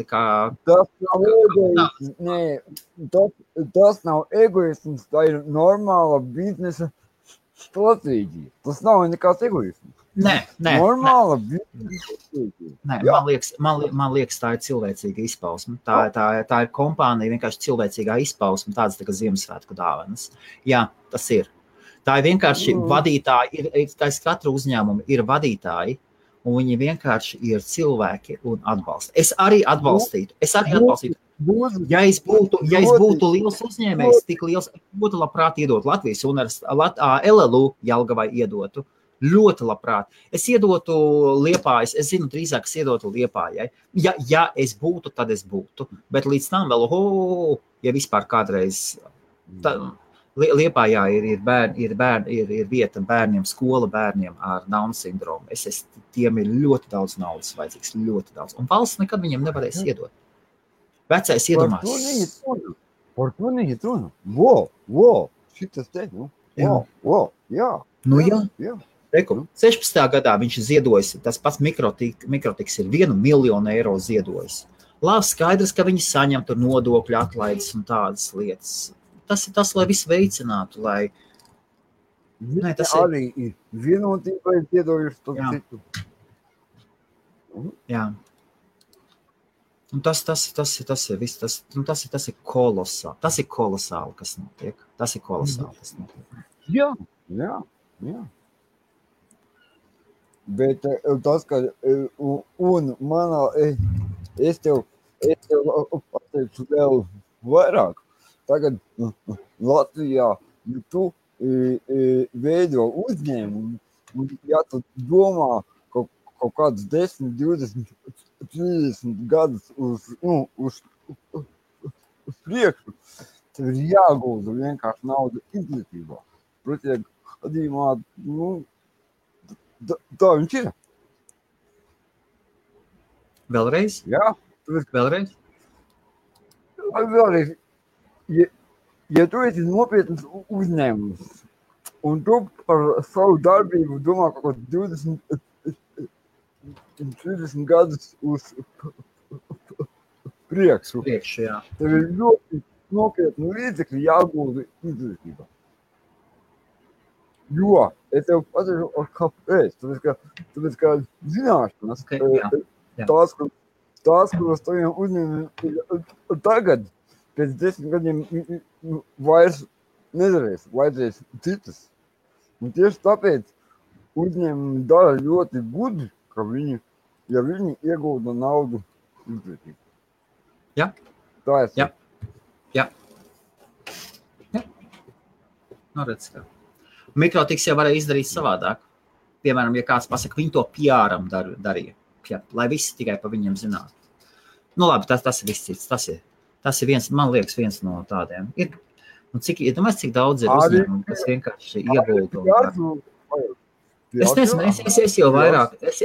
kā... Tas nav egoisms, tā ir normāla biznesa stratēģija. Tas nav nekāds egoisms. Nē. Normāla biznesa stratēģija. Man liekas, tā ir cilvēcīga izpausme. Tā ir kompānija, vienkārši cilvēcīgā izpausme, tādas tā kā Ziemassvētku dāvanas. Jā, tas ir. Tā ir vienkārši vadītāji, katru uzņēmumu ir vadītāji, un viņi vienkārši ir cilvēki un atbalsta. Es arī atbalstītu. Ja es būtu liels uzņēmējs, tik liels, būtu labprāt iedot Latvijas universitāti, LLU Jelgavai iedotu. Ļoti labprāt. Es iedotu Liepājas, es zinu, drīzāk es iedotu Liepājai. Ja es būtu, tad es būtu. Bet līdz tam vēl, ja vispār kādreiz... Liepājā ir vieta bērniem, skola bērniem ar Down sindromu. Tiem ir ļoti daudz naudas vajadzīgs, ļoti daudz. Un valsts nekad viņiem nevarēs iedot. Vecais iedomās. Par to neiet runa. Wow, šitas te, jā. Jā. 16. gadā viņš ziedojas, tas pats mikrotiks ir 1 miljonu eiro ziedojis. Labi, skaidrs, ka viņi saņem tur nodokļu atlaides un tādas lietas. Tas ir tas, lai visu veicinātu, lai... Nē, tas arī ir vienotība, ir ziedojuši to citu. Jā. Un tas ir viss, tas ir kolosāli. Tas ir kolosāli, kas notiek. Jā. Bet tas, ka un manā, es tev pateikšu vēl vairāk. Tagad Latvijā, ja tu veido uzņēmumu, un ja tu domā kaut kādus 10, 20, 30 gadus uz priekšu, tev ir jāgulda vienkārši nauda izglītībā. Pretī gadījumā, tā viņš ir. Vēlreiz? Jā. Vēlreiz? Vēlreiz. Ja tu esi nopietnas uzņēmums, un tu par savu darbību domā kaut 20, 30 gadus uz priekšu, jā. Tev ir ļoti nopietni līdzekļi jāgulda izglītībā. Jo, es tev pateikšu, kāpēc. Tāpēc, ka zināšanas, tās, kuras taviem uzņēmumiem tagad, pēc 10 gadiem vairs nedarēs, vajadzēs citas. Un tieši tāpēc uzņēmumi dara ļoti gudri, ka viņi iegūda naudu izglītībā. Jā. Tā ir. Jā. Nu, redz, kā. Mikrotiks jau varēja izdarīt savādāk. Piemēram, ja kāds pasaka, viņi to PR-am darīja, lai visi tikai pa viņiem zinātu. Nu labi, tas ir viss cits. Tas ir viens, man liekas, viens no tādiem. Domāju, cik daudz ir uzņēmumu, kas vienkārši iegulda. Es nezinu,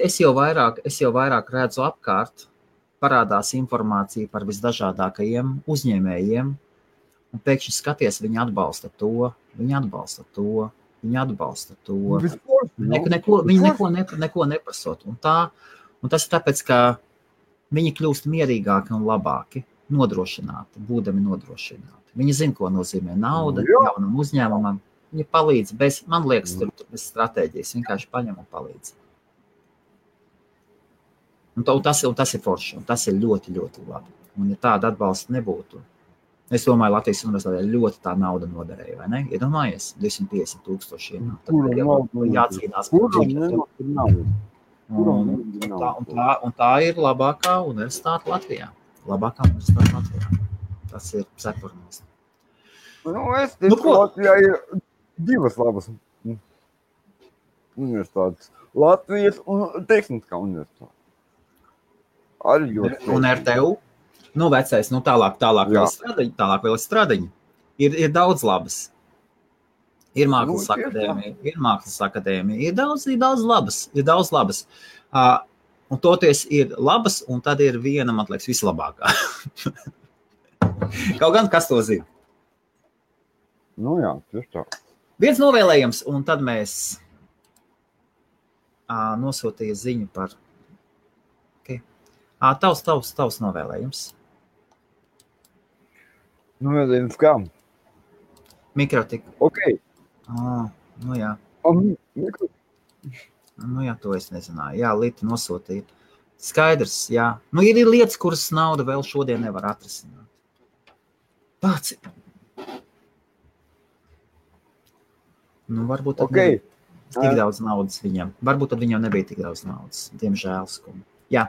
es jau vairāk redzu apkārt, parādās informācija par visdažādākajiem uzņēmējiem, un pēkšņi skaties, viņi atbalsta to. Viņi neko neprasot. Un tas ir tāpēc, ka viņi kļūst mierīgāki un labāki, nodrošināti, būdami nodrošināti. Viņi zina, ko nozīmē nauda jaunam uzņēmumam. Viņi palīdz man liekas, bez stratēģijas, vienkārši paņem un palīdz. Un tas ir forši, un tas ir ļoti, ļoti labi. Un ja tāda atbalsta nebūtu, es domāju, Latvijas universitātē ļoti tā nauda noderēja, vai ne? Iedomājies, 250,000 ienāk. Tad jācīnās par un tā ir labākā universitāte Latvijā. Tas ir cepurnis. Es teiktu, Latvijā ir divas labas universitātes. Latvijas un Tehniskā universitāte. Arī ļoti. Un RTU? Nu, vecais, tālāk vēl stradaņi. Ir daudz labas. Ir mākslas akadēmija. Ir daudz labas. Un toties ir labas, un tad ir viena, man liekas, vislabākā. Kaut gan, kas to zina? Nu jā, tieši tā. Viens novēlējums, un tad mēs nosūtīja ziņu par... Okay. Tavs novēlējums. Novēlējums kā? Mikrotika. Ok. Nu jā. Nu jā, to es nezināju. Jā, Lita nosūtīja. Skaidrs, jā. Nu ir lietas, kuras nauda vēl šodien nevar atrisināt. Tāds ir. Nu, varbūt tad nebija tik daudz naudas viņam. Varbūt tad viņam nebija tik daudz naudas. Diemžēl skumji. Jā.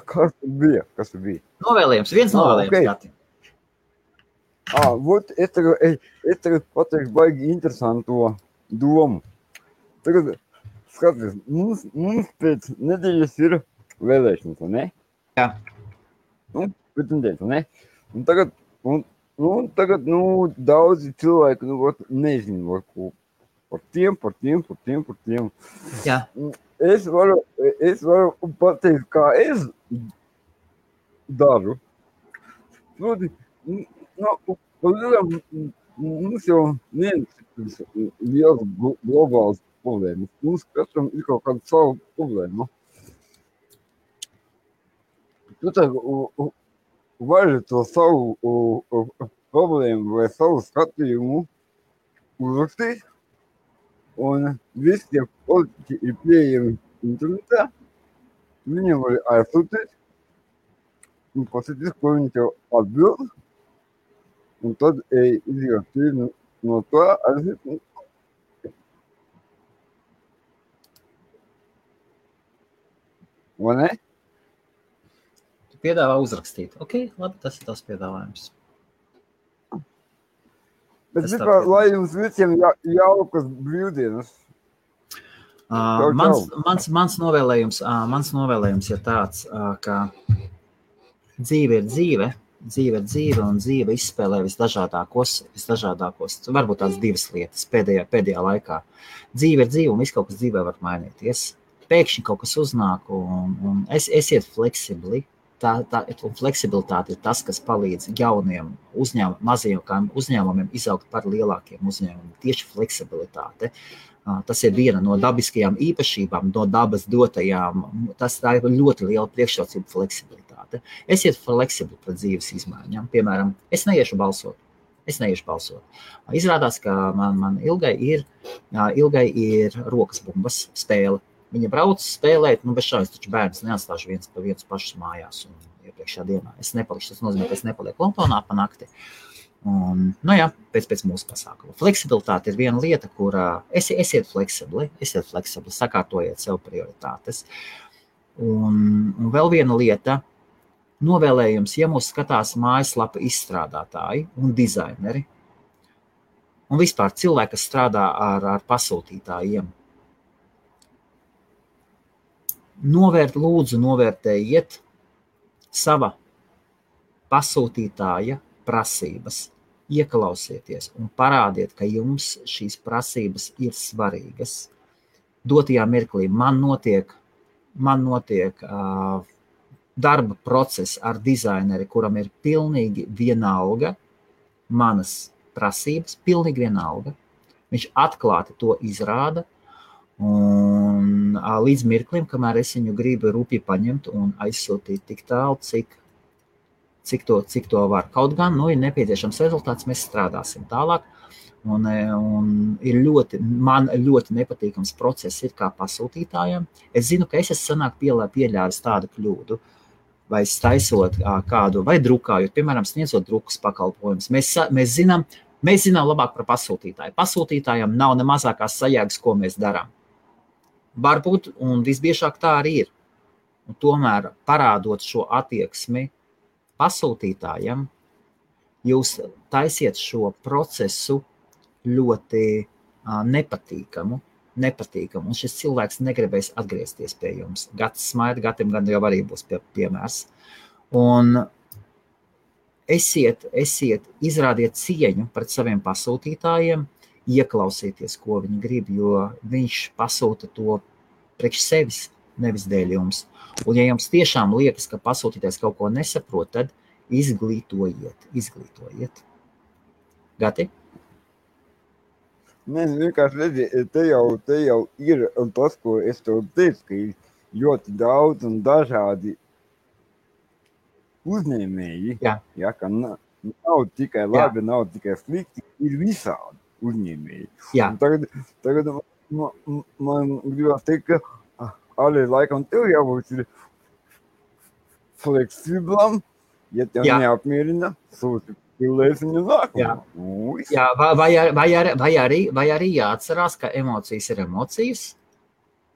Kas bija? Novēlējums. Viens novēlējums, Gati. Es tagad pateikšu baigi interesanto domu. Tagad, skaties, mums pēc nedēļas ir vēlēšanas, vai ne? Jā. Pēc nedēļas, vai ne? Un tagad, daudzi cilvēki, nezinu, par tiem. Jā. Es varu pateikt, kā es daru. Proti, mums jau neviens liels globāls problēmas. Mums katram ir kaut kāda savu problēma. Tu tā vari to savu problēmu vai savu skatījumu uzrakstīt, un visi tie politiķi ir pieejami internetā. Viņiem var aizsūtīt un pasīties, ko viņi tev atbild. Un tad izjūt no tā aiziet. Vai ne? Tu piedāvā uzrakstīt. Ok, labi, tas ir tās piedāvājums. Bet vispār, lai jums visiem jaukas brīvdienas. Mans novēlējums ir tāds, ka dzīve ir dzīve, un dzīve izspēlē visdažādākos, varbūt tās divas lietas pēdējā laikā. Dzīve ir dzīve, un viss kaut kas dzīvē var mainīties. Pēkšņi kaut kas uznāk, un esiet fleksibli. Un fleksibilitāte ir tas, kas palīdz jauniem mazajiem uzņēmumiem izaugt par lielākiem uzņēmumiem. Tieši fleksibilitāte. Tas ir viena no dabiskajām īpašībām, no dabas dotajām. Tā ir ļoti liela priekšrocība fleksibilitāte. Esiet fleksibli pret dzīves izmaiņām. Piemēram, es neiešu balsot. Izrādās, ka man Ilgai ir rokas bumbas spēle. Viņa brauc spēlēt, bez šādas taču bērns neatstāšu viens pašus mājās un iepriekšējā dienā. Es nepalikšu, tas nozīmē, ka es nepalieku Londonā pa nakti. Un, pēc mūsu pasākuma. Fleksibilitāte ir viena lieta, kur esiet fleksibli, sakārtojiet sev prioritātes. Un vēl viena lieta, novēlējums, ja mūs skatās mājaslapa izstrādātāji un dizaineri, un vispār cilvēki, kas strādā ar pasūtītājiem. Lūdzu novērtējiet sava pasūtītāja prasības, ieklausieties un parādiet, ka jums šīs prasības ir svarīgas. Dotajā mirklī man notiek darba process ar dizaineri, kuram ir pilnīgi vienalga manas prasības, pilnīgi vienalga. Viņš atklāti to izrāda, un līdz mirklim, kamēr es viņu gribu rūpīgi paņemt un aizsūtīt tik tālu, cik to var. Kaut gan, ir nepieciešams rezultāts, mēs strādāsim tālāk, un man ļoti nepatīkams process ir kā pasūtītājiem. Es zinu, ka es esmu pieļāvis tādu kļūdu, vai taisot kādu, vai drukājot, piemēram, sniedzot drukas pakalpojumus. Mēs zinām labāk par pasūtītāju. Pasūtītājiem nav ne mazākās sajēgas, ko mēs darām. Varbūt, un visbiežāk tā arī ir. Un tomēr parādot šo attieksmi pasūtītājiem, jūs taisiet šo procesu ļoti nepatīkamu, un šis cilvēks negribēs atgriezties pie jums. Gatis smaida, Gatim gan jau arī būs piemērs. Un izrādiet cieņu pret saviem pasūtītājiem, ieklausieties, ko viņi grib, jo viņš pasūta to priekš sevis, nevis dēļ jums. Un ja jums tiešām liekas, ka pasūtītājs kaut ko nesaprot, tad izglītojiet. Gati? Nē, vienkārši redzi, te jau ir tas, ko es tev teicu, ka ir ļoti daudz un dažādi uzņēmēji, ka nav tikai labi, nav tikai slikti, ir visādi uzņēmēji. Tagad man gribās teikt, ka arī laikam tev jābūt ir fleksiblam, ja tev neapmierina, sūti pilēs viņu nākumu. Vai arī jāatcerās, ka emocijas ir emocijas,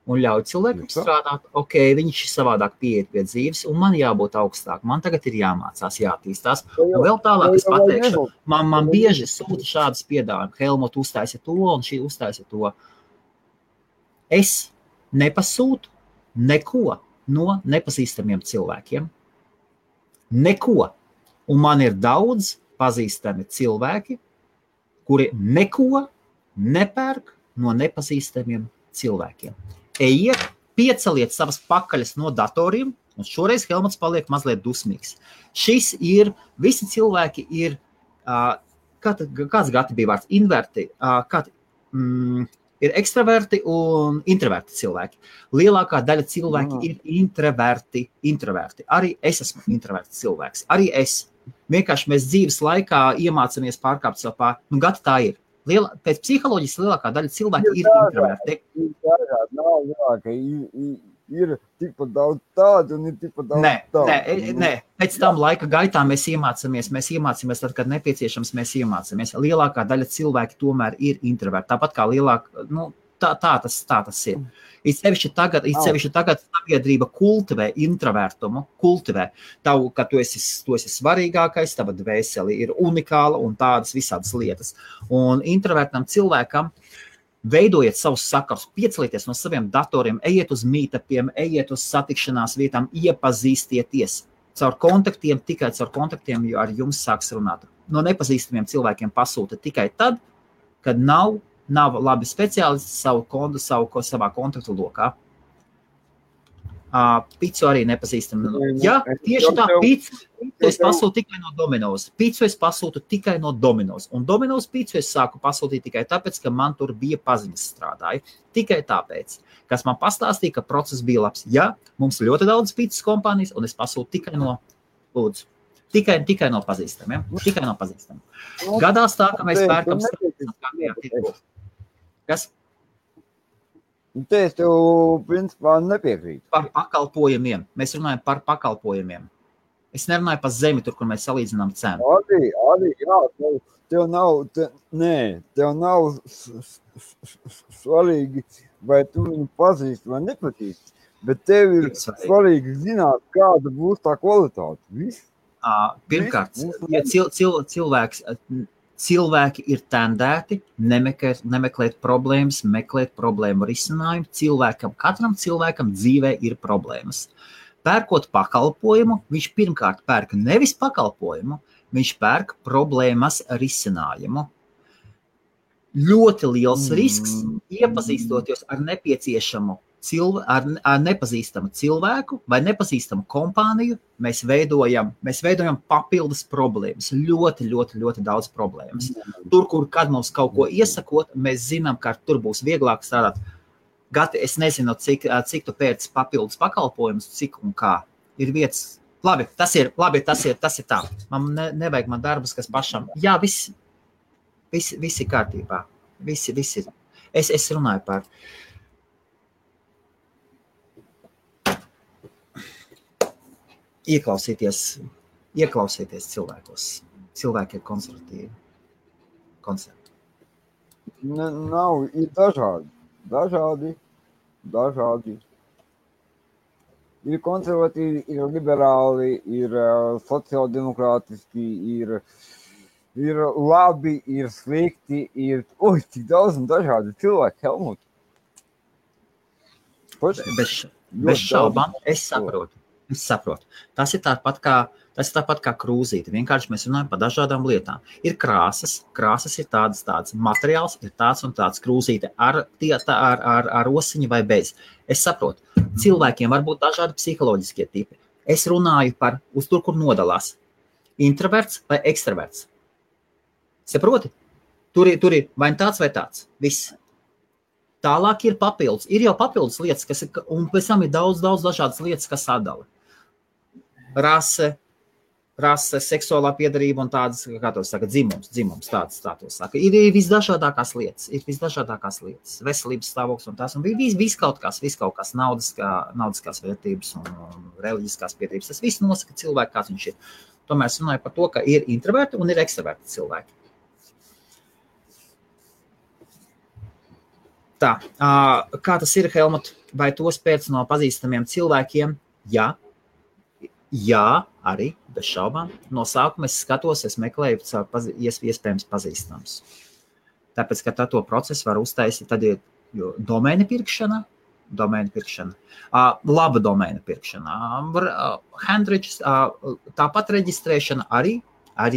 un ļauj cilvēkam strādāt. Ok, viņš savādāk pieiet pie dzīves, un man jābūt augstāk. Man tagad ir jāmācās, jātīstās. Un vēl tālāk es pateikšu, man bieži sūta šādas piedāvājumus. Helmut uztaisa to, un šī uztaisa to. Es nepasūtu neko no nepazīstamiem cilvēkiem. Neko. Un man ir daudz pazīstami cilvēki, kuri neko nepērk no nepazīstamiem cilvēkiem. Ejiet, pieceliet savas pakaļas no datoriem, un šoreiz Helmuts paliek mazliet dusmīgs. Šis ir, visi cilvēki ir, kāds Gati bija vārds, inverti, ir ekstraverti un introverti cilvēki. Lielākā daļa cilvēki ir introverti. Arī es esmu introverts cilvēks. Arī es. Vienkārši mēs dzīves laikā iemācāmies pārkāpt savu pāri. Gati tā ir. Pēc psiholoģijas lielākā daļa cilvēki ir introverti. Ir tikpat daudz tādu un ir tikpat daudz tādu. Nē. Pēc tam laika gaitā mēs iemācāmies tad, kad nepieciešams, mēs iemācāmies. Lielākā daļa cilvēki tomēr ir introverti. Tāpat kā lielākā, tā tas ir. It sevišķi tagad sabiedrība kultivē introvertumu, ka tu esi svarīgākais, tava dvēseli ir unikāla un tādas visādas lietas. Un introvertam cilvēkam veidojiet savus sakarus, piecelieties no saviem datoriem, ejiet uz meetupiem, ejiet uz satikšanās vietām, iepazīstieties. Tikai caur kontaktiem, jo ar jums sāks runāt. No nepazīstamiem cilvēkiem pasūta tikai tad, kad nav labi speciālisti savā kontaktu lokā. Picu arī nepazīstam. Jā, tieši tā, picu es pasūtu tikai no Domino's. Picu es pasūtu tikai no Domino's. Un Domino's picu es sāku pasūtīt tikai tāpēc, ka man tur bija paziņas strādāja. Tikai tāpēc, kas man pastāstīja, ka process bija labs. Jā, mums ļoti daudz picas kompānijas, un es pasūtu tikai no, lūdzu, tikai no pazīstamiem. Tikai no pazīstamiem. Gadās tā, ka mēs pērkam starptautiskajā tirgu. Kas? Te es tev, principā, nepiekrītu. Par pakalpojumiem. Mēs runājam par pakalpojumiem. Es nerunāju par zemi, tur, kur mēs salīdzinām cenu. Arī, jā, tev nav svarīgi, vai tu viņu pazīsti vai nepazīsti, bet tev ir svarīgi zināt, kāda būs tā kvalitāte. Viss. Pirmkārt, ja cilvēki ir tendēti nemeklēt problēmas, meklēt problēmu risinājumu. Katram cilvēkam dzīvē ir problēmas. Pērkot pakalpojumu, viņš pirmkārt pērk nevis pakalpojumu, viņš pērk problēmas risinājumu. Ļoti liels risks, iepazīstoties ar nepazīstamu cilvēku vai nepazīstamu kompāniju, mēs veidojam papildus problēmas, ļoti daudz problēmas. Tur, kur kad mums kaut ko iesakot, mēs zinām, ka tur būs vieglāk strādāt. Gati, es nezinu, cik tu pēc papildus pakalpojumus, cik un kā. Ir vietas. Labi, tas ir tā. Man nevajag man darbus, kas pašam. Jā, viss ir kārtībā. Viss ir. Es runāju par. Ieklausīties cilvēkos. Cilvēki ir konservatīvi. Nav, ir dažādi. Ir konservatīvi, ir liberāli, ir sociāldemokrātiski, ir labi, ir slikti, ir cik daudz un dažādi cilvēki, Helmut. Bez šaubām, es saprotu. Tas ir tāpat kā krūzīte. Vienkārši mēs runājam par dažādām lietām. Ir krāsas ir tādas, materiāls ir tāds un tāds, krūzīte ar osiņu vai bez. Es saprotu, cilvēkiem var būt dažādi psiholoģiskie tipi. Es runāju par uz tur, kur nodalās. Introverts vai ekstraverts. Saproti? Tur ir vai tāds vai tāds. Viss. Tālāk ir papildus. Ir jau papildus lietas, un pēc tam ir daudz dažādas lietas, kas sadala. Rase, seksuālā piedarība un tādas, kā to saka, dzimums, tādas tā to saka. Ir visdažādākās lietas, veselības stāvoklis un tās, un viss kaut kas, naudiskās vērtības un reliģiskās piedarības. Tas viss nosaka cilvēku, kāds viņš ir. Tomēr es runāju par to, ka ir introverti un ir ekstraverti cilvēki. Tā, kā tas ir, Helmut, vai tos pēc no pazīstamiem cilvēkiem? Jā, arī, bez šaubām. No sākuma es skatos, es meklēju iespējams pazīstams. Tāpēc, ka to procesu var uztaisīt, tad ir domēna pirkšana, laba domēna pirkšana, handričs, tāpat reģistrēšana arī,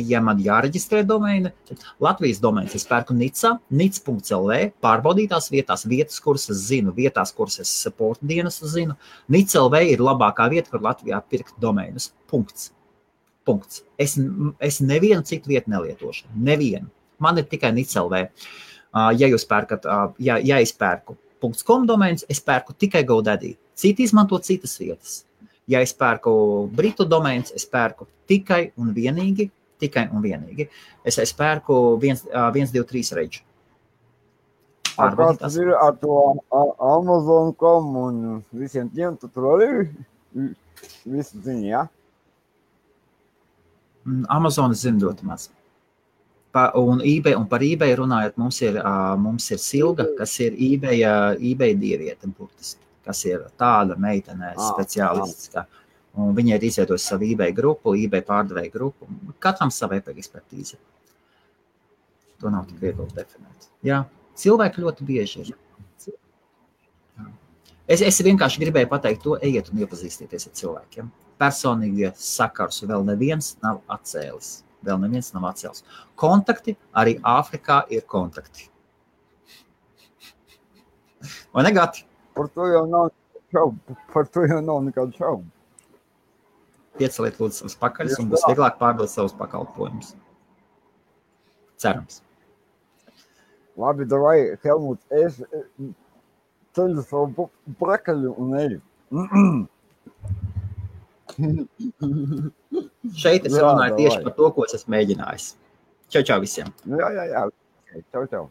ja man jāreģistrē domēna, Latvijas domēnas es pērku nic.lv, pārbaudītās vietas, kuras es zinu, kuras es supporta dienestu zinu. Nic.lv ir labākā vieta, kur Latvijā pirkt domēnus. Punkts. Es nevienu citu vietu nelietošu. Nevienu. Man ir tikai Nic.lv. Ja jūs pērkat, ja es pērku .com domēnus, es pērku tikai GoDaddy. Citi izmanto citas vietas. Ja es pērku britu domēnus, es pērku tikai un vienīgi. Es pērku 123 reģu. Kāds ir ar to Amazon.com un visiem tiem, tu tur arī visu zini, jā? Amazon zinu ļoti maz. Un par eBay runājot, mums ir Silga, kas ir eBay dieviete, burtiski, kas ir tāda meitene speciālists, un viņa ir izveidojusi savu eBay grupu, eBay pārdevēju grupu. Katram sava ekspertīze. To nav tik viegli definēt. Jā, cilvēki ļoti bieži ir. Es vienkārši gribēju pateikt to, ejiet un iepazīstieties ar cilvēkiem. Personīgie sakars vēl neviens nav atcēlis. Kontakti, arī Āfrikā ir kontakti. Vai ne, Gati? Par to jau nav nekādu šaubu. Pieceliet lūdzu savus pakaļus un būs vieglāk pārdot savus pakalpojumus. Cerams. Labi, davai, Helmut, es ceļu savu pakaļu un eju. Šeit es runāju tieši par to, ko es esmu mēģinājis. Čau visiem. Jā. Čau.